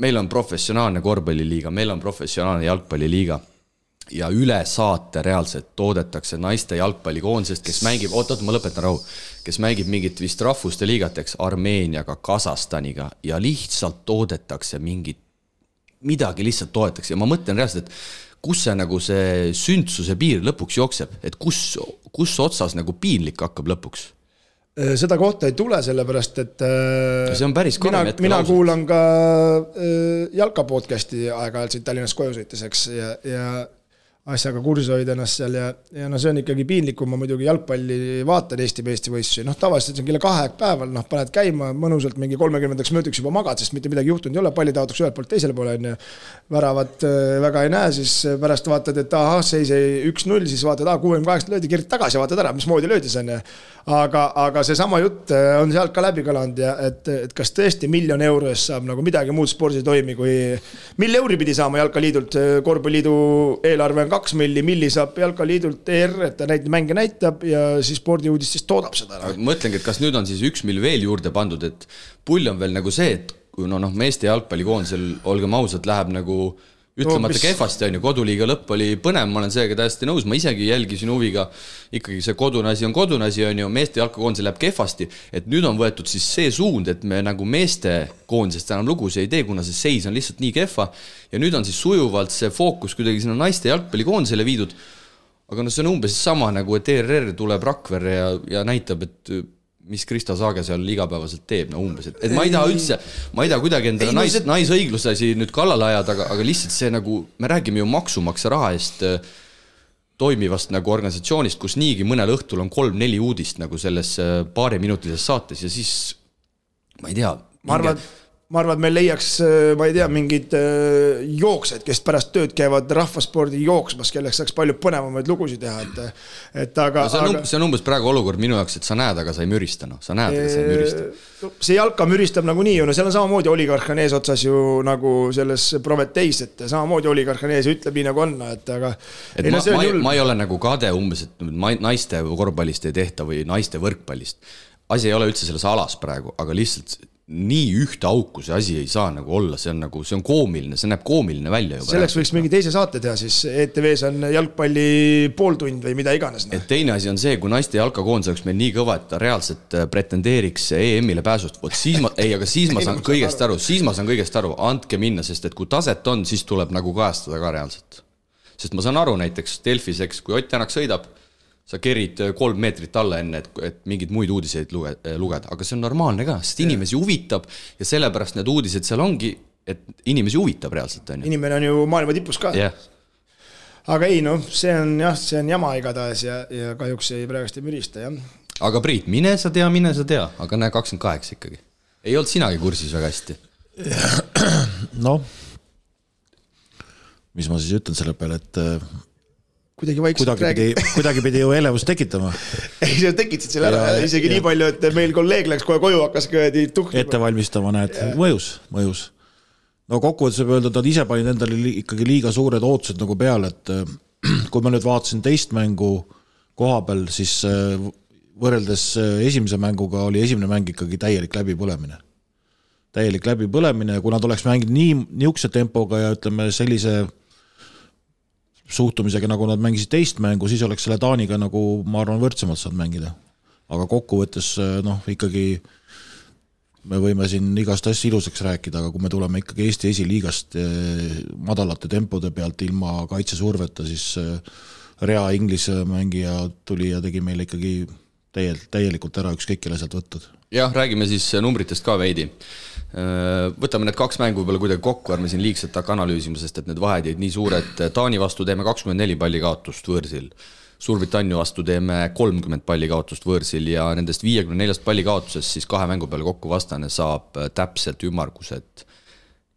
B: meil on professionaalne korvpalliliiga, meil on professionaalne jalgpalliliiga ja üle saate reaalselt toodetakse naiste jalgpallikoondisest, kes mängib, ma lõpetan rahu, kes mängib mingit vist rahvuste liigateks Armeeniaga, Kasahstaniga ja lihtsalt toodetakse midagi lihtsalt toodetakse ja ma mõtlen reaalselt, et kus see nagu see sündsuse piir lõpuks jookseb, et kus otsas nagu piinlik hakkab lõpuks?
D: Seda kohta ei tule, sellepärast, et
B: see on päris
D: mina kuulan ka Jalka podcasti aeg-ajalt siin Tallinnas koju sõiteseks ja asjaga kursi hoida ennast seal ja see on ikkagi piinlik, kui ma muidugi jalgpalli vaatan Eesti võistlusi. Tavaliselt see on kella 2 päeval, paned käima mõnusalt mingi 30 minutiks juba magad, sest mitte midagi juhtunud ei ole, palli taotakse ühelt poolt teisele poole on ja väravat väga ei näe, siis pärast vaatad, et seis 1-0, siis vaatad, 68 löödi, kerid tagasi ja vaatad ära, mis moodi löödis on ja aga see sama jutt on sealt ka läbi kõlanud ja et kas tõesti €1 miljon eest saab nagu midagi muud spordis toimi, kui €1 pidi saama Jalkaliidult, Korvpalliliidu eelarve on 2 milli saab Jalkaliidult ER, et ta neid mänge näitab ja siis spordiuudist siis toodab seda.
B: Ma mõtlengi, et kas nüüd on siis 1 miljon veel juurde pandud, et pull on veel nagu see, et kui meeste jalgpallikoondisel, olgem ausalt, läheb nagu ütlemata kehvasti on ju, koduliiga lõpp oli põnev, ma olen seega täiesti nõus, ma isegi jälgisin huviga, ikkagi see kodune asi on ju, meeste jalkakoondise läheb kehvasti, et nüüd on võetud siis see suund, et me nagu meeste koondisest enam lugusi ei tee, kuna see seis on lihtsalt nii kehva ja nüüd on siis sujuvalt see fookus kuidagi sinna naiste jalgpallikoondisele viidud, aga see on umbes sama nagu, et ERR tuleb Rakverre ja näitab, et mis Krista Saage seal igapäevaselt teeb, umbes, et ma ei taha kuidagi endale naisõigluse nüüd kallale ajada, aga lihtsalt see nagu, me räägime ju maksumaksja raha eest toimivast nagu organisatsioonist, kus niigi mõnel õhtul on 3-4 uudist nagu selles paariminutilises saates ja siis, ma ei tea.
D: Ma arvan, et meil leiaks, ma ei tea, mingid jooksed, kes pärast tööd käivad rahvaspordi jooksmas, kelleks saaks palju põnevamaid lugusid teha.
B: See on umbes praegu olukord minu jaoks, et sa näed, aga sa ei mürista. Sa näed, aga sa ei mürista.
D: See jalka müristab nagu nii, seal on samamoodi oligarhan ees otsas ju nagu selles Prometheis, et samamoodi oligarhan ees ütleb nii nagu on.
B: Ma ei ole nagu kade umbes, et naiste korvpallist ei tehta või naiste võrkpallist. Asi ei ole üldse selles alas praegu, aga lihtsalt nii ühte auku see asi ei saa nagu olla, see on koomiline, see näeb koomiline välja juba.
D: Selleks võiks mingi teise saate teha, siis ETVs on jalgpalli pooltund või mida iganes.
B: Et teine asi on see, kui naiste jalkakoondis oleks meil nii kõva, et ta reaalselt pretendeeriks EM-ile pääsust, siis ma saan kõigest aru, andke minna, sest et kui taset on, siis tuleb nagu kajastada ka reaalselt. Sest ma saan aru näiteks Delfis, kui Ott Tänak sõidab, sa kerid 3 meetrit alla enne, et mingid muid uudiseid lugeda, aga see on normaalne ka, sest inimesi huvitab ja sellepärast need uudised seal ongi, et inimesi huvitab reaalselt.
D: Inimene on ju maailma tipus ka.
B: Yeah.
D: Aga ei, see on jama igatahes ja kahjuks ei praegust ei mürista. Ja.
B: Aga Priit, mine sa tea, aga näe 28 ikkagi. Ei olnud sinagi kursis väga hästi.
C: Mis ma siis ütlen selle peale, et
D: kuidagi
C: pidi ju elevust tekitama.
D: Ei, sa tekitasid selle ära, isegi nii palju, et meil kolleeg läks kohe koju, hakkas tuhkima.
C: Ette valmistama, näed, mõjus. no kokkuvõttes võib öelda, et nad ise panid endale ikkagi liiga suured ootused nagu peale, et kui ma nüüd vaatasin teist mängu koha peal, siis võrreldes esimese mänguga oli esimene mäng ikkagi täielik läbipõlemine. Ja kui nad oleks mänginud niisuguse tempoga ja ütleme sellise suhtumisega, nagu nad mängisid teist mängu, siis oleks selle Taaniga nagu, ma arvan, võrdsemalt saanud mängida. Aga kokkuvõttes, ikkagi me võime siin igast asja ilusaks rääkida, aga kui me tuleme ikkagi Eesti esiliigast madalate tempode pealt ilma kaitsesurveta, siis Rea Inglise mängija tuli ja tegi meile ikkagi täielikult ära ükskõik kelle sealt võttud.
B: Jah, räägime siis numbritest ka veidi. Võtame need 2 mängu peale kuidagi kokku, ärme siin liigselt hakka analüüsima, sest et need vahed jäid nii suured. Taani vastu teeme 24 palli kaotust võõrsil. Suurbritannia vastu teeme 30 palli kaotust võõrsil ja nendest 54 palli kaotusest siis 2 mängu peale kokku vastane saab täpselt ümmargused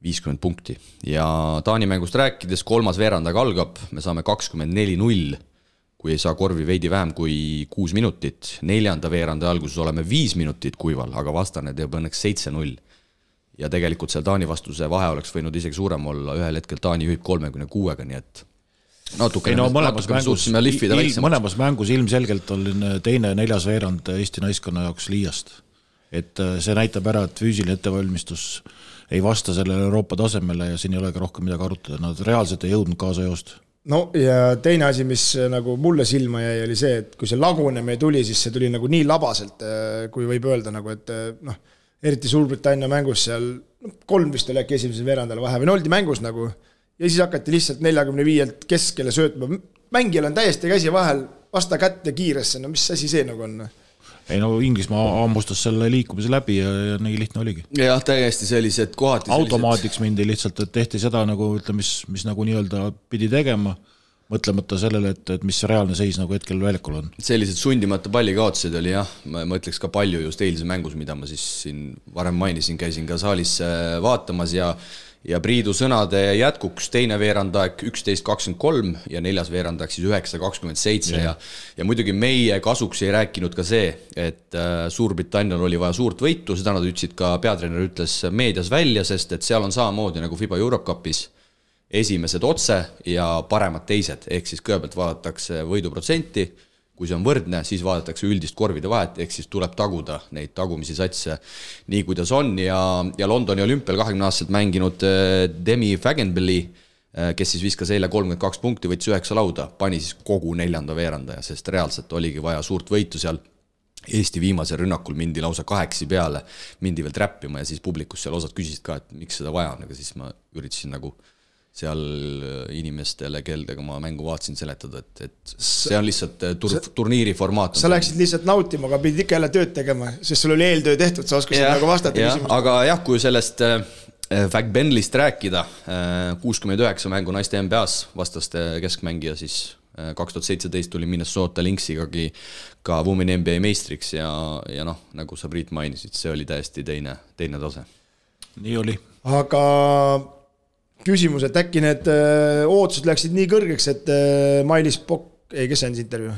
B: 50 punkti. Ja Taani mängust rääkides 3. veerandaga algab, me saame 24-0, kui ei saa korvi veidi vähem kui 6 minutit. 4. veeranda alguses oleme 5 minutit kuival, aga vastane teeb õnneks 7-0. Ja tegelikult seal Taani vastuse vahe oleks võinud isegi suurem olla, ühel hetkel Taani juhib 36-ga, nii et
C: mõlemas mängus ilmselgelt oli teine 4. veerand Eesti naiskonna jaoks liiast. Et see näitab ära, et füüsiline ettevalmistus ei vasta sellele Euroopa tasemele ja siin ei ole ka rohkem midagi arutada. Nad reaalselt ei jõudnud kaasa joost.
D: No ja teine asi, mis nagu mulle silma jäi, oli see, et kui see lagunemine tuli, siis see tuli nagu nii labaselt, kui võib öelda, nagu, et eriti Suurbritannia mängus seal 3 vist oli äkki esimesel veerandal vahe või oldi mängus nagu ja siis hakati lihtsalt 45-lt keskele söötma. Mängijal on täiesti käsi vahel, vasta kätte kiiresse, no mis asi see nagu on?
C: Ei no Inglismaa ammustas selle liikumise läbi ja nii lihtne oligi.
B: Jah, täiesti sellised kohati
C: automaatiks mindi lihtsalt, et tehti seda nagu, mis nagu nii-öelda pidi tegema, mõtlemata sellele, et mis reaalne seis nagu hetkel väljakul on.
B: Sellised sundimata palli kaotused oli jah, ma ütleks ka palju just eilse mängus, mida ma siis siin varem mainisin, käisin ka saalis vaatamas ja Priidu sõnade jätkuks teine veerandaeg 11.23 ja 4. veerandaeg siis 9.27 ja muidugi meie kasuks ei rääkinud ka see, et Suurbritannial oli vaja suurt võitu, seda nad ütlesid ka peatreener ütles meedias välja, sest et seal on samamoodi nagu FIBA Eurocupis esimesed otse ja paremad teised, ehk siis kõigepealt vaadatakse võiduprotsenti, kui see on võrdne, siis vaadatakse üldist korvide vahet, ehk siis tuleb taguda neid tagumisi satse nii, kuidas on ja Londoni olümpial 20-aastaselt mänginud Demi Fagenbelli, kes siis viskas eile 32 punkti, võttis 9 lauda, pani siis kogu 4. veerandaja, sest reaalselt oligi vaja suurt võitu seal. Eesti viimasel rünnakul mindi lausa 8 peale, mindi veel träppima ja siis publikus seal osad küsisid ka, et miks seda vaja on, aga siis ma üritasin nagu seal inimestele, keldega ma mängu vaatasin seletada, et see on lihtsalt turniiri formaat.
D: Sa läksid lihtsalt nautima, aga pidid ikka jälle tööd tegema, sest sul oli eeltöö tehtud, sa oskasid nagu vastata küsimusele.
B: Aga jah, kui sellest Fagbenlist rääkida, 69 mängu naiste NBA-s vastaste keskmängija, siis 2017 tuli Minnesota Lynxigagi ka Women NBA meistriks ja noh, nagu sa Priit mainisid, see oli täiesti teine tase.
C: Nii oli.
D: Aga küsimus, et äkki need ootused läksid nii kõrgeks, et Mailis Pokk, kes see on see intervjuu?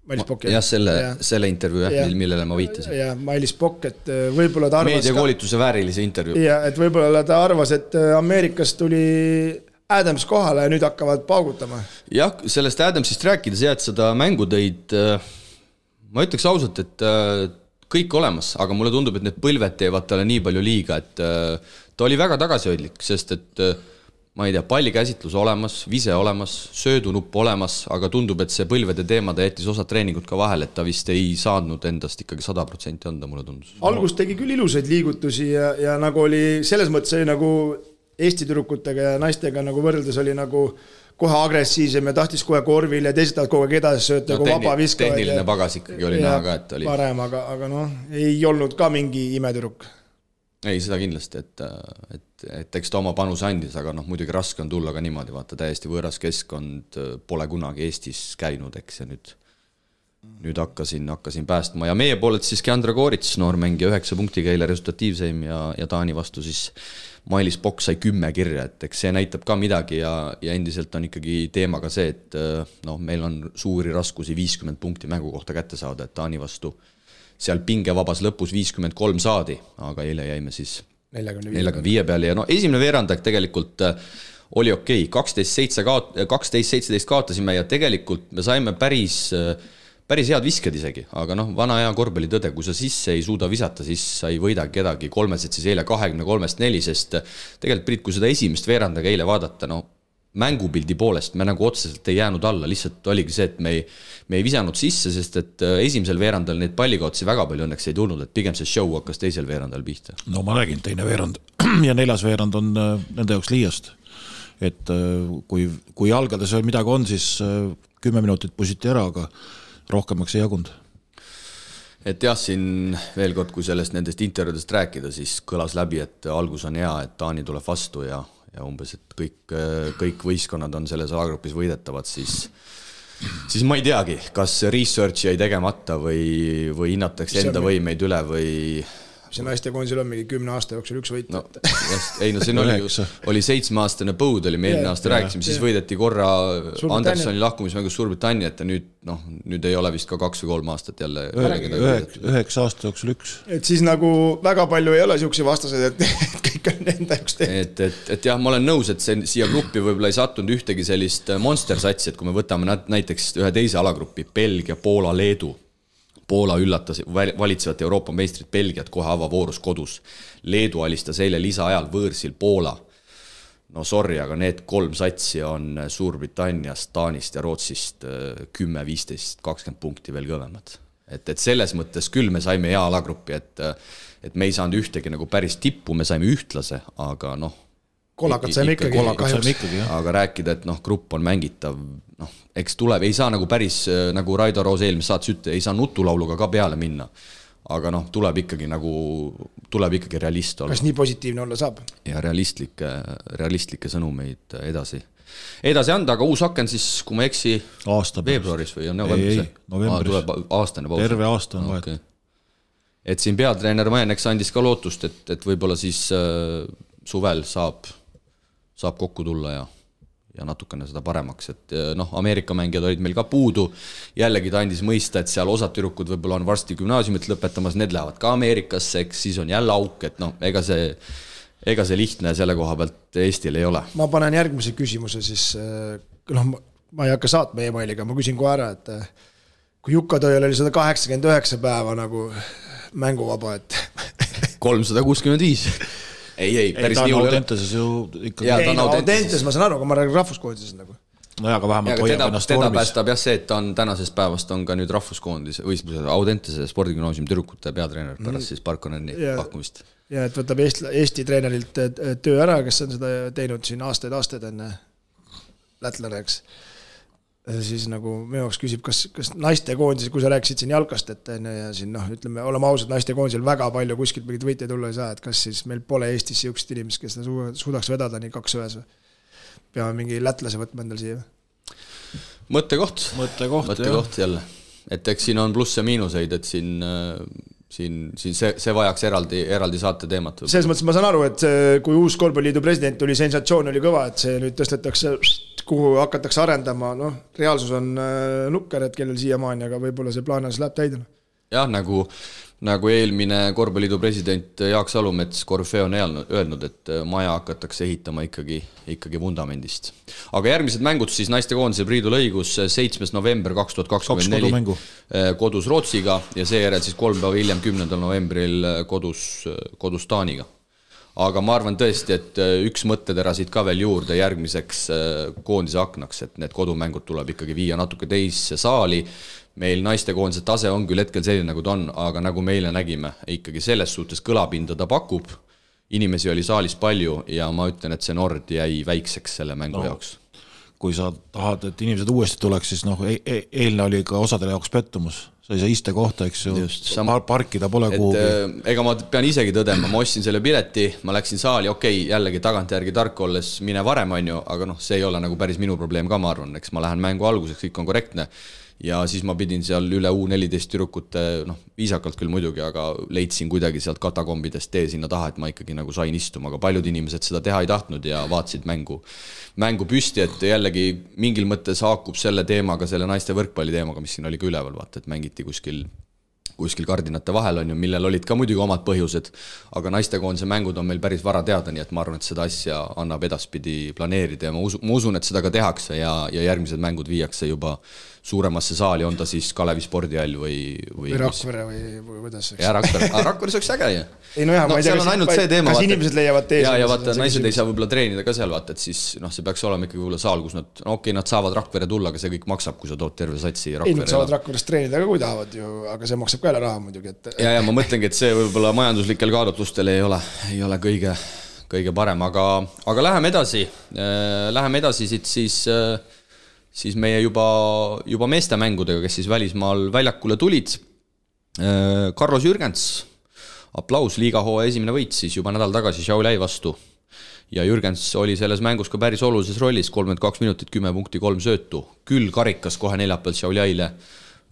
D: Mailis Pokk,
B: jah, selle intervjuu, millele ma viitasin.
D: Ja Mailis Pokk, et võib-olla ta arvas
B: meediakoolituse väärilise intervjuu.
D: Ja, et võib-olla ta arvas, et Ameerikas tuli Adams kohale ja nüüd hakkavad paugutama.
B: Jah, sellest Adamsist rääkides jääd seda mängu tõid, ma ütleks ausalt, et kõik olemas, aga mulle tundub, et need põlved teevad talle nii palju liiga, et ta oli väga tagasihoidlik, sest et ma ei tea, pallikäsitlus olemas, vise olemas, söödunupp olemas, aga tundub, et see põlvede teema ta jättis osad treeningud ka vahel, et ta vist ei saadnud endast ikkagi 100% anda, mulle tundus.
D: Algus tegi küll ilusaid liigutusi ja nagu oli, selles mõttes oli nagu Eesti tüdrukutega ja naistega nagu võrreldes oli nagu kohe agressiivsem ja tahtis kohe korvil ja teised tahavad kogu aeg edasi sööta, kui vaba viskavad.
B: Tehniline pagas ikkagi oli näha ka, et oli
D: parem, aga noh, ei olnud ka mingi imetüdruk.
B: Ei, seda kindlasti, et eks ta oma panuse andis, aga noh, muidugi raske on tulla ka niimoodi, vaata täiesti võõras keskkond, pole kunagi Eestis käinud, eks ja nüüd hakkasin päästma ja meie poolelt siis Keandra Koorits, noormängija 9 punktiga eile resultatiivseim ja Taani vastu siis Mailis Pokk sai 10 kirja, et eks see näitab ka midagi ja endiselt on ikkagi teema ka see, et no, meil on suuri raskusi 50 punkti mängu kohta kätte saada, et Taani vastu seal pingevabas lõpus 53 saadi, aga eile jäime siis 45 peale ja no esimene veerandaeg tegelikult oli okei, 12-17 kaotasime ja tegelikult me saime päris head visked isegi, aga noh, vana hea korvpalli tõde, kui sa sisse ei suuda visata, siis sa ei võida kedagi, 3 siis eile 23-4, sest tegelikult Priit, kui seda esimest veerandaga eile vaadata, no mängupildi poolest me nagu otseselt ei jäänud alla, lihtsalt oligi see, et me ei visanud sisse, sest et esimesel veerandal neid pallikaotsi väga palju õnneks ei tulnud, et pigem see show hakkas teisel veerandal pihta.
C: No ma räägin, teine veerand ja 4. veerand on nende jaoks liiast. Et kui jalgades veel midagi on, siis 10 minutit pusiti ära, aga rohkemaks ei jagunud.
B: Et jah, siin veel kord, kui sellest nendest intervjuudest rääkida, siis kõlas läbi, et algus on hea, et Taani tuleb vastu ja umbes, et kõik võistkonnad on selles alagrupis võidetavad, siis ma ei teagi, kas research jäi tegemata või hinnatakse enda võimeid üle või...
D: See naiste koondisel on mingi 10 aasta jooksul üks võit.
B: No, ei, siin oli 7-aastane põud, oli me eelmine aasta rääkisime, siis võideti korra Andersoni lahkumismängus Suurbritanniat ja nüüd ei ole vist ka 2 või 3 aastat jälle
C: 9 aasta jooksul üks.
D: Et siis nagu väga palju ei ole siukse vastased, et kõik on enda jaoks
B: tehtud. Et jah, ma olen nõus, et siia gruppi võib-olla ei sattunud ühtegi sellist monster-satsi, et kui me võtame näiteks ühe teise alagrupi, Belgia, Poola, Leedu. Poola üllatas valitsevat Euroopa meistrit Belgiat kohe avavoorus kodus. Leedu alistas eile lisaajal võõrsil Poola. No sorry, aga need 3 satsi on Suurbritanniast, Taanist ja Rootsist 10, 15, 20 punkti veel kõvemad. Et selles mõttes küll me saime hea alagruppi, et me ei saanud ühtegi nagu päris tippu, me saime ühtlase, aga noh,
D: Kolakad saime ikkagi.
B: Aga rääkida, et grupp on mängitav, eks tuleb, ei saa nagu päris, nagu Raido Roos eelmis saates ütle, ei saa nutulauluga ka peale minna. Aga tuleb ikkagi realist olla.
D: Kas nii positiivne olla saab?
B: Ja realistlikke sõnumeid edasi anda, aga uus aken siis, kui ma eksi veebruaris või on
C: novembris?
B: Tuleb aastane paus.
C: Terve aasta on vahet.
B: Et siin peatreener Majeneks andis ka lootust, et võib-olla siis suvel saab kokku tulla ja natukene seda paremaks, et Ameerika mängijad olid meil ka puudu, jällegi ta andis mõista, et seal osad tüdrukud võib-olla on varsti gümnaasiumit lõpetamas, need lähevad ka Ameerikasse, eks siis on jälle auk, et ega see lihtne selle koha pealt Eestil ei ole.
D: Ma panen järgmise küsimuse siis, ma ei hakka saatma e-mailiga, ma küsin kohe ära, et kui Jukka Tõil oli 189 päeva nagu mänguvaba, et
B: 365 Ei, päris nii
C: hull. Audentases ju ikkagi...
D: Audentases ma saan aru, aga ma räägin rahvuskoondises nagu.
C: No aga vähemalt hoiab ennast
B: vormis. Teda päästab jah see, et ta on tänasest päevast on ka nüüd rahvuskoondis või Audentase spordigümnaasiumi tüdrukute peatreener pärast siis Parkoneni pakkumist.
D: Ja et võtab Eesti treenerilt töö ära, kes on seda teinud siin aastaid enne lätlane, eks. Siis nagu minu jaoks küsib, kas naiste koondis, kui sa rääkisid siin jalkast, et ja siin ütleme, oleme ausad, naiste koondisel väga palju kuskilt mingit võite tulla ei saa, et kas siis meil pole Eestis siukest inimest, kes suudaks vedada nii 2 ühes või peame mingi lätlase võtma endal siia?
B: Mõttekoht jälle. Et eks siin on pluss ja miinuseid, et siin see vajaks eraldi saate teemat.
D: Selles mõttes ma saan aru, et kui uus korvpalliliidu president tuli, sensatsioon oli kõva, et see nüüd tõstetakse kuhu hakatakse arendama, reaalsus on nukker, et kellel siiamaani, aga võib-olla see plaanis läheb täidena.
B: Jah, nagu eelmine korvpalliliidu president Jaak Salumets Korfee on öelnud, et maja hakatakse ehitama ikkagi vundamendist. Aga järgmised mängud siis naiste koondise Priidu lõigus 7. november 2024 kodus Rootsiga ja seejärel siis 3 päeva hiljem 10. novembril kodus Taaniga. Aga ma arvan tõesti, et üks mõttetera siit ka veel juurde järgmiseks koondise aknaks, et need kodumängud tuleb ikkagi viia natuke teisse saali. Meil naiste koondise tase on küll hetkel selline, nagu ta on, aga nagu meile nägime, ikkagi selles suhtes kõlapinda ta pakub. Inimesi oli saalis palju ja ma ütlen, et see Nord jäi väikseks selle mängu jaoks.
C: Kui sa tahad, et inimesed uuesti tuleks, siis eelne oli ka osadele jaoks pettumus. Sa ei saa iste kohta, eks ju, parkida pole kuhugi.
B: Ega ma pean isegi tõdema, ma ostsin selle pileti, ma läksin saali, jällegi tagantjärgi tark olles mine varem on ju, aga see ei ole nagu päris minu probleem ka, ma arvan, eks ma lähen mängu alguseks, kõik on korrektne. Ja siis ma pidin seal üle U14 tüdrukute, viisakalt küll muidugi, aga leidsin kuidagi sealt katakombidest tee sinna taha, et ma ikkagi nagu sain istuma, aga paljud inimesed seda teha ei tahtnud ja vaatasid mängu püsti, et jällegi mingil mõttes haakub selle teemaga, selle naiste võrkpalli teemaga, mis siin oli ka üleval, vaata, et mängiti kuskil kuskil kardinate vahel on ju, millel olid ka muidugi omad põhjused, aga naistekoondise mängud on meil päris vara teada, nii et ma arvan, et seda asja annab edaspidi planeerida ja ma usun, et seda ka tehakse ja järgmised mängud viiakse juba suuremasse saali, on ta siis Kalevi spordihall või
D: Rakvere või kuidas?
B: Ja Rakvere oleks äge ju.
D: Ei no jah, ma ei tea, kas inimesed leiavad tees.
B: Ja vaata, naised ei saa võib-olla treenida ka seal, vaata, et siis see peaks olema ikkagi võib-olla saal, kus nad, nad saavad Rakvere tulla, aga see kõik maksab, kui sa tood terve satsi Rakvere.
D: Ei, nad saavad Rakveres treenida ka, kui tahavad ju, aga see maksab ka jälle raha muidugi.
B: Ja ma mõtlengi, et see võib-olla majanduslikel kaalutlustel ei ole kõige parem, aga läheme edasi siit siis meie juba meestemängudega, kes siis välismaal väljakule tulid. Carlos Jürgens, aplaus, liigahooaja esimene võit siis juba nädal tagasi Šiauliai vastu. Ja Jürgens oli selles mängus ka päris olulises rollis, 32 minutit, 10 punkti, 3 söötu. Küll karikas kohe neljapäeval Šiauliaile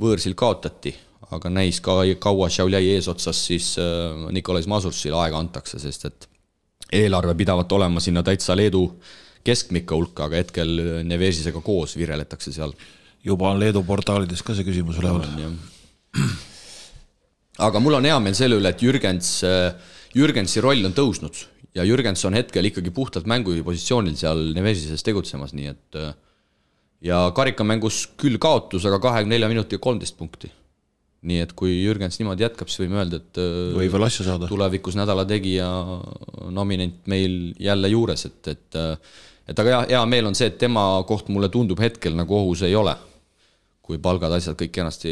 B: võõrsil kaotati, aga näis ka kaua Šiauliai eesotsas siis Nikolais Masursil aega antakse, sest et eelarve pidavat olema sinna täitsa Leedu keskmikka hulka, aga hetkel Nevesisega koos vireletakse seal.
C: Juba on Leedu portaalides ka see küsimus üleval.
B: Aga mul on hea meel selle üle, et Jürgensi roll on tõusnud ja Jürgens on hetkel ikkagi puhtalt mängupositsioonil seal Nevesises tegutsemas, nii et ja karikamängus küll kaotus, aga 24 minuti ja 13 punkti. Nii et kui Jürgens niimoodi jätkab, siis võime öelda, et
C: või veel asja saada.
B: Tulevikus nädala tegija nominent meil jälle juures, et aga hea meel on see, et tema koht mulle tundub hetkel nagu ohus ei ole. Kui palgad asjad kõik kenasti,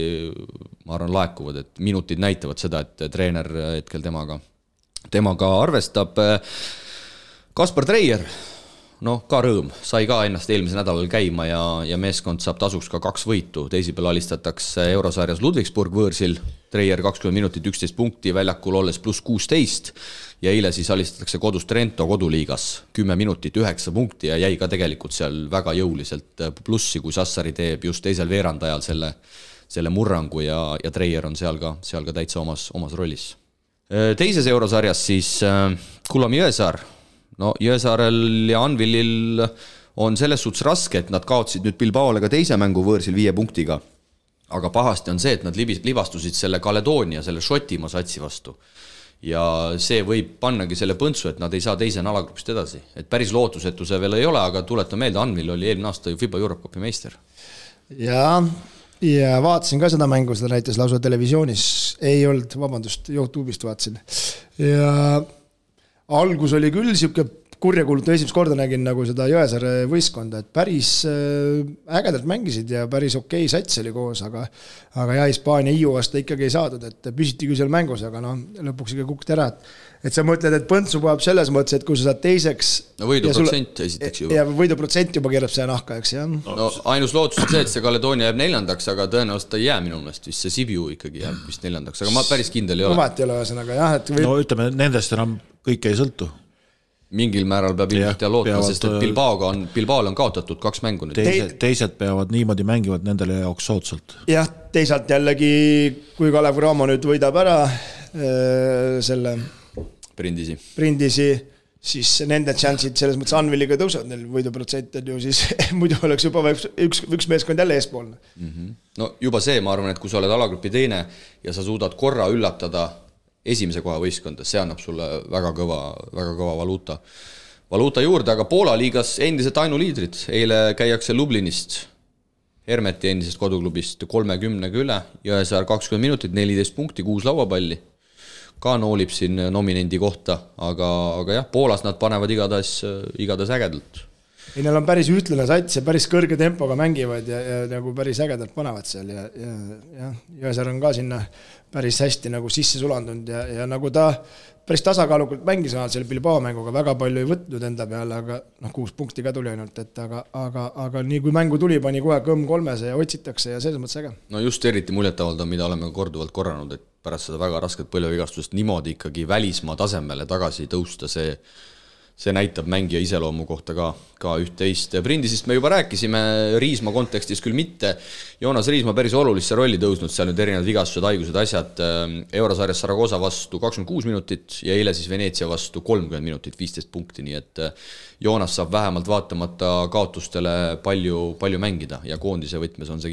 B: ma arvan, laekuvad, et minutid näitavad seda, et treener hetkel temaga arvestab. Kaspar Treier, ka rõõm, sai ka ennast eelmise nädalal käima ja meeskond saab tasuks ka 2 võitu. Teisipäeval alistatakse Eurosarjas Ludwigsburg võõrsil, Treier 20 minutit, 11 punkti, väljakul olles pluss 16 ja eile siis alistatakse kodus Trento koduliigas 10 minutit, 9 punkti ja jäi ka tegelikult seal väga jõuliselt plussi, kui Sassari teeb just teisel veerandajal selle murrangu ja Treier on seal ka täitsa omas rollis. Teises Eurosarjas siis Kulam Jõesaar. Jõesaarel ja Anvilil on selles suhtes raske, et nad kaotsid nüüd Bilbaole ka teise mängu võõrsil 5 punktiga. Aga pahasti on see, et nad libastusid selle Kaledoonia, selle Šotimaa satsi vastu. Ja see võib pannagi selle põntsu, et nad ei saa teise alagrupist edasi. Et päris lootusetu see veel ei ole, aga tuletan meelde, Anvil oli eelmine aasta FIBA Europe Cupi meister.
D: Ja vaatasin ka seda mängu, seda näitas lausa televisioonis. Ei olnud, vabandust, YouTube'ist vaatasin. Ja algus oli küll siuke kurjakuulutu, esimest korda nägin nagu seda Jõesaare võistkonda, et päris ägedalt mängisid ja päris okei sats oli koos, aga Hispaania Iu vastu ikkagi ei saadud, et püsiti küll seal mängus, aga lõpuks ikka kukti ära, et sa mõtled, et põntsu puhab selles mõttes, et kui sa saad teiseks
B: võiduprotsent esiteks juba.
D: Ja võiduprotsent juba keerab see nahka, eks jah.
B: Ainus lootus on see, et see Kaledoonia jääb 4, aga tõenäoliselt ei jää minu meelest, vist see Sibiu ikkagi jääb vist 4, aga ma päris kindel ei ole.
D: Vaat ei ole ühesõnaga, jah.
C: Ütleme, nendest enam kõik ei sõltu.
B: Mingil määral peab ilmselt ja lootma, sest et Bilbaol on kaotatud 2 mängu nüüd.
C: Teised peavad niimoodi mängivad nendele jaoks soodsalt.
D: Jah, teisalt jällegi, kui Kalev Cramo nüüd võidab ära selle Brindisi, siis nende chansid selles mõttes Anviliga tõusavad, neil võiduprotsent on ju, siis muidu oleks juba üks meeskond jälle eespoolne.
B: No juba see, ma arvan, et kui sa oled alagrupi teine ja sa suudad korra üllatada esimese koha võistkonda, see annab sulle väga kõva valuuta juurde, aga Poola liigas endiselt ainuliidrid. Eile käiakse Lublinist, Hermeti endisest koduklubist 30 üle, Jõesaar 20 minutit, 14 punkti, 6 lauapalli. Ka noolib siin nominendi kohta, aga jah, Poolas nad panevad igatahes ägedalt.
D: Neil on päris ütlane sats ja päris kõrge tempoga mängivad ja nagu päris ägedalt panevad seal ja Jõesaar on ka sinna päris hästi nagu sisse sulandunud ja nagu ta päris tasakaalukalt mängis selle Bilbao mänguga, väga palju ei võtnud enda peale, aga 6 punkti ka tuli ainult, et aga nii kui mängu tuli, pani kohe kõmm 3 ja otsitakse ja selles mõttes äge.
B: No just eriti muljetavaldav, mida oleme korduvalt korranud, et pärast seda väga rasket põlvevigastust niimoodi ikkagi välismaa tasemele tagasi tõusta, see näitab mängija iseloomu kohta ka üht-teist. Brindisist me juba rääkisime, Riisma kontekstis küll mitte. Joonas Riisma päris olulisse rolli tõusnud, seal nüüd erinevad vigastused, haigused, asjad. Eurosarjas Saragossa vastu 26 minutit ja eile siis Veneetsia vastu 30 minutit, 15 punkti, nii et Joonas saab vähemalt vaatamata kaotustele palju mängida ja koondise võtmes on see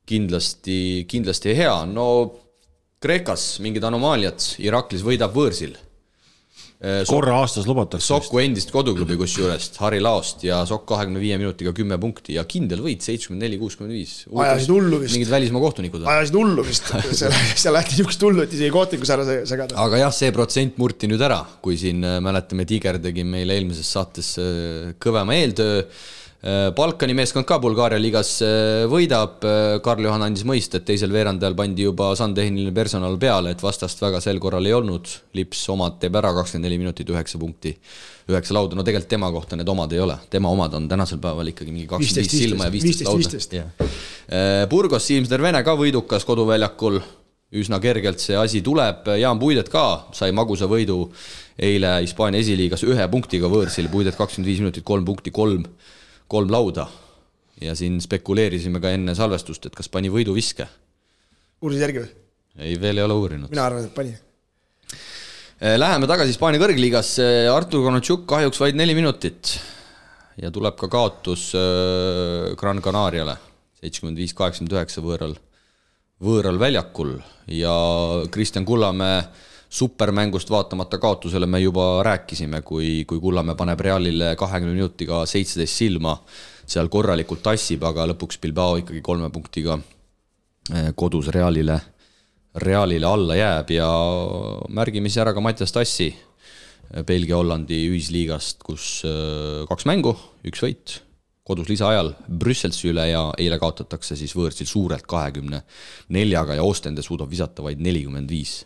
B: kindlasti hea. No Kreekas mingid anomaaliad, Iraklis võidab võõrsil.
C: Korra aastas lubatakse.
B: Sokku endist koduklubi kusjuurest, Harri Laost ja Sokk 25 minutiga 10 punkti ja kindel võit 74-65.
D: Ajasid hullu vist.
B: Mingid välismaa kohtunikud.
D: Ajasid hullu vist. Seal lähti niisugust hullu, et isegi kohtnikus ära segada.
B: Aga jah, see protsent murti nüüd ära, kui siin mäletame, Tiger tegi meile eelmises saates kõvema eeltöö. Balkani meeskond ka Bulgaaria liigas võidab. Karl-Johan andis mõist, et teisel veerandajal pandi juba sandtehniline personal peale, et vastast väga sel korral ei olnud. Lips omad teeb ära 24 minutit 9 punkti, 9 lauda. No tegelikult tema kohta need omad ei ole. Tema omad on tänasel päeval ikkagi mingi 25 silma ja 15 lauda. Burgos Siimsner Vene ka võidukas koduväljakul. Üsna kergelt see asi tuleb. Jaan Puidet ka sai magusa võidu eile Hispaania esiliigas 1 punktiga võõrsil. Puidet 25 minutit, 3 punkti, 3 lauda. Ja siin spekuleerisime ka enne salvestust, et kas pani võidu viske.
D: Uurisid järgi või?
B: Ei, veel ei ole uurinud.
D: Mina arvan, et pani.
B: Läheme tagasi Hispaania kõrgliigasse. Artur Konatšuk kahjuks vaid 4 minutit. Ja tuleb ka kaotus Gran Canariale 75-89 võõral väljakul. Ja Kristjan Kullamäe supermängust vaatamata kaotusele me juba rääkisime, kui Kullamäe paneb Realile 20 minutiga 17 silma, seal korralikult tassib, aga lõpuks Bilbao ikkagi 3 punktiga kodus Realile alla jääb ja märgimisi ära ka Mattias Tassi Belgia-Hollandi ühisliigast, kus 2 mängu, 1 võit, kodus lisaajal Brüsselsi üle ja eile kaotatakse siis võõrsil suurelt 24 ja Ostende suudab visata vaid 45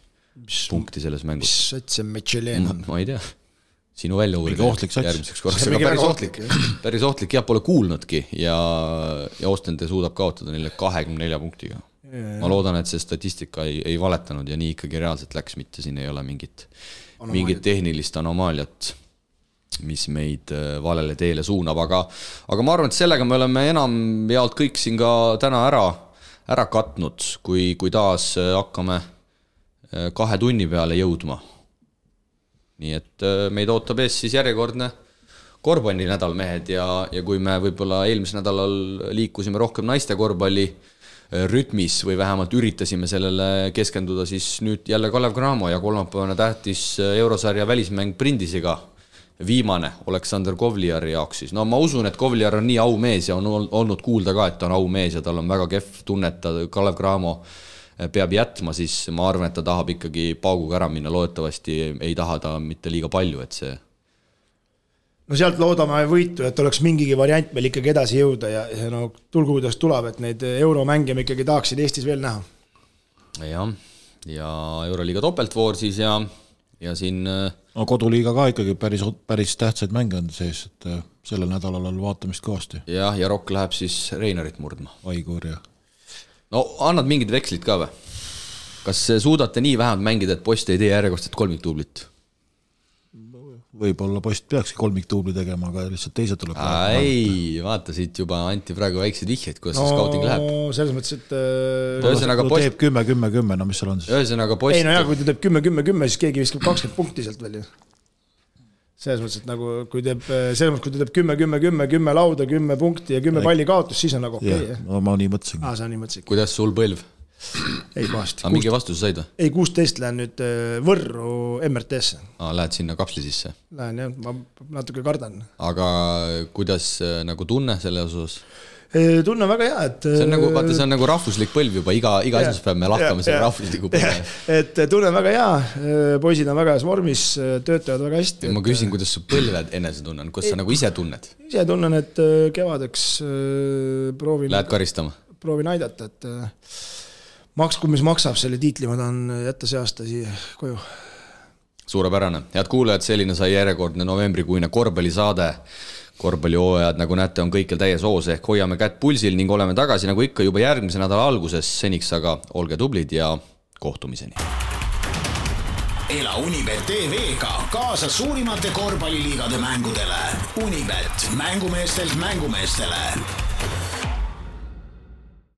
B: punkti selles mängus.
D: Mis sats see Michelin on?
B: Ma ei tea. Sinu välja uurida järgmiseks korraks. Päris ohtlik, jah, pole kuulnudki ja Ostende suudab kaotada neile 24 punktiga. Ma loodan, et see statistika ei valetanud ja nii ikkagi reaalselt läks, mitte siin ei ole mingit tehnilist anomaaliat, mis meid valele teele suunab, aga ma arvan, et sellega me oleme enam jaolt kõik siin ka täna ära katnud, kui taas hakkame 2 tunni peale jõudma. Nii et meid ootab ees siis järjekordne korvpalli nädal, mehed, ja kui me võib-olla eelmisel nädalal liikusime rohkem naiste korvpalli rütmis või vähemalt üritasime sellele keskenduda, siis nüüd jälle Kalev Cramo ja kolmapäevane tähtis eurosarja välismäng Brindisiga. Viimane Aleksander Kovliari jaoks siis. No ma usun, et Kovliar on nii aumees ja on olnud kuulda ka, et ta on aumees ja tal on väga kehv tunne, et Kalev Cramo peab jätma, siis ma arvan, et ta tahab ikkagi pauguga ära minna, loodetavasti ei taha ta mitte liiga palju, et see...
D: No sealt loodame võitu, et oleks mingigi variant meil ikkagi edasi jõuda ja no tulgu kuidas tuleb, et neid euromänge me ikkagi tahaksid Eestis veel näha.
B: Ja Euroliiga topeltvoor siis ja siin...
C: No koduliiga ka ikkagi päris tähtsaid mänge on sees, et sellel nädalal on vaatamist kõvasti.
B: Ja Rokk läheb siis Reinarit murdma.
C: Aigur ja...
B: No annad mingid vekslid ka või? Kas suudate nii vähemalt mängida, et Post ei tee järjekordset kolmiktuublit?
C: Võib-olla Post peakski kolmiktuubli tegema, aga lihtsalt teised tuleb.
B: Ei, vaata siit juba anti praegu väiksed vihjeid, kuidas see scouting läheb.
D: No selles mõttes, et...
C: teeb 10-10-10, no mis seal on siis?
B: Ühesõnaga Post...
D: Ei, no jah, kui ta teeb 10-10-10, siis keegi viskab 20 punkti sealt veel. Selles mõttes, et nagu, kui ta teeb 10-10-10 lauda, 10 punkti ja 10 palli kaotus, siis on nagu okei.
C: No ma nii mõtlesin.
D: Sa nii mõtlesin.
B: Kuidas sul põlv?
D: Ei pahasti.
B: Aga mingi vastuse said või?
D: Ei, 16 lähen nüüd Võrru MRT-sse.
B: Lähed sinna kapsli sisse?
D: Lähen jah, ma natuke kardan.
B: Aga kuidas nagu tunne selle osas?
D: Tunne väga hea, et...
B: See on nagu rahvuslik põlv juba, iga esmaspäev me lahkame selle rahvusliku põlve.
D: Et tunne väga hea, poisid on väga heas vormis, töötavad väga hästi.
B: Ma küsin, kuidas su põlved enese tunnen, kuidas sa nagu ise tunned?
D: Ise tunnen, et kevadeks proovin...
B: Lähed karistama?
D: Proovin aidata, et maksku, mis maksab selle tiitli, ma tahan jätta see aasta siia koju.
B: Suurepärane. Head kuulajad, selline sai järjekordne novembrikuine korvpallisaade. Korvpallihooajad, nagu näete, on kõikjal täies hoos ehk hoiame kätt pulsil ning oleme tagasi nagu ikka juba järgmise nädala alguses. Seniks aga olge tublid ja kohtumiseni.
A: Ela Unibet TV-ga kaasa suurimate korvpalliliigade mängudele. Unibet, mängumeestelt mängumeestele.